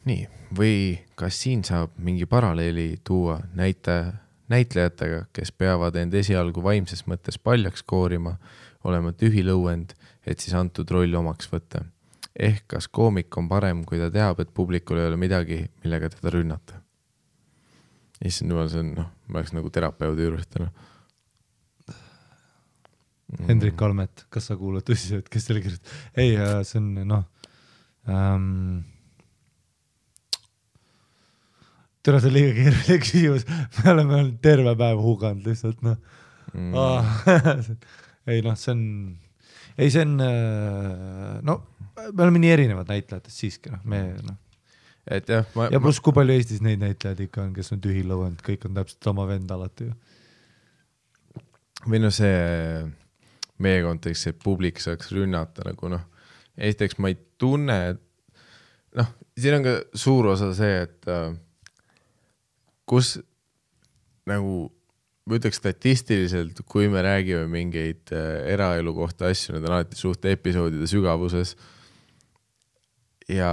Nii, või kas siin saab mingi paralleeli tuua näitlejatega, kes peavad end esialgu vaimses mõttes paljaks koorima, olema tühi lõuend, et siis antud roll omaks võtta. Ehk kas koomik on parem, kui ta teab, et publikul ei ole midagi, millega teda rünnata. Issand jumal, see on, ma oleks nagu terapeudi juures täna. Hendrik Kalmet, kas sa kuulad tõsiselt, kes selle kirjutab? Ei, see on, Tere, see on liiga keeruline küsimus. Me oleme terve päev huganud lihtsalt, Ei, see on... Ei, see on... me oleme nii erinevad näitlejatest siiski, Et jah, ja pluss kui palju Eestis neid näitlejad ikka on, kes on tühi lõuend, kõik on täpselt sama vend alati ju. Või see meie kontekst, et publik saaks rünnata nagu esiteks ma ei tunne, et siin on ka suur osa see, et kus nagu ma ütleks statistiliselt, kui me räägime mingeid eraelu kohta asju, need on alati suht episoodide sügavuses ja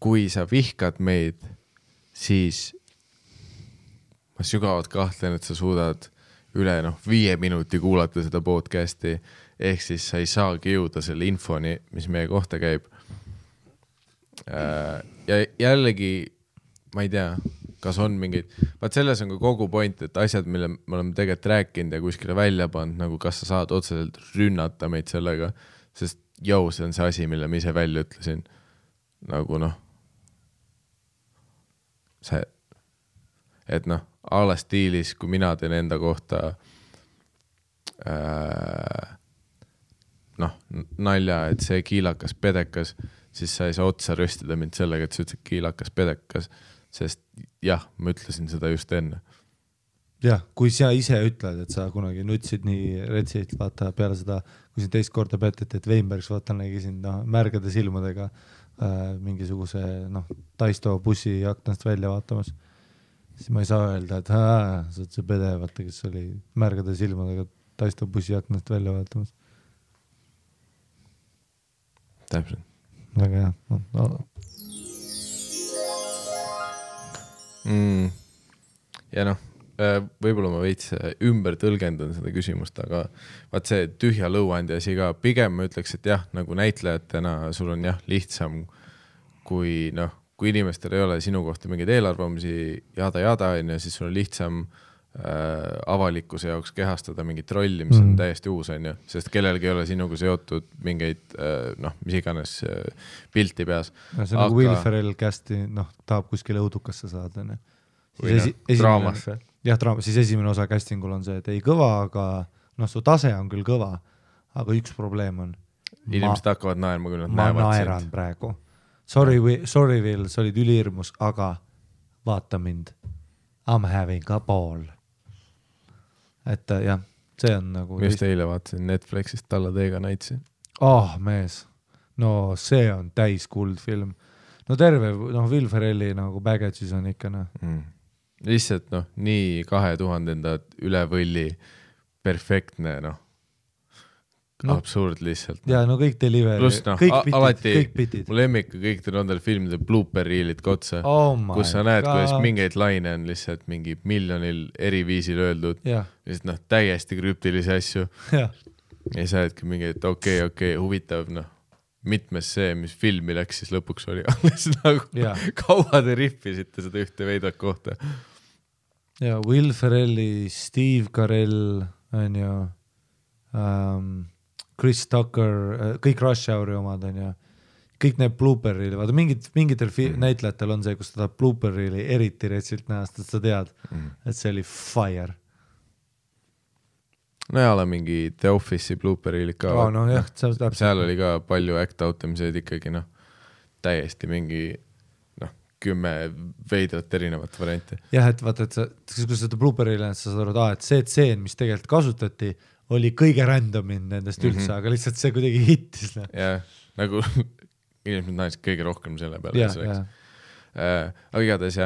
kui sa vihkad meid, siis ma sügavalt kahtlen, et sa suudad üle 5 minuti kuulata seda podcasti, ehk siis sa ei saagi jõuda selle infoni, mis meie kohta käib. Ja jällegi, ma ei tea, kas on mingid, vaat selles on ka kogu point, et asjad, mille me oleme tegelikult rääkinud ja kuskile välja pannud, nagu kas sa saad otseselt rünnata meid sellega, sest see on see asi, mille ma ise välja ütlesin. Nagu see, et ala stiilis, kui mina teen enda kohta nalja, et see kiilakas pedekas, siis sa ei saa otsa röstida mind sellega, et sa ütled kiilakas pedekas, sest jah, ma ütlesin seda just enne. Jah, kui sa ise ütled, et sa kunagi nutsid nii retsid, vaata peale seda, kui siin teist korda peteti, et Weinbergs vaata nägi siin märgade silmadega mingisuguse Taisto bussi aknast välja vaatamas, siis ma ei saa öelda, et sa oled see pede, vaata, kes oli märgade silmadega Taisto bussi aknast välja vaatamas. Täpselt. Väga hea. Ja võib-olla ma veits ümber tõlgendan seda küsimust, aga vaat see tühja lõuandi asi ka, pigem ma ütleks, et jah, nagu näitlejatena sul on jah lihtsam, kui inimestel ei ole sinu kohta mingeid eelarvamusi jada, siis sul on lihtsam avalikkuse jaoks kehastada mingit rolli, mis on täiesti uus, sest kellelgi ei ole sinuga seotud mingeid, mis iganes pilti peas. See on nagu Will Ferrell kästi, tahab kuskile õudukasse saada. Või draamasse. jah, siis esimene osa castingul on see, et ei kõva, aga noh, su tase on küll kõva, aga üks probleem on. Inimesed hakkavad naerma, kui nad ma näevad naeran sind. praegu. Sorry Will, sa olid ülihirmus, aga vaata mind. I'm having a ball. Et jah, see on nagu... Ma just eile vaatasin Netflixist Talladega Nightsi. Mees. No see on täis kuldfilm. No terve, Will Ferrelli nagu baggage'is on ikka, Lihtsalt, nii 2000-ndad üle võlli perfektne, absurd lihtsalt. Ja kõik delivery, Plus, kõik bitid. Mu lemmik kõik nendel filmide blooper reelid kotsa, kus sa näed, kuidas mingeid laine on lihtsalt mingi miljonil eri viisil öeldud. Lihtsalt täiesti krüptilisi asju. Ja sa oledki mingi, et okei, huvitav, mitmes see, mis filmi läks, siis lõpuks oli alles nagu kaua te rippisite seda ühte veidat kohta. Ja Will Ferrelli, Steve Carell, on ju, Chris Tucker, kõik Rush Houri omad, on ju, kõik need blooper'ili, vaata mingitel näitlejatel on see, kus ta tahab blooper'ili eriti retsilt näha, sest sa tead, et see oli fire. No ja ole mingi The Office'i blooper'ili ka. Seal oli ka palju act-out imiseid ikkagi, täiesti mingi 10 veidrat erinevat varianti. Jah, et vaata, et kui seda blooper'ili sa saad aru, et see tseen, mis tegelikult kasutati, oli kõige randomin nendest üldse, aga lihtsalt see kuidagi hittis. Jah, nagu inimesed naised kõige rohkem selle peale. Aga igatahes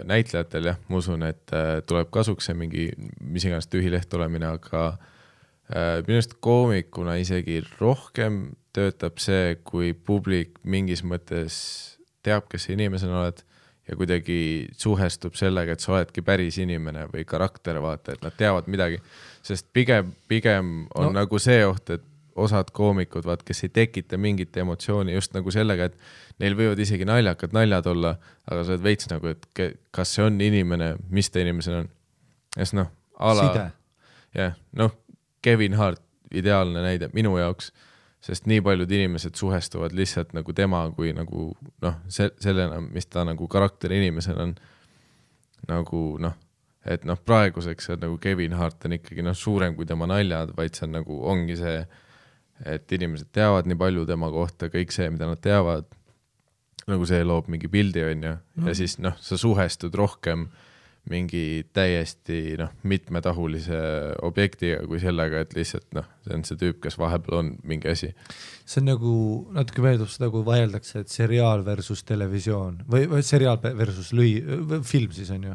näitlejatel ma usun, et tuleb kasuks see mingi mis iganes tühileht olemine, aga minust koomikuna isegi rohkem töötab see, kui publik mingis mõttes teab, kes inimesena oled ja kuidagi suhestub sellega, et sa oledki päris inimene või karakter, vaata, et nad teavad midagi, sest pigem on nagu see oht, et osad koomikud, kes ei tekita mingit emotsiooni just nagu sellega, et neil võivad isegi naljakad naljad olla, aga sa oled veits nagu, et kas see on inimene, mis ta inimesena on. Side. Kevin Hart, ideaalne näide minu jaoks, sest nii paljud inimesed suhestuvad lihtsalt nagu tema kui nagu sellena, mis ta nagu karakter inimesena on nagu et praeguseks on nagu Kevin Hart on ikkagi suurem kui tema naljad, vaid see on nagu ongi see, et inimesed teavad nii palju tema kohta, kõik see, mida nad teavad, nagu see loob mingi pildi on ja siis sa suhestud rohkem mingi täiesti mitmetahulise objektiga kui sellega, et lihtsalt see on see tüüp, kes vahepeal on mingi asi. See on nagu, natuke meeldub seda, kui vaieldakse, et seriaal versus televisioon või seriaal versus film siis on ju,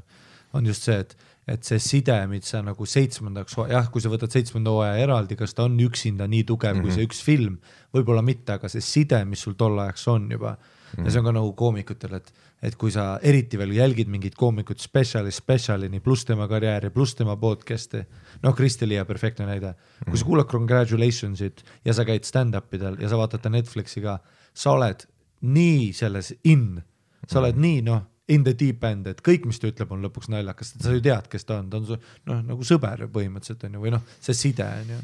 on just see, et see side, mis sa nagu 7. kui sa võtad 7. hooaja eraldi, kas ta on üksinda nii tugev kui see üks film, võib-olla mitte, aga see side, mis sul tol ajaks on juba, ja see on ka nagu koomikutel, et kui sa eriti veel jälgid mingid koomikut spetsialini pluss tema karjääri, pluss tema podcast'i, Kristi Liia perfektne näide, kui sa kuulad Congratulationsit ja sa käid stand-upidel ja sa vaatad Netflixi ka, sa oled nii selles sa oled nii in the deep end, et kõik, mis ta ütleb, on lõpuks naljakas, sa ju tead, kes ta on su nagu sõber põhimõtteliselt on ju, või see side on ju.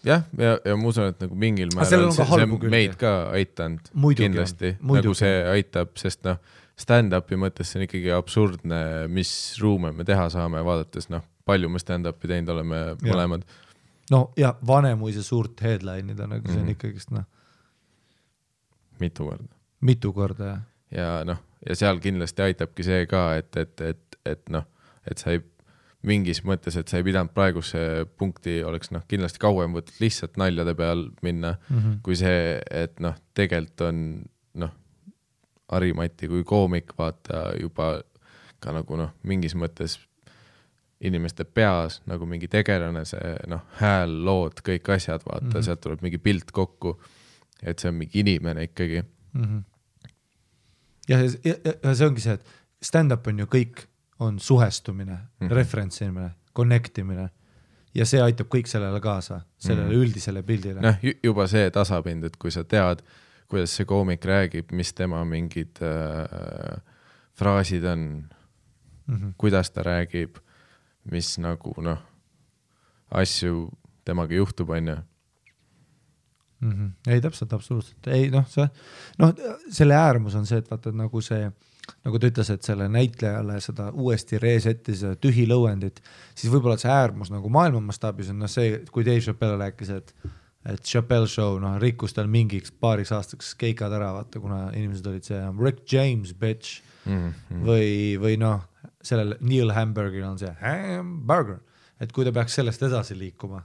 Ja ma usun, et nagu mingil määral see meid ka aitanud kindlasti, nagu see aitab, sest stand-upi mõttes see on ikkagi absurdne, mis ruume me teha saame, vaadates palju me stand-upi teinud oleme mõlemad. Ja Vanemuise suurt headline'id on, see on ikkagist mitu korda, jah. Ja seal kindlasti aitabki see ka, et sa ei mingis mõttes, et sa ei pidanud praeguse punkti oleks kindlasti kauem võtnud lihtsalt naljade peal minna, kui see, et tegelikult on Harimati kui koomik, vaata juba ka nagu mingis mõttes inimeste peas nagu mingi tegelane, see hääl, lood, kõik asjad, vaata, sealt tuleb mingi pilt kokku, et see on mingi inimene ikkagi. Ja see ongi see, et stand-up on ju kõik on suhestumine, referentsimine, connectimine ja see aitab kõik sellele kaasa, sellele üldisele pildile. Juba see tasapind, et kui sa tead, kuidas see koomik räägib, mis tema mingid fraasid on, kuidas ta räägib, mis nagu asju temaga juhtub, on ju. Ei, täpselt, absoluutselt. Ei, selle äärmus on see, et vaata nagu see nagu ta ütles, et selle näitlejale seda uuesti resetti seda tühi lõuendit, siis võib-olla see äärmus nagu maailma mastaabis on see, kui Dave Chappelle rääkis, et Chappelle show rikkus tal mingiks paariks aastaks keikad ära, vaata, kuna inimesed olid see Rick James, bitch, või sellel Neil Hamburgeril on see hamburger, et kui ta peaks sellest edasi liikuma.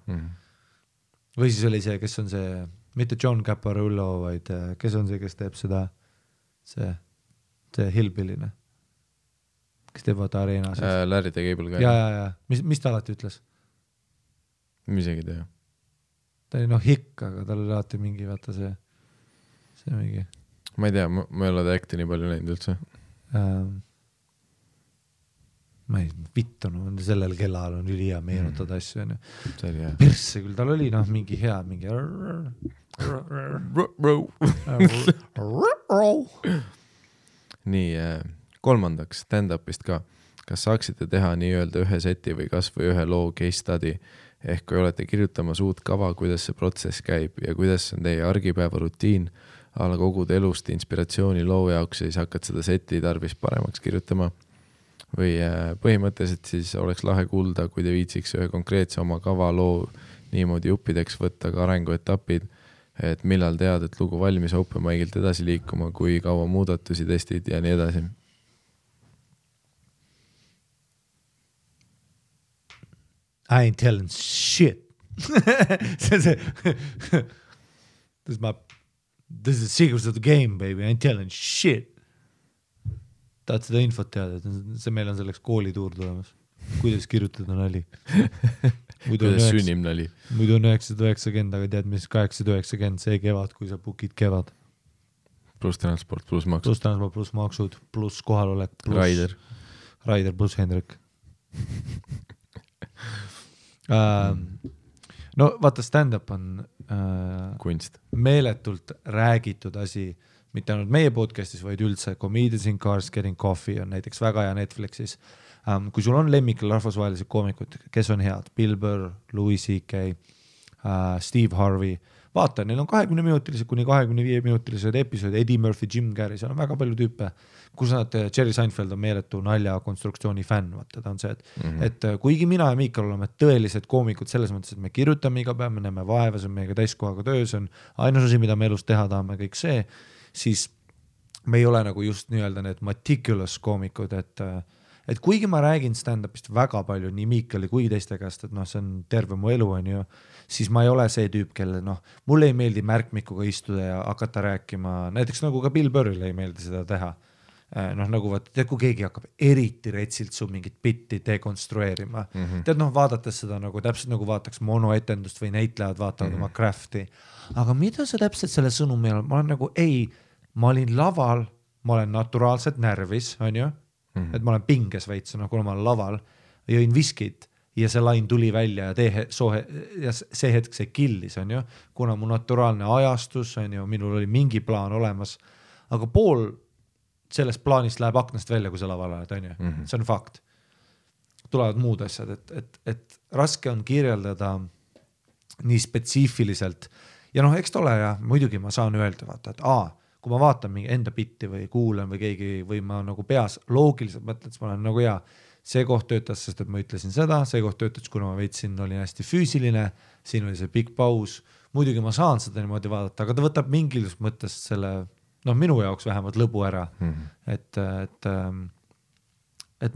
Või siis oli see, kes on see, mitte John Caparulo, vaid kes on see, kes teeb seda, see hillbilline, kes teeb vaata areenas. Larry the Cable Guy. Ja. Mis ta alati ütles? Misegi tea. Ta oli hikk, aga tal oli alati mingi, vaata see mingi. Ma ei tea, ma ei ole ta acti nii palju näinud üldse. Ma ei vittu, sellel kellal on üli hea meenutada asju. See oli hea. Persse küll, tal oli mingi hea, mingi nii, kolmandaks stand-upist ka. Kas saaksite teha nii-öelda ühe seti või kas või ühe loo case study? Ehk kui olete kirjutamas uut kava, kuidas see protsess käib ja kuidas on teie argipäeva rutiin, ala kogud elust inspiratsiooni loo jaoks ja siis hakkad seda seti tarvis paremaks kirjutama. Või põhimõtteliselt siis oleks lahe kuulda, kui te viitsiks ühe konkreetse oma kava loo niimoodi juppideks võtta ka arenguetapid, et millal tead, et lugu valmis open mic'ilt edasi liikuma, kui kaua muudatusi testid ja nii edasi. I ain't telling shit. This is the secrets of the game, baby. I ain't telling shit. Tahad seda infot teada, et meil on selleks koolituur tulemas. Kuidas kirjutada nali? Kuidas sünnim nali? Muidu on 990, aga tead, mis 890 see kevad, kui sa bookid kevad. Plus transport, plus maksud. Plus transport, plus maksud, plus kohalolek. Raider plus Hendrik. No vaata, stand-up on kunst. Meeletult räägitud asi, mitte ainult meie podcastis, vaid üldse Comedians in Cars Getting Coffee on näiteks väga hea Netflixis. Kui sul on lemmikul rahvusvahelised koomikud, kes on head, Bill Burr, Louis C.K., Steve Harvey, vaata, neil on 20-minutilised kuni 25-minutilised episood, Eddie Murphy, Jim Carrey, seal on väga palju tüüpe, kus nad, Jerry Seinfeld on meeletu nalja konstruktsiooni fänn, vaata, ta on see, et kuigi mina ja Miikal oleme tõelised koomikud selles mõttes, et me kirjutame iga päev, me näeme vaeva, see on meiega täiskohaga töö, see on ainus asi, mida me elus teha tahame, kõik see, siis me ei ole nagu just nii-öelda need meticulous koomikud, et kuigi ma räägin stand-upist väga palju nii Miikali kui teiste käest, et see on terve mu elu, on ju, siis ma ei ole see tüüp, kelle mulle ei meeldi märkmikuga istuda ja hakata rääkima, näiteks nagu ka Bill Burrile ei meeldi seda teha. Nagu vaata, kui keegi hakkab eriti retsilt su mingit bitti dekonstrueerima. Tead, vaadates seda nagu täpselt nagu vaataks monoetendust või näitlejad vaatavad oma crafti. Aga mida sa täpselt selle sõnumi all? Ma olen nagu, ma olin laval, ma olen naturaalselt närvis, on ju? Et ma olen pinges veits, kuna ma olen laval, jõin viskit ja see lain tuli välja ja see hetk see killis, on ju? Kuna mu naturaalne ajastus, on ju, minul oli mingi plaan olemas, aga pool sellest plaanist läheb aknast välja, kui sa laval oled, on ju. See on fakt. Tulevad muud asjad, et raske on kirjeldada nii spetsiifiliselt ja eks ta ole ja muidugi ma saan öelda, vaata, et kui ma vaatan mingi enda bitti või kuulen või keegi või ma nagu peas loogiliselt mõtlen, siis ma olen nagu see koht töötas, sest et ma ütlesin seda, see koht töötas, kuna ma veitsin, olin hästi füüsiline, siin oli see big paus, muidugi ma saan seda niimoodi vaadata, aga ta võtab mingis mõttes selle minu jaoks vähemalt lõbu ära, et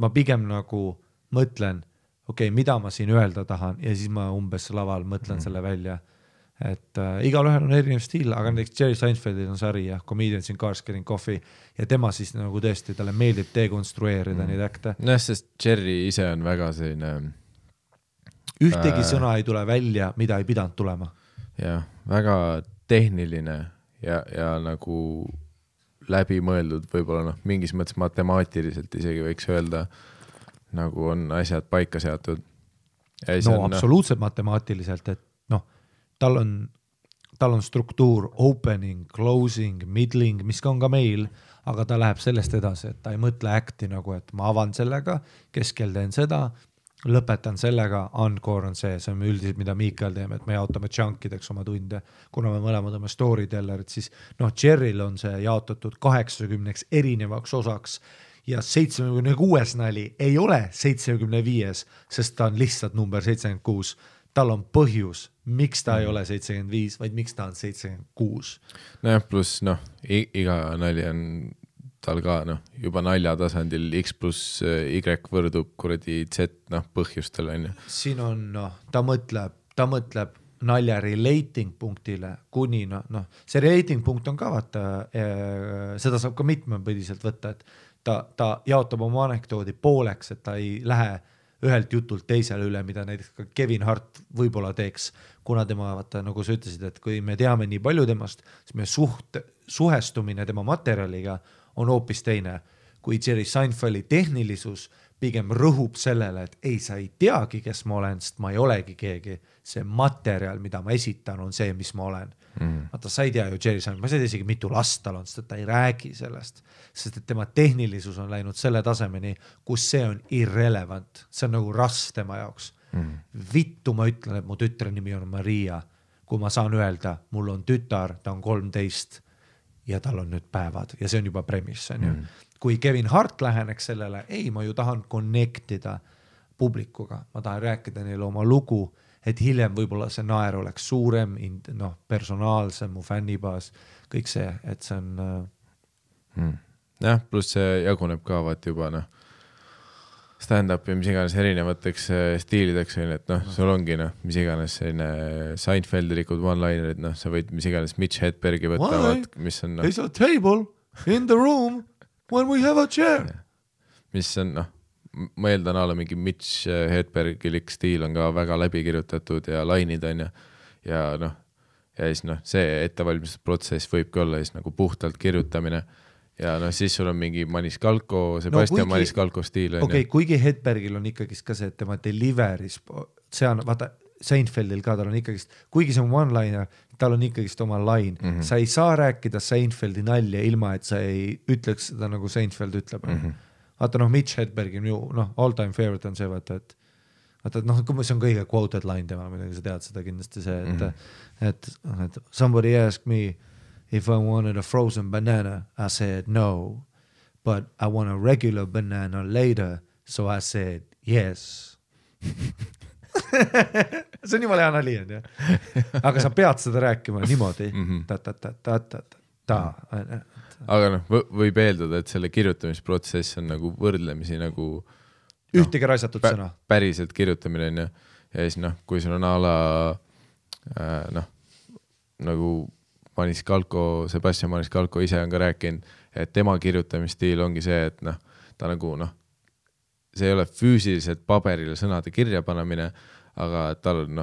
ma pigem nagu mõtlen, mida ma siin öelda tahan ja siis ma umbes laval mõtlen selle välja, et igalühel on erinev stiil, aga näiteks Jerry Seinfeldil on sari ja Comedians in Cars Getting Coffee ja tema siis nagu tõesti, talle meeldib dekonstrueerida neid äkte. Sest Jerry ise on väga selline ühtegi sõna ei tule välja, mida ei pidanud tulema. Jah, väga tehniline ja nagu läbimõeldud võib-olla mingis mõttes matemaatiliselt isegi võiks öelda, nagu on asjad paika seatud. Absoluutselt matemaatiliselt, et tal on struktuur opening, closing, middling, mis on ka meil, aga ta läheb sellest edasi, et ta ei mõtle acti nagu, et ma avan sellega, keskel teen seda lõpetan sellega, encore on see on üldiselt, mida Miikael teeme, et me jaotame chunkideks oma tunde, kuna me mõlemad oleme storytellerid, siis Jerryl on see jaotatud 80 erinevaks osaks ja 76 nali ei ole 75, sest ta on lihtsalt number 76. Tal on põhjus, miks ta ei ole 75, vaid miks ta on 76. Nojah, pluss iga nali on tal ka juba nalja tasandil X plus Y võrdub kuradi Z põhjustel on ju. Siin on ta mõtleb nalja relating punktile kuni see relating punkt on ka vaata, seda saab ka mitmepõdiselt võtta, et ta jaotab oma anekdoodi pooleks, et ta ei lähe ühelt jutult teisele üle, mida näiteks ka Kevin Hart võib-olla teeks, kuna tema, vaata, nagu sa ütlesid, et kui me teame nii palju temast, siis me suhestumine tema materjaliga on hoopis teine, kui Jerry Seinfeldi tehnilisus pigem rõhub sellele, et ei, sa ei teagi, kes ma olen, sest ma ei olegi keegi. See materjal, mida ma esitan, on see, mis ma olen. Vaata, sa ei tea ju Jerry Seinfeld, ma ei tea isegi mitu last tal on, sest ta ei räägi sellest, sest et tema tehnilisus on läinud selle tasemeni, kus see on irrelevant. See on nagu rasv tema jaoks. Vittu ma ütlen, et mu tütre nimi on Maria, kui ma saan öelda, mul on tütar, ta on 13 ja tal on nüüd päevad ja see on juba premise, on ju. Kui Kevin Hart läheneks sellele, ei, ma ju tahan connectida publikuga, ma tahan rääkida neile oma lugu, et hiljem võib-olla see naer oleks suurem, personaalsem, mu fännibaas, kõik see, et see on... Jah, pluss see jaguneb ka vaat juba stand-up ja mis iganes erinevateks stiilideks, et sul ongi mis iganes selline Seinfeldilikud one-linerid, sa võid mis iganes Mitch Hedbergi võtta, mis on There's a table in the room when we have a chair. Mis on, ma eeldan ala mingi Mitch Hedbergilik stiil on ka väga läbi kirjutatud ja lainid on ja siis see ettevalmistusprotsess võibki olla siis nagu puhtalt kirjutamine ja siis sul on mingi Maniscalco, Sebastian Maniscalco stiil. Okei, kuigi Hedbergil on ikkagist ka see, et tema deliveris, see on, vaata, Seinfeldil ka tal on ikkagist, kuigi see on one-liner, tal on ikkagist oma line. Sa ei saa rääkida Seinfeldi nalja ilma, et sa ei ütleks seda nagu Seinfeld ütleb. Vaata, Mitch Hedbergi all-time favorite on see, vaata, et see on kõige quoted line tema, midagi sa tead seda kindlasti see, et somebody asked me if I wanted a frozen banana, I said no, but I want a regular banana later, so I said yes. See on jumala hea nali, on ju. Aga sa pead seda rääkima niimoodi. Aga võib eeldada, et selle kirjutamisprotsess on nagu võrdlemisi nagu ühtegi raisatud sõna. Päriselt kirjutamine on ja siis kui sul on ala nagu Sebastian Maniscalco ise on ka rääkinud, et tema kirjutamisstiil ongi see, et ta nagu see ei ole füüsiliselt paberile sõnade kirja panemine, aga tal on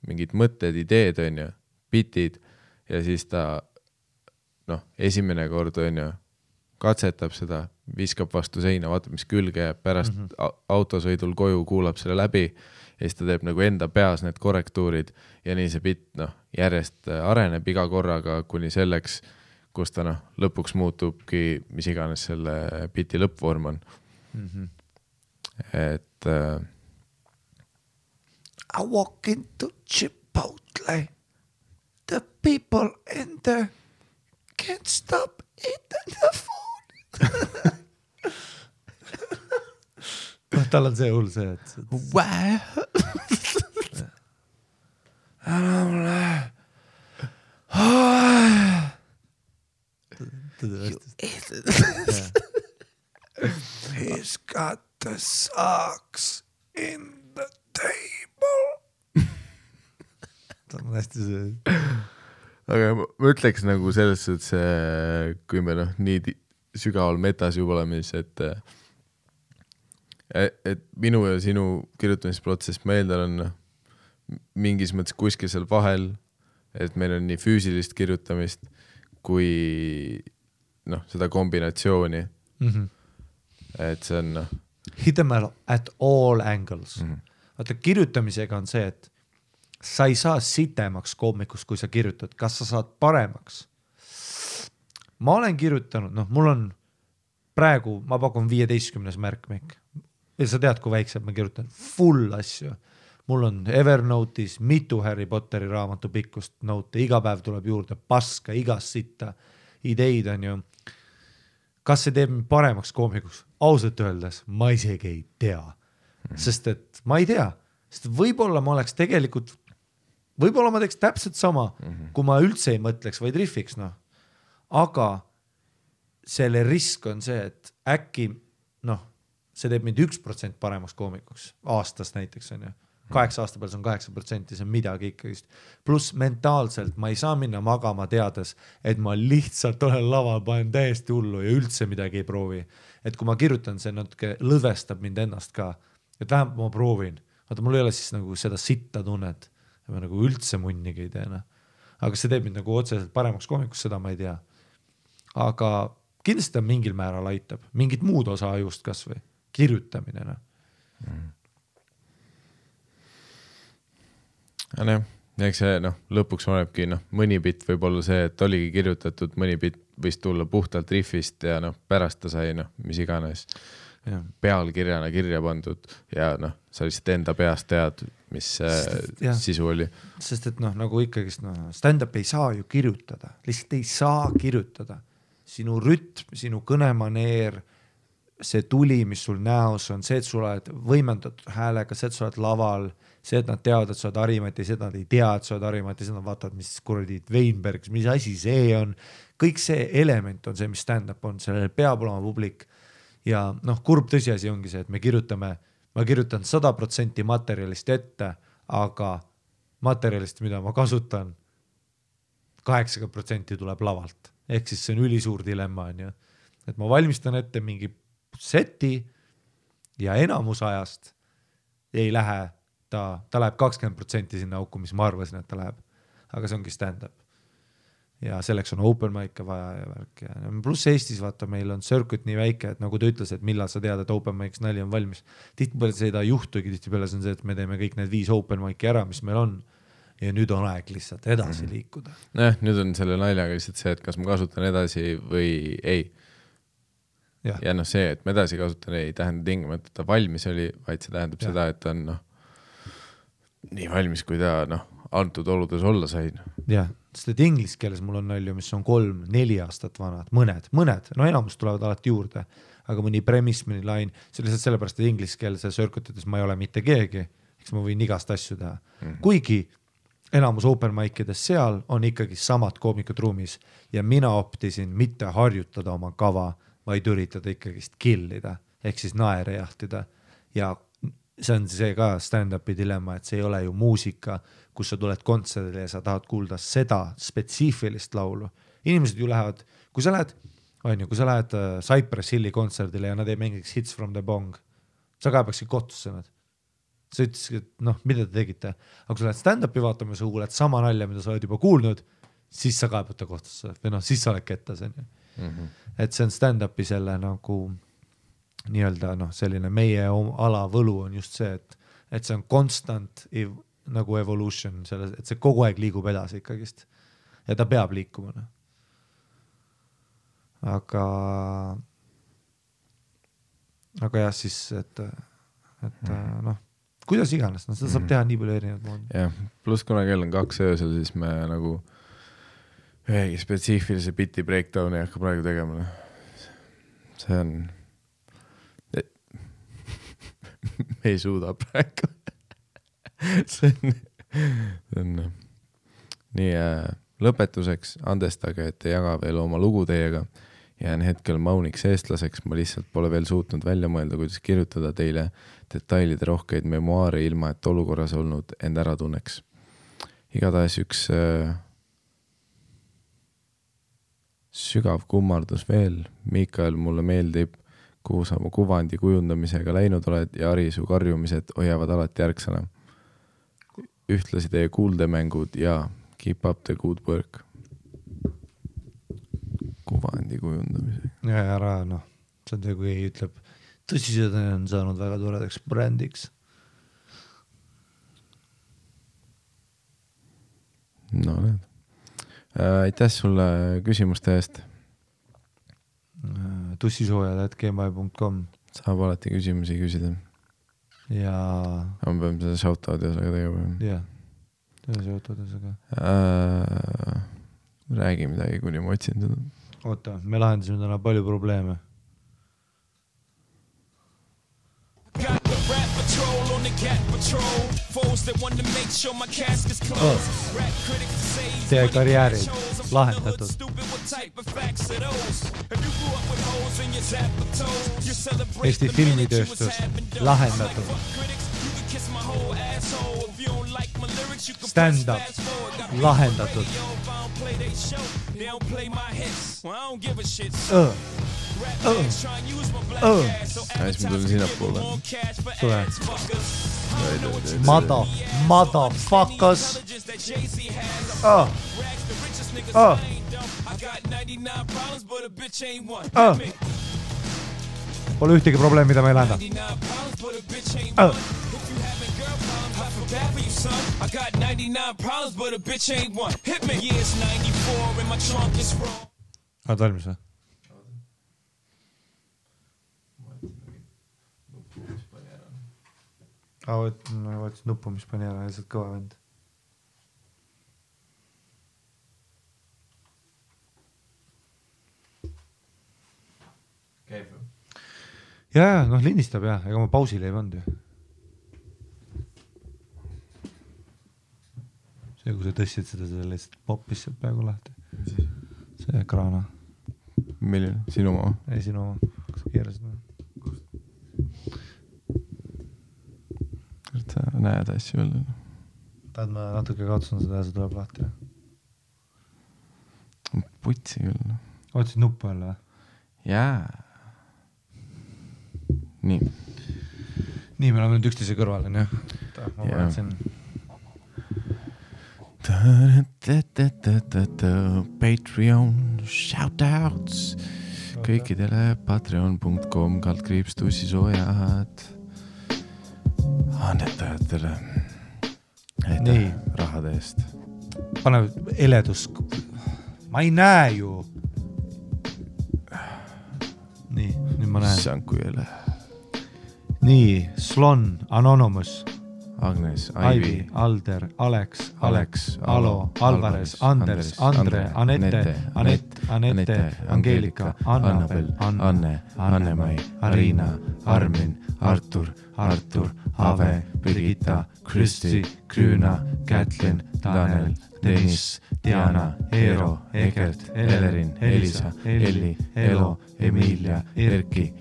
mingid mõtted, ideed on ju, bitid ja siis ta esimene kord on ju, katsetab seda, viskab vastu seina, vaatab, mis külge jääb, pärast autosõidul koju kuulab selle läbi ja siis ta teeb nagu enda peas need korrektuurid ja nii see bit järjest areneb iga korraga kuni selleks, kus ta lõpuks muutubki, mis iganes selle biti lõppvorm on. Et I walk into Chipotle, the people in there can't stop eating the food. Tal on see hull see, et he's got the socks in the table. Ta on hästi see. Aga ma ütleks nagu selles, et see, kui me nii sügaval metas juba oleme, et minu ja sinu kirjutamisprotsess ma eeldan on mingis mõttes kuskil seal vahel, et meil on nii füüsilist kirjutamist kui seda kombinatsiooni. Et see on hit them at all angles. Vaata, kirjutamisega on see, et sa ei saa sitemaks koomikust, kui sa kirjutad. Kas sa saad paremaks? Ma olen kirjutanud, mul on praegu, ma pakun 15 märkmik. ja sa tead, kui väiksed ma kirjutan full asju. Mul on Evernote'is mitu Harry Potteri raamatu pikkust note, iga päev tuleb juurde paska, igast sitta, ideid on ju. Kas see teeb mind paremaks koomikuks? Ausalt öeldes ma isegi ei tea, sest et ma ei tea, sest võib-olla ma oleks tegelikult, võib-olla ma teeks täpselt sama, kui ma üldse ei mõtleks, vaid riffiks, noh. Aga selle risk on see, et äkki, noh, see teeb mind 1% paremaks koomikuks aastas näiteks on ju. 8 aasta peal see on 8%, see on midagi ikkagist. Plus mentaalselt ma ei saa minna magama teades, et ma lihtsalt olen laval, panen täiesti hullu ja üldse midagi ei proovi. Et kui ma kirjutan, see natuke lõdvestab mind ennast ka, et vähemalt ma proovin. Vaata, mul ei ole siis nagu seda sitta tunnet, et ma nagu üldse munnigi ei teena. Aga see teeb mind nagu otseselt paremaks koomikuks, seda ma ei tea. Aga kindlasti ta mingil määral aitab, mingit muud osa ajust kas või, kirjutamine. No. Eks see lõpuks olebki mõni bitt võib olla see, et oligi kirjutatud, mõni bitt võis tulla puhtalt riffist ja pärast ta sai mis iganes pealkirjana kirja pandud ja sa lihtsalt enda peast tead, mis sisu oli. Sest et nagu ikkagist stand-up ei saa ju kirjutada, lihtsalt ei saa kirjutada. Sinu rütm, sinu kõnemaneer, see tuli, mis sul näos on, see, et sul oled võimendatud häälega, see, et sul oled laval, see, et nad teavad, et sa oled Harimati, see, et nad ei tea, et sa oled Harimati, see, nad vaatavad, mis kuradi Weinberg, mis asi see on. Kõik see element on see, mis stand-up on, sellel peab olema publik. Ja kurb tõsiasi ongi see, et ma kirjutan 100% materjalist ette, aga materjalist, mida ma kasutan, 80% tuleb lavalt. Ehk siis see on ülisuur dilemma, on ju. Et ma valmistan ette mingi seti ja enamus ajast ei lähe, ta läheb 20% sinna auku, mis ma arvasin, et ta läheb. Aga see ongi stand-up. Ja selleks on open mic'e vaja ja värk. Ja pluss Eestis, vaata, meil on circuit nii väike, et nagu ta ütles, et millal sa tead, et open mic's nali on valmis. Tihtipeale seda juhtugi, tihtipeale see on see, et me teeme kõik need 5 open mic'i ära, mis meil on. Ja nüüd on aeg lihtsalt edasi liikuda. Nüüd on selle naljaga lihtsalt see, et kas ma kasutan edasi või ei. Ja see, et ma edasi kasutan, ei tähenda tingimata, et ta valmis oli, vaid see tähendab seda, et ta on nii valmis, kui ta antud oludes olla sain. Jah, sest et inglis keeles mul on nalju, mis on 3-4 aastat vanad, mõned, enamus tulevad alati juurde, aga mõni premise, mõni line, see lihtsalt sellepärast, et inglis keelse circuitides ma ei ole mitte keegi, eks ma võin igast asju teha. Kuigi enamus open mic'ides seal on ikkagi samad koomikud ruumis ja mina optisin mitte harjutada oma kava, vaid üritada ikkagist killida, ehk siis naere jahtida. Ja see on see ka stand-upi dilemma, et see ei ole ju muusika, kus sa tuled kontserdile ja sa tahad kuulda seda spetsiifilist laulu. Inimesed ju lähevad, kui sa lähed Cypress Hilli kontserdile ja nad ei mängiks Hits from the Bong, sa ka peaksid kohtusse nad. Sa ütlesid, et mida te tegite? Aga kui sa lähed stand-upi vaatama, sa kuuled sama nalja, mida sa oled juba kuulnud, siis sa kaebata kohtusse või siis sa oled kettas. Et see on stand-upi selle nagu nii-öelda selline meie ala võlu on just see, et see on constant nagu evolution, et see kogu aeg liigub edasi ikkagist ja ta peab liikuma. Aga jah, siis, et kuidas iganes, seda saab teha nii palju erinevad moodi. Jah, pluss kuna kell on 2 öösel, siis me nagu ühegi spetsiifilise biti breakdowni ei hakka praegu tegema. See on me ei suuda praegu. see on nii lõpetuseks andestage, et ei jaga veel oma lugu teiega. Jään hetkel mauniks eestlaseks, ma lihtsalt pole veel suutnud välja mõelda, kuidas kirjutada teile detailide rohkeid memuaare ilma, et olukorras olnud end ära tunneks. Igatahes üks sügav kummardus veel. Mikael, mulle meeldib, kuhu sa mu kuvandi kujundamisega läinud oled ja Ari, su karjumised hoiavad alati järgsana. Ühtlasi teie kuuldemängud ja keep up the good work. Kuvandi kujundamisega. Ja ära, see on see, kui ei ütleb, tõsised on saanud väga toredaks brändiks. No need. Aitäh sulle küsimuste eest. Tussisoojad@gmail.com Saab alati küsimusi küsida. ja ma pean seda shoutout'i osaga tegema. jah, seda shoutout'i osaga. Räägi midagi, kuni ma otsin seda. Oota, me lahendasime täna palju probleeme. Got the rap patrol on the cat patrol. Foes that want to make sure my casket's closed. Rap critics say Teie karjäärid lahendatud. Eesti filmitööstus lahendatud. Stand-up lahendatud. Siis ma tulin sinna poole. Tule. Motherfuckers. Pole ühtegi probleemi, mida me ei lahenda. I got 99 problems, but a bitch ain't one. Hit me. Years 94 and my trunk is wrong. Oled valmis või? Võtsin nuppu, mis pani ära, lihtsalt kõva vend. Käib või? Jaa, noh lindistab jah, ega ma pausile ei pannud ju. See, kui sa tõstsid seda lihtsalt poppis sealt peaaegu lahti. See kraana. Milline? Sinu oma? Ei, sinu oma. Kas sa keerasid või? Sa näed asju veel? Tahad ma natuke kaotsun seda ja see tuleb lahti? Putsi küll. Otsid nuppu jälle või? Jaa. Nii. Nii, me oleme nüüd üksteise kõrval, on jah? Ma vaatsin. Patreon shoutouts kõikidele patreon.com/tussisoojad annetajatele rahade eest. Pane eledus. Ma ei näe ju. Nii, nüüd ma näen. Sanku jälle. Nii, Slon, Anonymous, Agnes, Aivi, Alder, Alex, Alo, Alvarez, Anders, Andre, Anette, Angeelika, Annabel, Anne, Anne-Mai, Arina, Armin, Artur, Ave, Birgitta, Kristi, Krüüna, Kätlin, Tanel, Tõnis, Diana, Eero, Egert, Elerin, Elisa, Elli, Elo, Emilia, Erki,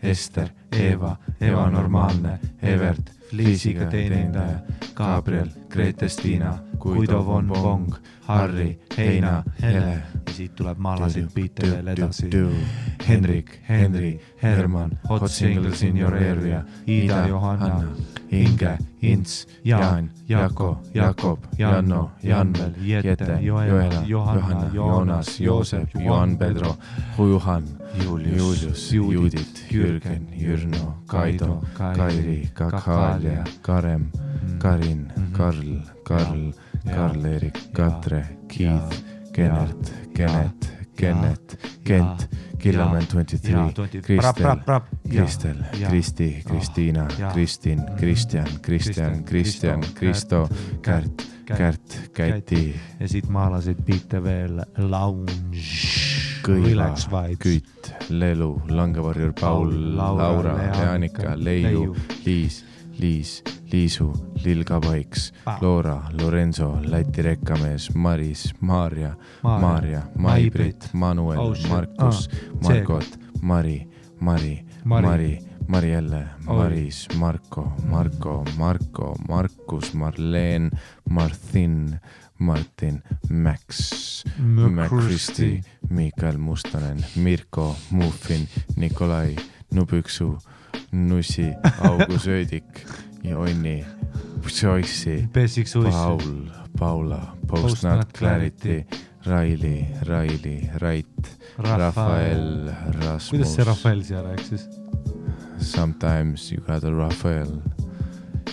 Ester, Eva, Normaalne, Evert, Liisiga teenindaja, Gabriel, Grete-Stina, Guido von Bong, Harri, Heina, Hele. Ja siit tuleb maalasid biite veel edasi. Henrik, Henri, Herman, Hot Singles in your area, Ida, Johanna, Inge, Ints, Jaan, Jako, Jakob, Janno, Janvel, Jette, Joela, Johanna, Joonas, Joosep, Juan Pedro, Juhan, Julius, Judit, Jürgen, Jürno, Kaido, Kairi, Kakaalia, Karem, Karin, Karl-Erik, Katre, Keith, Kenneth, Kent, Killaman 23, Kristel, Kristi, Kristiina, Kristin, Kristjan, Kristo, Kärt, Käti. Ja siit maalasid biite veel Lounge, Kõiva, Kütt, Lelu, Langevarjur, Paul, Laura, Leanika, Leiu, Liisu, Lilga Paiks, Loora, Lorenzo, Läti rekkamees, Maris, Maarja, Maibrit, Manuel, Markus, Margot, Mari, Marielle, Maris, Marko, Markus, Marleen, Martin, Max, Kristi, Mikael Mustonen, Mirko, Muffin, Nikolai, Nubüksu, Nussi, Augu Söödik, Jonni, Joyce, Paula, Post Not Clarity, Raili, Rait, Rafael, Rasmus. Kuidas see Rafael siia rääks siis? Sometimes you got a Rafael.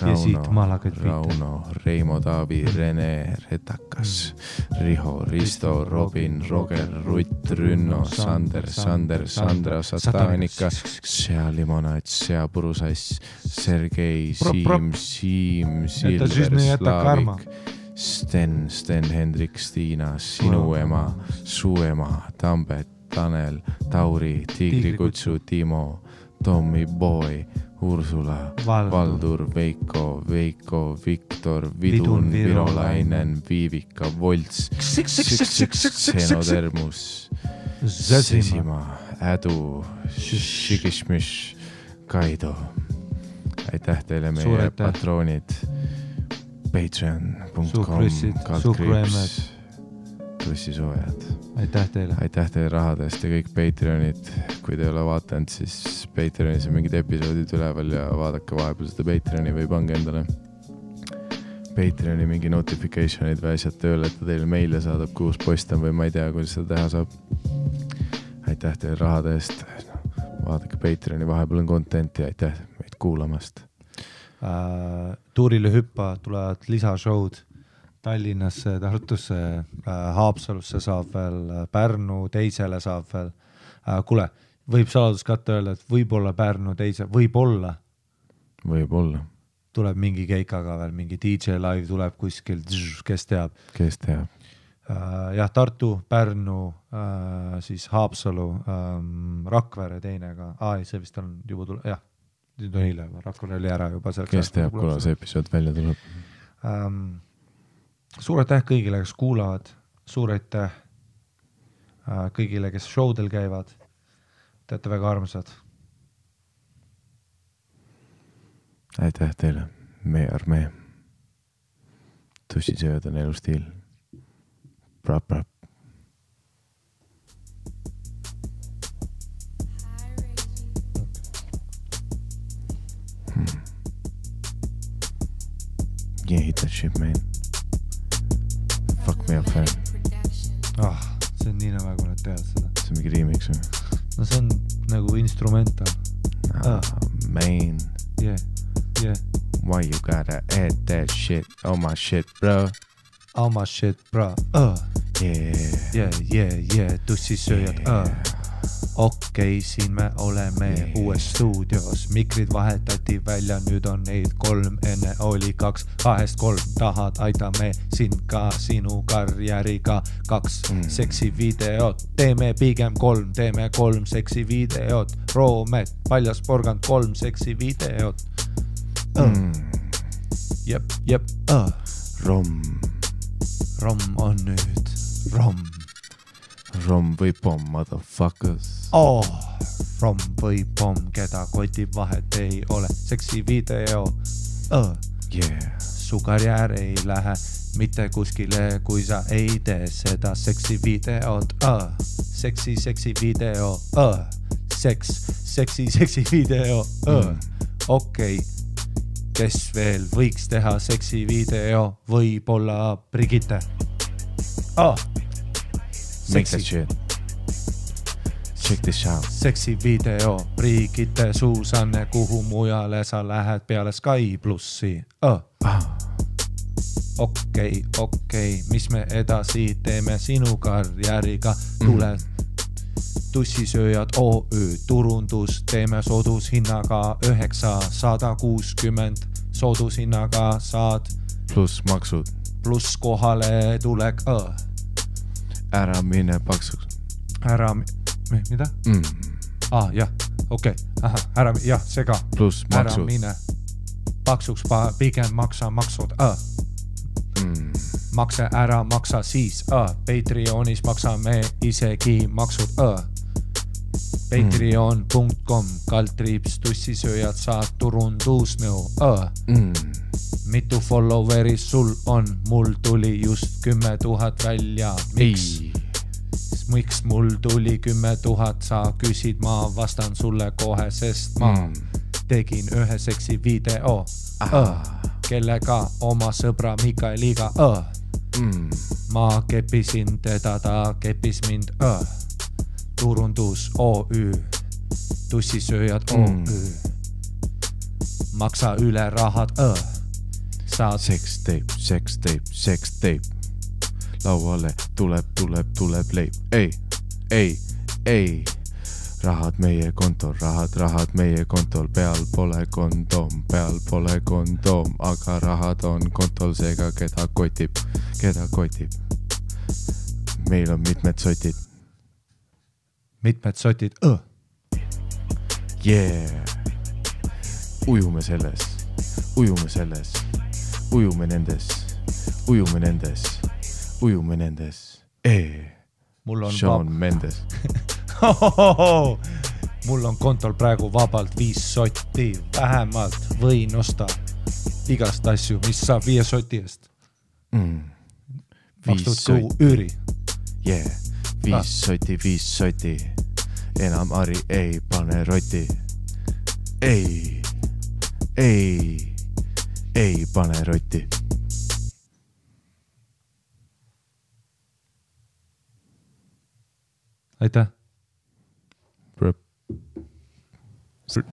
ja siit malakaid Rauno, Reimo, Taavi, Rene, Retakas, Riho, Risto, Robin, Roger, Rutt, Rünno, Sander, Sandra, Satanika, Sea Limonaid, Sea Purusass, Sergei, Siim, Silver, Slaavik, Sten, Hendrik, Stiina, sinu ema, su ema, Tambet, Tanel, Tauri, Tiigrikutsu, Timo, Tommy Boy, Ursula, Valdur, Veiko, Viktor, Vidun, Virolainen, Viivika, Volts, Xenodermus, Sesima, Ädu, Shikishmish, Kaido. Aitäh teile meie patroonid. Patreon.com, kaldkriips, tussisoojad. Aitäh teile rahadest ja kõik Patreonid. Kui te ei ole vaatanud, siis Patreonis on mingid episoodid üleval ja vaadake vahepeal seda Patreoni või pange endale Patreoni mingi notificationid või asjad tööle, et ta teile meile saadab, kuus post on või ma ei tea, kuidas seda teha saab. Aitäh teile rahadest. Vaadake Patreoni, vahepeal on contenti. Aitäh meid kuulamast. Tuurile hüppa tulevad lisashowd Tallinnasse, Tartusse, Haapsalusse saab veel, Pärnu teisele saab veel. Kuule, võib saladuskatte öelda, et võib-olla Pärnu teise, võib-olla tuleb mingi keikaga veel, mingi DJ live tuleb kuskil, kes teab. Jah, Tartu, Pärnu, siis Haapsalu, Rakvere teine ka. See vist on juba tuleb, jah. Nüüd on hiljem, Rakvere oli ära juba. Kes teab, kuna see episood välja tuleb? Suur aitäh kõigile, kes kuulavad. Suur aitäh kõigile, kes showdel käivad. Te olete väga armsad. Aitäh teile, meie armee. Tussisööd on elustiil. Prap. Yeah, hit that shit, man. Fuck me up, fan. See on nii nagu nad teavad seda. See on mingi remix või? No see on nagu instrumental. Man. Yeah. Why you gotta add that shit on my shit, bro? On my shit, bro. Yeah. Tussisööjad. Okei, siin me oleme uues stuudios. Mikrid vahetati välja, nüüd on neid 3, enne oli 2, 2-3. Tahad, aitame sind ka sinu karjääriga. 2 seksi videot, teeme pigem 3, teeme 3 seksi videot. Roomet, paljas porgand 3 seksi videot. Jep. Rom on nüüd Rom või pomm, motherfuckers. Rom või pomm, keda kotib vahet ei ole. Seksi video. Su karjäär ei lähe mitte kuskile, kui sa ei tee seda seksi videot. Seksi video. Seksi video. Okei. Kes veel võiks teha seksi video? Võib-olla Brigitte. Make that shit. Check this out. Seksi video, Brigitte, Suusanne, kuhu mujale sa lähed peale Sky Plussi. Okei, mis me edasi teeme sinu karjääriga? Tule Tussisööjad OÜ, turundus, teeme soodushinnaga 960, soodushinnaga saad pluss maksud, pluss kohale tulek. Ära mine paksuks. Mida? Jah, okei. Jah, see ka. Pluss maksud. Ära mine paksuks, pigem maksa maksud. Makse ära, maksa siis. Patreonis maksame isegi maksud. Patreon.com, kaldtriips, tussisööjad, saad turundusnõu. Mitu followeri sul on? Mul tuli just 10 000 välja. Miks mul tuli 10 000? Sa küsid, ma vastan sulle kohe, sest ma tegin ühe seksi video. Kellega? Oma sõbra Mikaeliga. Ma kepisin teda, ta kepis mind. Turundus OÜ, tussisööjad OÜ. maksa üle rahad, saad Sex tape. Lauale tuleb leib. Ei. Rahad meie kontol, peal pole kondoom, aga rahad on kontol, seega keda kotib. Meil on mitmed sotid. Yeah. Ujume nendes. mul on Shawn Mendes. Mul on kontol praegu vabalt 5 sotti, vähemalt võin osta igast asju, mis saab 5 soti eest. Makstud kuu üüri. Yeah, 5 soti. Enam Ari ei pane roti. Ei pane roti. Aitäh.